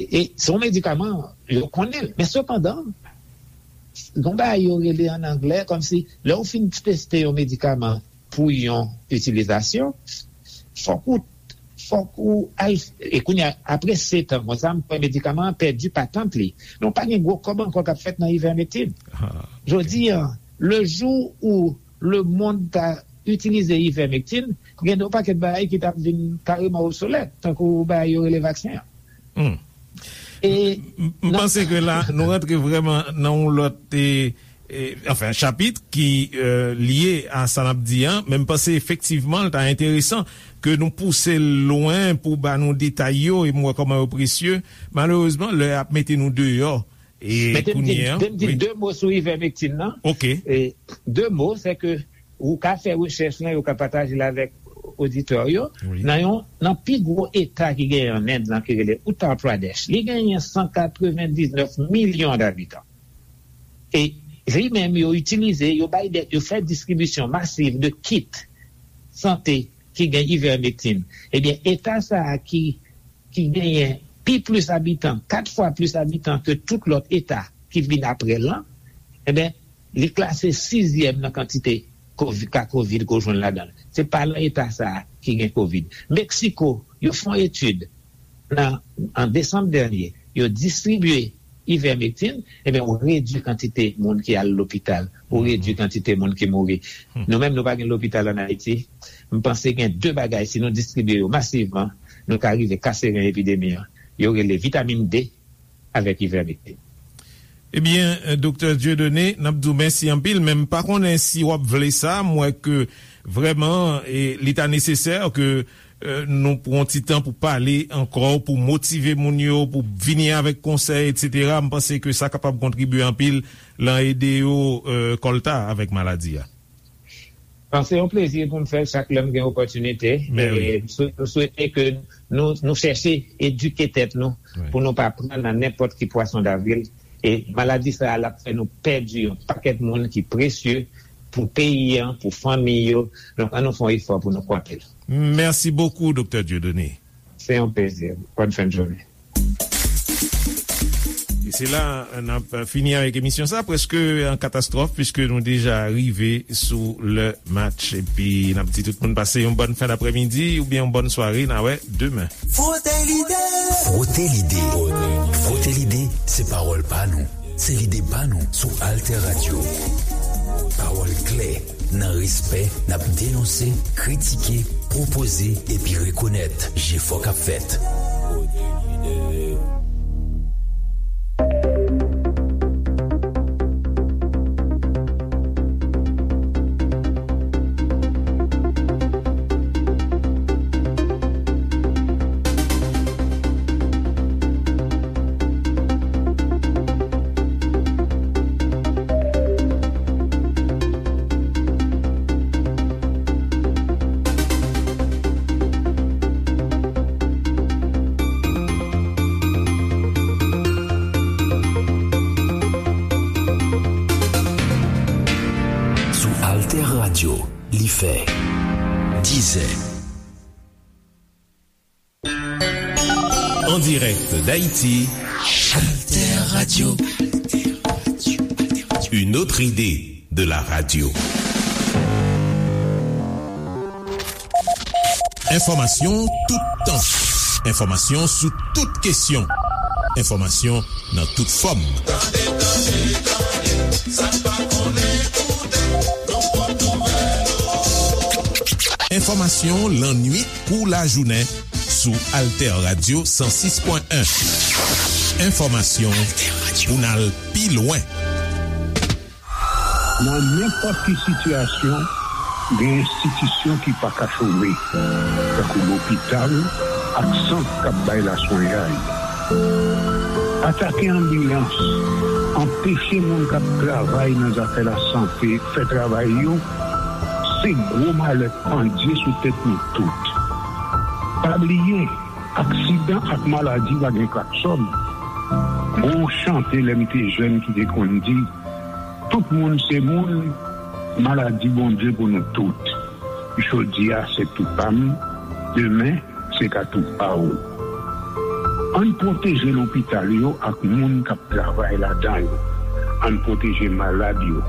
e, e se yon medikaman, yo konnen l. Men sepandan, gon bagay yo rele an anglè, kòmsi, lè w fin teste yon medikaman pou yon itilizasyon, fòk ou, fòk ou al, e kounye a, apre sèt an, konsa, m kwè medikaman an pèdi patant li. Men w pa gen gwo kòb ankò k ap fèt nan ivermectin. Jodi a, le jou où le monde ta itilize ivermectin, gen yon pakèt bagay ki t ap vin kareman obsolèt, tankou bagay yo rele vaksen an. E m, m panse ke la, nou rantre vrèman nan yon lòt, e, e, anfen, chapit ki, e, lye a sa n ap di an, men m panse efektivman l ta enteresan ke nou pouse l lwen pou ba nou detay yo, e m wè kòman yo presye. Malerezman, lè ap mete nou deyò, e kounye a, de mo sou ivermectin nan. Ok. E, de mo, se ke ou ka fè rechèch lan, yo ka pataje l avèk oditè yo. Nan yon, nan pi gwo eta ki genyen an End lan, ki rele Uttar Pradesh, li genyen san katrevendiznèf milyon dabitan. E li menm, yo itilize, yo bay de, yo fè distribisyon masiv de kit sante ki gen ivermectin. Ebyen, eta sa a ki, ki genyen pi plis abitan, kat fwa plis abitan ke tout lòt eta ki vin apre l lan, ebyen, li klase sizyèm nan kantite kovi-, ka kovid ke w jwenn ladan l. Se pa nan eta sa a ki gen kovid. Meksiko, yo fè yon etid nan, an desanm dènye, yo distribye ivermectin, ebyen, ou redui kantite moun ki al lopital, ou redui kantite moun ki mouri. Nou menm, nou pa gen lopital ann Ayiti. M panse gen de bagay, si nou distribye yo masivman, nou ka rive kase ren epidemi an. Yo rele vitamin D avèk ivermectin. Ebyen, Doktè Dieudonné, n ap di w mèsi anpil, men m pa konnen si w ap vle sa. M wè ke vrèman, e, li ta nesesè ke, e, nou pran ti tan pou pale ankò, pou motive moun yo, pou vini avèk konsèy, et cetera. M panse ke sa kapab kontribye anpil lan ede yo, e, kòlta avèk maladi a. Bon, se yon plezi pou m fè l chak lè m gen opòtinite. Men wi. E m swe-, m swete ke nou, nou chèche edike tèt nou pou nou pa pran nan nenpòt ki pwason davril. E maladi sa a, l ap fè nou pèdi yon pakèt moun ki presye pou peyi an, pou fanmi yo. Donk, ann nou fè yon efò pou nou kwape l. Mèsi bokou, Doktè Dieudonné. Se yon plezi. Bòn fen de jounen. Se la n ap fini avèk emisyon sa, prèske an katastwòf, piske nou deja rive sou lè match. Epi n ap di tout moun pase yon bòn fen daprèmidi oubyen yon bòn sware. N a wè demen. Frote lide. Frote lide. Frote lide, se pawòl pa nou. Se lide pa nou sou Alter Radio. Pawòl klè, nan respè, n ap denonse, kritike, pwopoze epi rekonèt jefò k ap fèt. Sou Alter Radio, li fè dizè. En direct d'Haïti, Alter Radio. Une autre idée de la radio. Enfòmasyon tout tan. Enfòmasyon sou tout kesyon. Enfòmasyon nan tout fòm. Tande, tande, tande, sa n pa konnen koute, nou pot nouvèl yo. Enfòmasyon lannwit kou lajounen sou Alter Radio san sis pwen en. Enfòmasyon pou n al pi lwen. Nan nenpòt ki sitiyasyon, gen enstitisyon ki pa ka chome, tankou lopital ak sant k ap bay laswenyay. Atake anbilans, anpeche moun k ap travay nan zafè lasante fè travay yo, se gwo malè pandye sou tèt nou tout. Pa bliye, aksidan ak maladi pa gen klaksòn. Gon chante lè m te jèn ki te konn di, tout moun se moun, maladi Bondye pou nou tout. Jodi a se tou pa m, demen se ka tou pa w. Ann pwoteje lopital yo ak moun k ap travay ladan yo. Ann pwoteje malad yo,